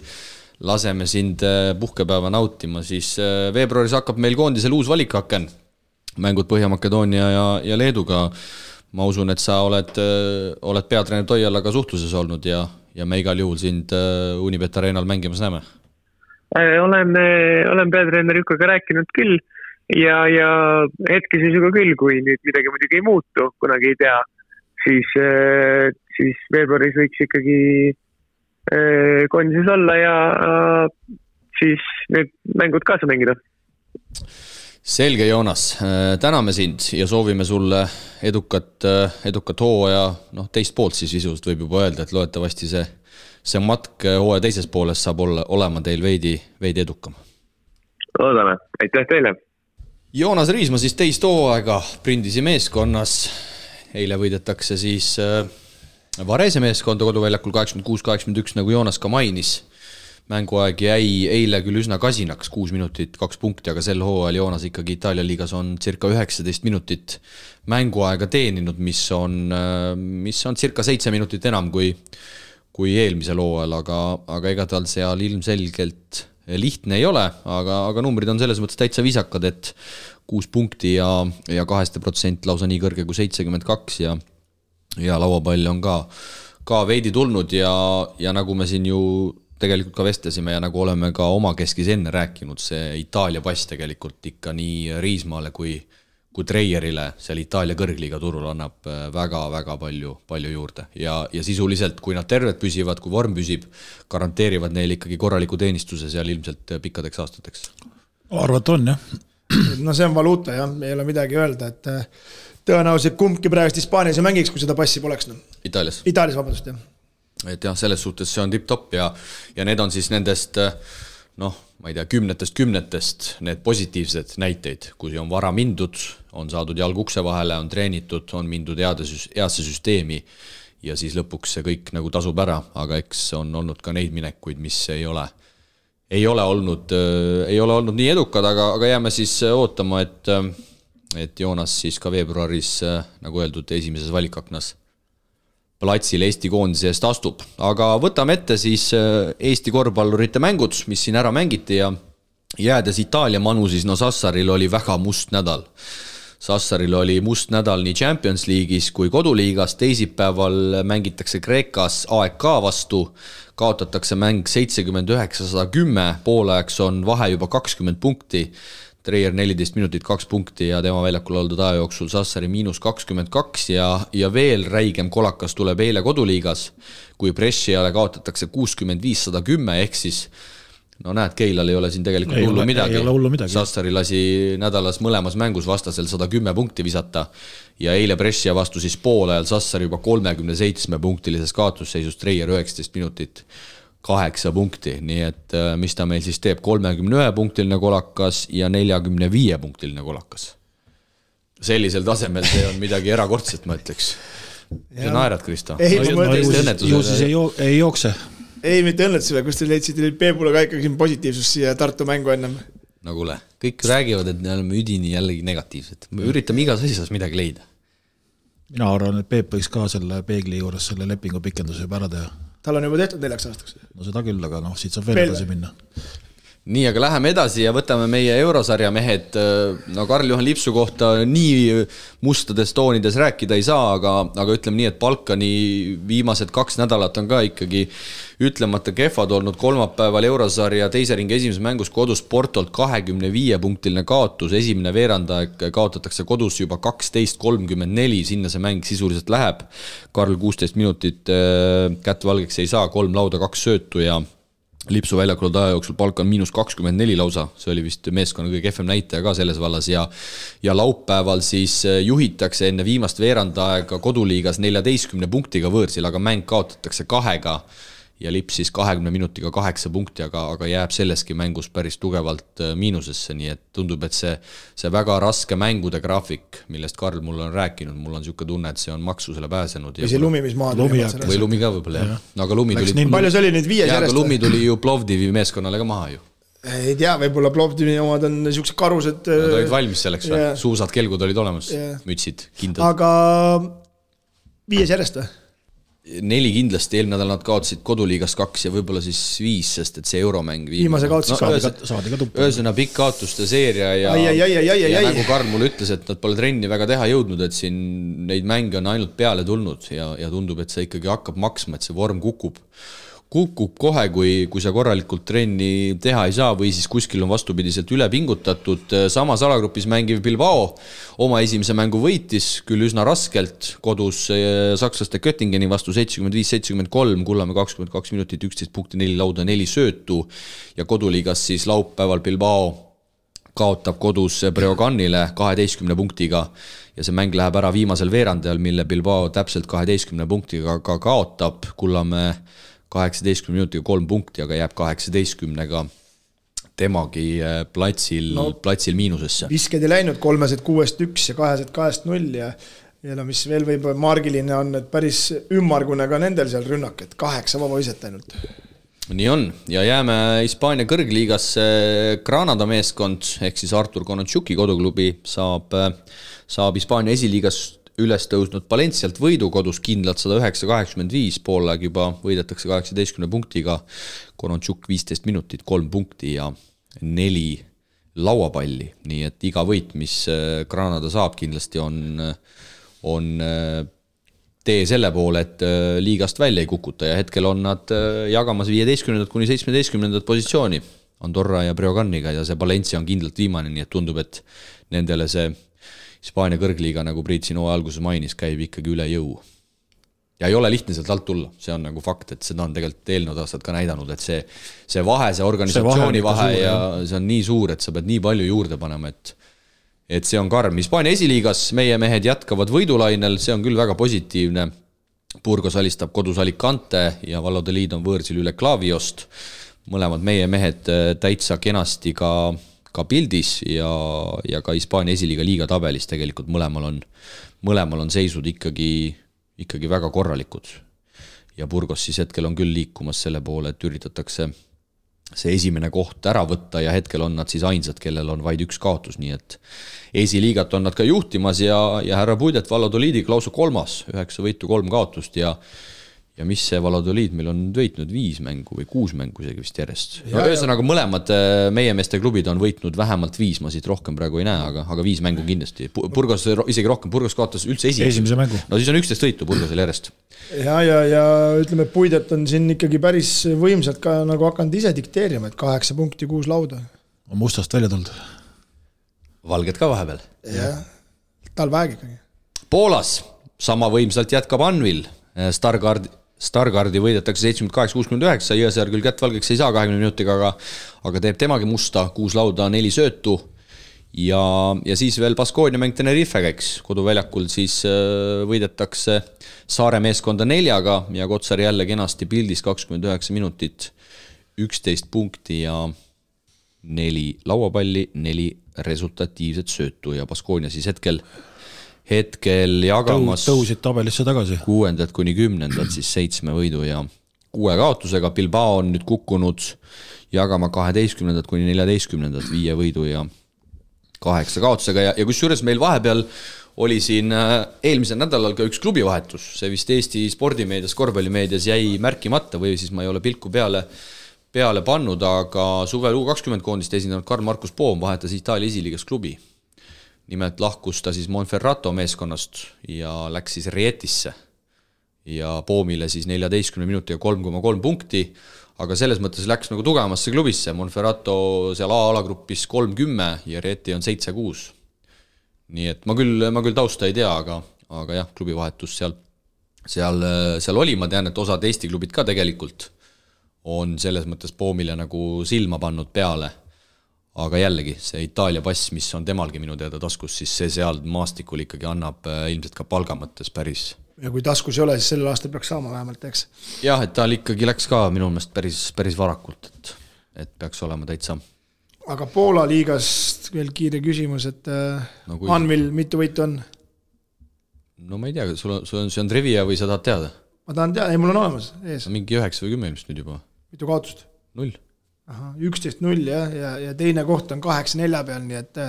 laseme sind puhkepäeva nautima, siis veebruaris hakkab meil koondisel uus valikaken. Mängud Põhja-Makedoonia ja Leeduga. Ma usun, et sa oled peatreener Toialaga suhtluses olnud ja me igal juhul sind Unibet Arenal mängimas näeme. Olen peatreener Jukaga rääkinud küll ja hetkeseisuga küll, kui nüüd midagi muidugi ei muutu, kunagi ei tea, siis veebruaris võiks ikkagi koondises olla ja siis need mängud kaasa mängida. Selge, Joonas, täname sind ja soovime sulle edukat hooaja, teist poolt siis visuliselt võib juba öelda, et loetavasti see matk hooaja teises pooles saab olema teil veidi edukam. Loodame, aitäh teile! Joonas Riisma siis teist hooaega Prindisi meeskonnas. Eile võidetakse siis Varese meeskonda koduväljakul 86-81, nagu Joonas ka mainis. Mänguaeg jäi eile küll üsna kasinaks, 6 minutit, 2 punkti, aga sel hooajal Joonas ikkagi Itaalia liigas on circa 19 minutit mänguaega teeninud, mis on circa 7 minutit enam kui eelmisel hooajal, aga ega tal seal ilmselgelt lihtne ei ole, aga numbrid on selles mõttes täitsa visakad, et 6 punkti ja 2% lausa nii kõrge kui 72 ja lauapall on ka veidi tulnud ja nagu me siin ju tegelikult ka vestlesime ja nagu oleme ka oma keskis enne rääkinud, see Itaalia pass tegelikult ikka nii Riismaale kui Treierile seal Itaalia kõrgliiga turul annab väga-väga palju juurde ja sisuliselt, kui nad terved püsivad, kui vorm püsib, garanteerivad neil ikkagi korraliku teenistuse seal ilmselt pikkadeks aastateks. Arvat on, jah. No see on valuuta, jah, ei ole midagi öelda, et tõenäoliselt kumbki praegust Hispaanias ei mängiks, kui seda passi poleks. Itaalias, vabandust, jah. Et jah, selles suhtes see on tipp-top ja need on siis nendest, ma ei tea, kümnetest need positiivsed näiteid, kui on vara mindud, on saadud jalg ukse vahele, on treenitud, on mindud heasse süsteemi ja siis lõpuks see kõik nagu tasub ära, aga eks on olnud ka neid minekuid, mis ei ole olnud nii edukad, aga jääme siis ootama, et Joonas siis ka veebruaris, nagu öeldud, esimeses valikaknas platsil Eesti koondise eest astub. Aga võtame ette siis Eesti korvpallurite mängud, mis siin ära mängiti ja jäädes Itaalia manu, siis Sassaril oli väga must nädal. Sassaril oli must nädal nii Champions League'is kui koduliigas, teisipäeval mängitakse Kreekas AEK vastu, kaotatakse mäng 79-110, poolajaks on vahe juba 20 punkti, Treier 14 minutit 2 punkti ja tema väljakul oldud aja jooksul Sassari -22 ja veel räigem kolakas tuleb eile koduliigas, kui Bresciale kaotatakse 65-110, ehk siis näed, Keilal ei ole siin tegelikult hullu midagi. Sassari lasi nädalas mõlemas mängus vastasel 110 punkti visata ja eile Brescia vastu siis poolajal Sassari juba 37 punktilises kaotusseisus, Treier 19 minutit 8 punkti, nii et mis ta meil siis teeb, 31 punktiline kolakas ja 45 punktiline kolakas. Sellisel tasemel see on midagi erakordset, ma ütleks. See naerad, Kristo? Ju siis ei jookse. Ei, mitte õnnetusele, kus te leidsite Peebule ka ikkagi positiivsus siia Tartu mängu ennem. No kuule, kõik räägivad, et me oleme üdini jällegi negatiivsed. Me üritame igas asjas midagi leida. Mina arvan, et Peep võiks ka selle peegli juures selle lepingu pikenduse juba ära teha. Tal on juba tehtud 4 aastaks. No seda küll, aga siit saab veel edasi minna. Nii, aga läheme edasi ja võtame meie eurosarja mehed. Karl-Juhan Lipsu kohta nii mustades toonides rääkida ei saa, aga ütleme nii, et Balkani viimased 2 nädalat on ka ikkagi ütlemata kehvad olnud. Kolmapäeval eurosarja teise ringi esimeses mängus kodus Portolt 25 punktiline kaotus, esimene veerandaeg kaotatakse kodus juba 12-34, sinna see mäng sisuliselt läheb. Karl 16 minutit kätt valgeks ei saa, 3 lauda, 2 söötu ja Lipsu väljakul aja jooksul Balkan -24 lausa, see oli vist meeskonna kõige kehvem näitaja ka selles vallas ja laupäeval siis juhitakse enne viimast veerandaega koduliigas 14 punktiga võõrsil, aga mäng kaotatakse 2 ja lipsis 20 minutiga 8 punkti, aga jääb selleski mängus päris tugevalt miinusesse, nii et tundub, et see väga raske mängude graafik, millest Karl mulle on rääkinud, mul on niisugune tunne, et see on maksusele pääsenud. Või see lumi, mis maad või lumi ka võib-olla, jah. No, aga lumi tuli... Palju see oli nüüd 5 järjest? Aga lumi tuli ju Plovdivi meeskonnale ka maha ju. Ei tea, võib-olla Plovdivi omad on niisugused karused... Nad olid valmis selleks või? Suusad, kelgud olid olemas, mütsid, kindlad. Aga 5 järjest või? 4 kindlasti, eelmine nädal nad kaotasid koduliigas 2 ja võib-olla siis 5, sest et see euromäng viimase kaotasid saadi ka tuppa. Ühesõna pikk kaotuste seeria ja nagu Karl mulle ütles, et nad pole trenni väga teha jõudnud, et siin neid mänge on ainult peale tulnud ja tundub, et see ikkagi hakkab maksma, et see vorm kukub kohe, kui sa korralikult trenni teha ei saa või siis kuskil on vastupidiselt üle pingutatud. Samas alagrupis mängiv Bilbao oma esimese mängu võitis, küll üsna raskelt, kodus sakslaste Göttingeni vastu 75-73, Kullamäe 22 minutit, 11 punkti, 4 lauda, 4 söötu ja koduliigas siis laupäeval Bilbao kaotab kodus Breoganile 12 punktiga ja see mäng läheb ära viimasel veerandajal, mille Bilbao täpselt 12 punktiga ka kaotab, Kullamäe 18 minutiga 3 punkti, aga jääb 18-ga temagi platsil miinusesse. Visked ei läinud 3-6-1 ja 2-2-0 ja mis veel võib margiline on, et päris ümmargune ka nendel seal rünnak, et 8 vaba viset ainult. Nii on ja jääme Hispaania kõrgliigasse. Granada meeskond ehk siis Artur Konatšuki koduklubi saab Hispaania esiliigas üles tõusnud Valencialt võidu kodus kindlalt 109-85, poolaeg juba võidetakse 18 punktiga, Konatšuk 15 minutit, 3 punkti ja 4 lauapalli, nii et iga võit, mis Granada saab, kindlasti on tee selle poole, et liigast välja ei kukuta ja hetkel on nad jagamas 15. kuni 17. positsiooni Andorra ja Breoganiga ja see Valencia on kindlalt viimane, nii et tundub, et nendele see Hispaania kõrgliiga, nagu Priit sinu alguses mainis, käib ikkagi üle jõu. Ja ei ole lihtne sealt alt tulla, see on nagu fakt, et seda on tegelikult eelnevad aastad ka näidanud, et see vahe, see organisatsiooni vahe ja see on nii suur, et sa pead nii palju juurde panema, et see on karm. Hispaania esiliigas meie mehed jätkavad võidulainel, see on küll väga positiivne. Burgos alistab kodus Alicante ja Valladolid on võõrsil üle Klaviost. Mõlemad meie mehed täitsa kenasti ka pildis ja ka Hispaania esiliiga liiga tabelis tegelikult mõlemal on seisud ikkagi väga korralikud. Ja Burgos siis hetkel on küll liikumas selle poole, et üritatakse see esimene koht ära võtta ja hetkel on nad siis ainsad, kellel on vaid üks kaotus, nii et esiliigat on nad ka juhtimas ja härra Puidet Valladolidiga lausa 3, 9 võitu, 3 kaotust ja mis see Valladolid meil on võitnud 5 mängu või 6 mängu isegi vist järjest. Ühesõnaga mõlemad meie meeste klubid on võitnud vähemalt 5, ma siit rohkem praegu ei näe, aga 5 mängu kindlasti. Burgos isegi rohkem, Burgos kaotas üldse esimese mängu. No siis on 11 võitu Burgosel järjest. Ja ütleme, Puidet on siin ikkagi päris võimsalt ka nagu hakanud ise dikteerima, et 8 punkti, 6 lauda. On mustast välja tulnud. Valged ka vahepeal. Ja, tal väeg ikkagi. Poolas sama võimsalt jätkab Anvil. Stargardi võidetakse 78-69, Jõesaar küll kätt valgeks ei saa 20 minutiga, aga teeb temagi musta, 6 lauda, 4 söötu ja siis veel Baskonia mäng Tenerife käiks. Koduväljakul siis võidetakse Saare meeskonda 4 ja Kotsar jälle kenasti pildis 29 minutit, 11 punkti ja 4 lauapalli, 4 resultatiivset söötu ja Baskonia siis hetkel jagamas tõusid tabelisse tagasi 6. kuni 10. siis 7 võidu ja 6 kaotusega. Bilbao on nüüd kukkunud jagama 12. kuni 14. 5 võidu ja 8 kaotusega ja kusjuures meil vahepeal oli siin eelmisel nädalal ka üks klubivahetus, see vist Eesti spordimeedias, korvpallimeedias jäi märkimata või siis ma ei ole pilku peale pannud, aga suvel U20 koondist esindanud Karl-Markus Poom vahetas Itaalia esiliigas klubi. Nimelt lahkus ta siis Monferrato meeskonnast ja läks siis Rietisse ja Poomile siis 14 minutiga 3,3 punkti, aga selles mõttes läks nagu tugevamasse klubisse. Monferrato seal A-alagrupis 30 ja Rieti on 7-6. Nii et ma küll tausta ei tea, aga jah, klubivahetus seal oli, ma tean, et osad Eesti klubid ka tegelikult on selles mõttes Poomile nagu silma pannud peale. Aga jällegi, see Itaalia pass, mis on temalgi minu teada taskus, siis see seal maastikul ikkagi annab ilmselt ka palga mõttes päris ja kui taskus ei ole, siis sellel aastal peaks saama vähemalt, eks. Jah, et tal ikkagi läks ka minu meelest päris varakult, et peaks olema täitsa. Aga Poola liigast veel kiire küsimus, et no, Anvil mitu võitu on? No ma ei tea, see on trivia või sa tahad teada? Ma tahan teada, ei mul on olemas ees. Mingi 9 või 10 ilmselt nüüd juba. Mitu kaotust? 0. Aha, 11-0 ja teine koht on 8-4 peal, nii et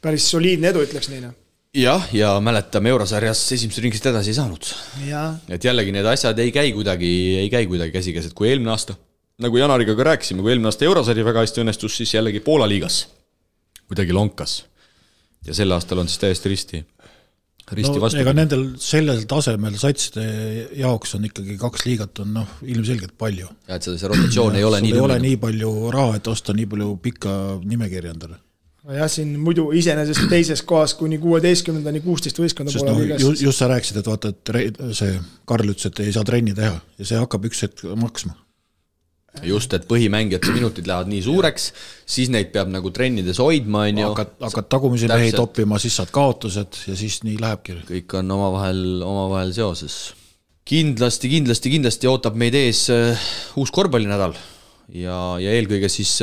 päris soliidne edu, ütleks nii. Jah, ja mäletame Eurosarjas esimese ringist edasi ei saanud. Ja. Et jällegi need asjad ei käi kuidagi käsikäes, et kui eelmine aasta, nagu Janariga ka rääkisime, kui eelmine aasta Eurosari väga hästi õnnestus, siis jällegi Poola liigas kuidagi lonkas. Ja sel aastal on siis täiesti risti vastu. Ega nendel sellel tasemel satside jaoks on ikkagi 2 liigat on ilmselgelt palju. Ja et see rotatsioon ei ole nii ei ole nii palju raha, et osta nii palju pikka nimekirja endale. Jah, siin muidu iseenesest teises kohas kuni 16-ni 16 võistkonda poole liigas. Just sa rääkisid, et vaata, et see Karl ütles, et ei saa trenni teha ja see hakkab üks hetk maksma. Just, et põhimängijate minutid lähevad nii suureks, siis neid peab nagu trennides hoidma. Hakkad tagumisi mehi toppima, siis saad kaotused ja siis nii lähebki. Kõik on omavahel seoses. Kindlasti ootab meid ees uus korvpallinädal ja eelkõige siis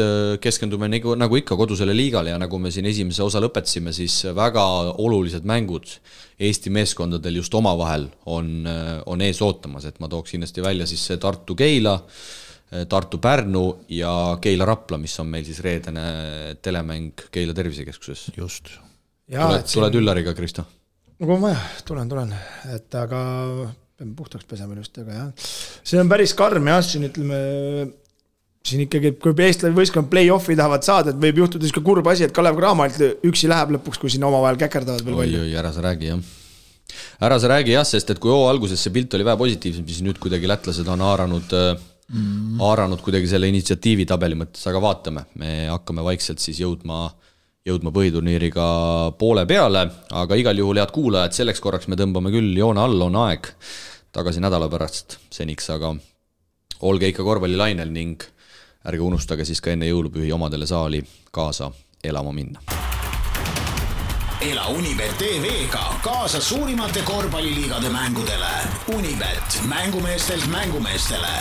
keskendume nagu ikka kodusele liigale ja nagu me siin esimese osa lõpetasime, siis väga olulised mängud Eesti meeskondadel just omavahel on ees ootamas, et ma tooks kindlasti välja siis Tartu-Keila, Tartu-Pärnu ja Keila-Rapla, mis on meil siis reedene telemäng Keila tervisekeskuses. Just. Tuled Üllariga, Kristo? No kui on vaja, tulen. Et aga peame puhtaks pesema just, aga jah. See on päris karm ja siin ütleme, siin ikkagi, kui eestlane võistkond play-offi tahavad saada, et võib juhtuda ka kurb asi, et Kalev Cramalt üksi läheb lõpuks, kui siin omavahel käkerdavad veel palju. Ära sa räägi, jah, sest et kui alguses see pilt oli vähe positiivsem, siis nüüd kuidagi lätlased on haaranud kuidagi selle initsiatiivi tabeli mõttes, aga vaatame, me hakkame vaikselt siis jõudma põhiturniiriga poole peale, aga igal juhul head kuulajad, selleks korraks me tõmbame küll joone all, on aeg tagasi nädala pärast seniks, aga olge ikka korvpallilainel ning ärge unustage siis ka enne jõulupühi omadele saali kaasa elama minna. Ela Unibet TV-ga kaasa suurimate korvpalliliigade mängudele. Unibet, mängumeestelt mängumeestele.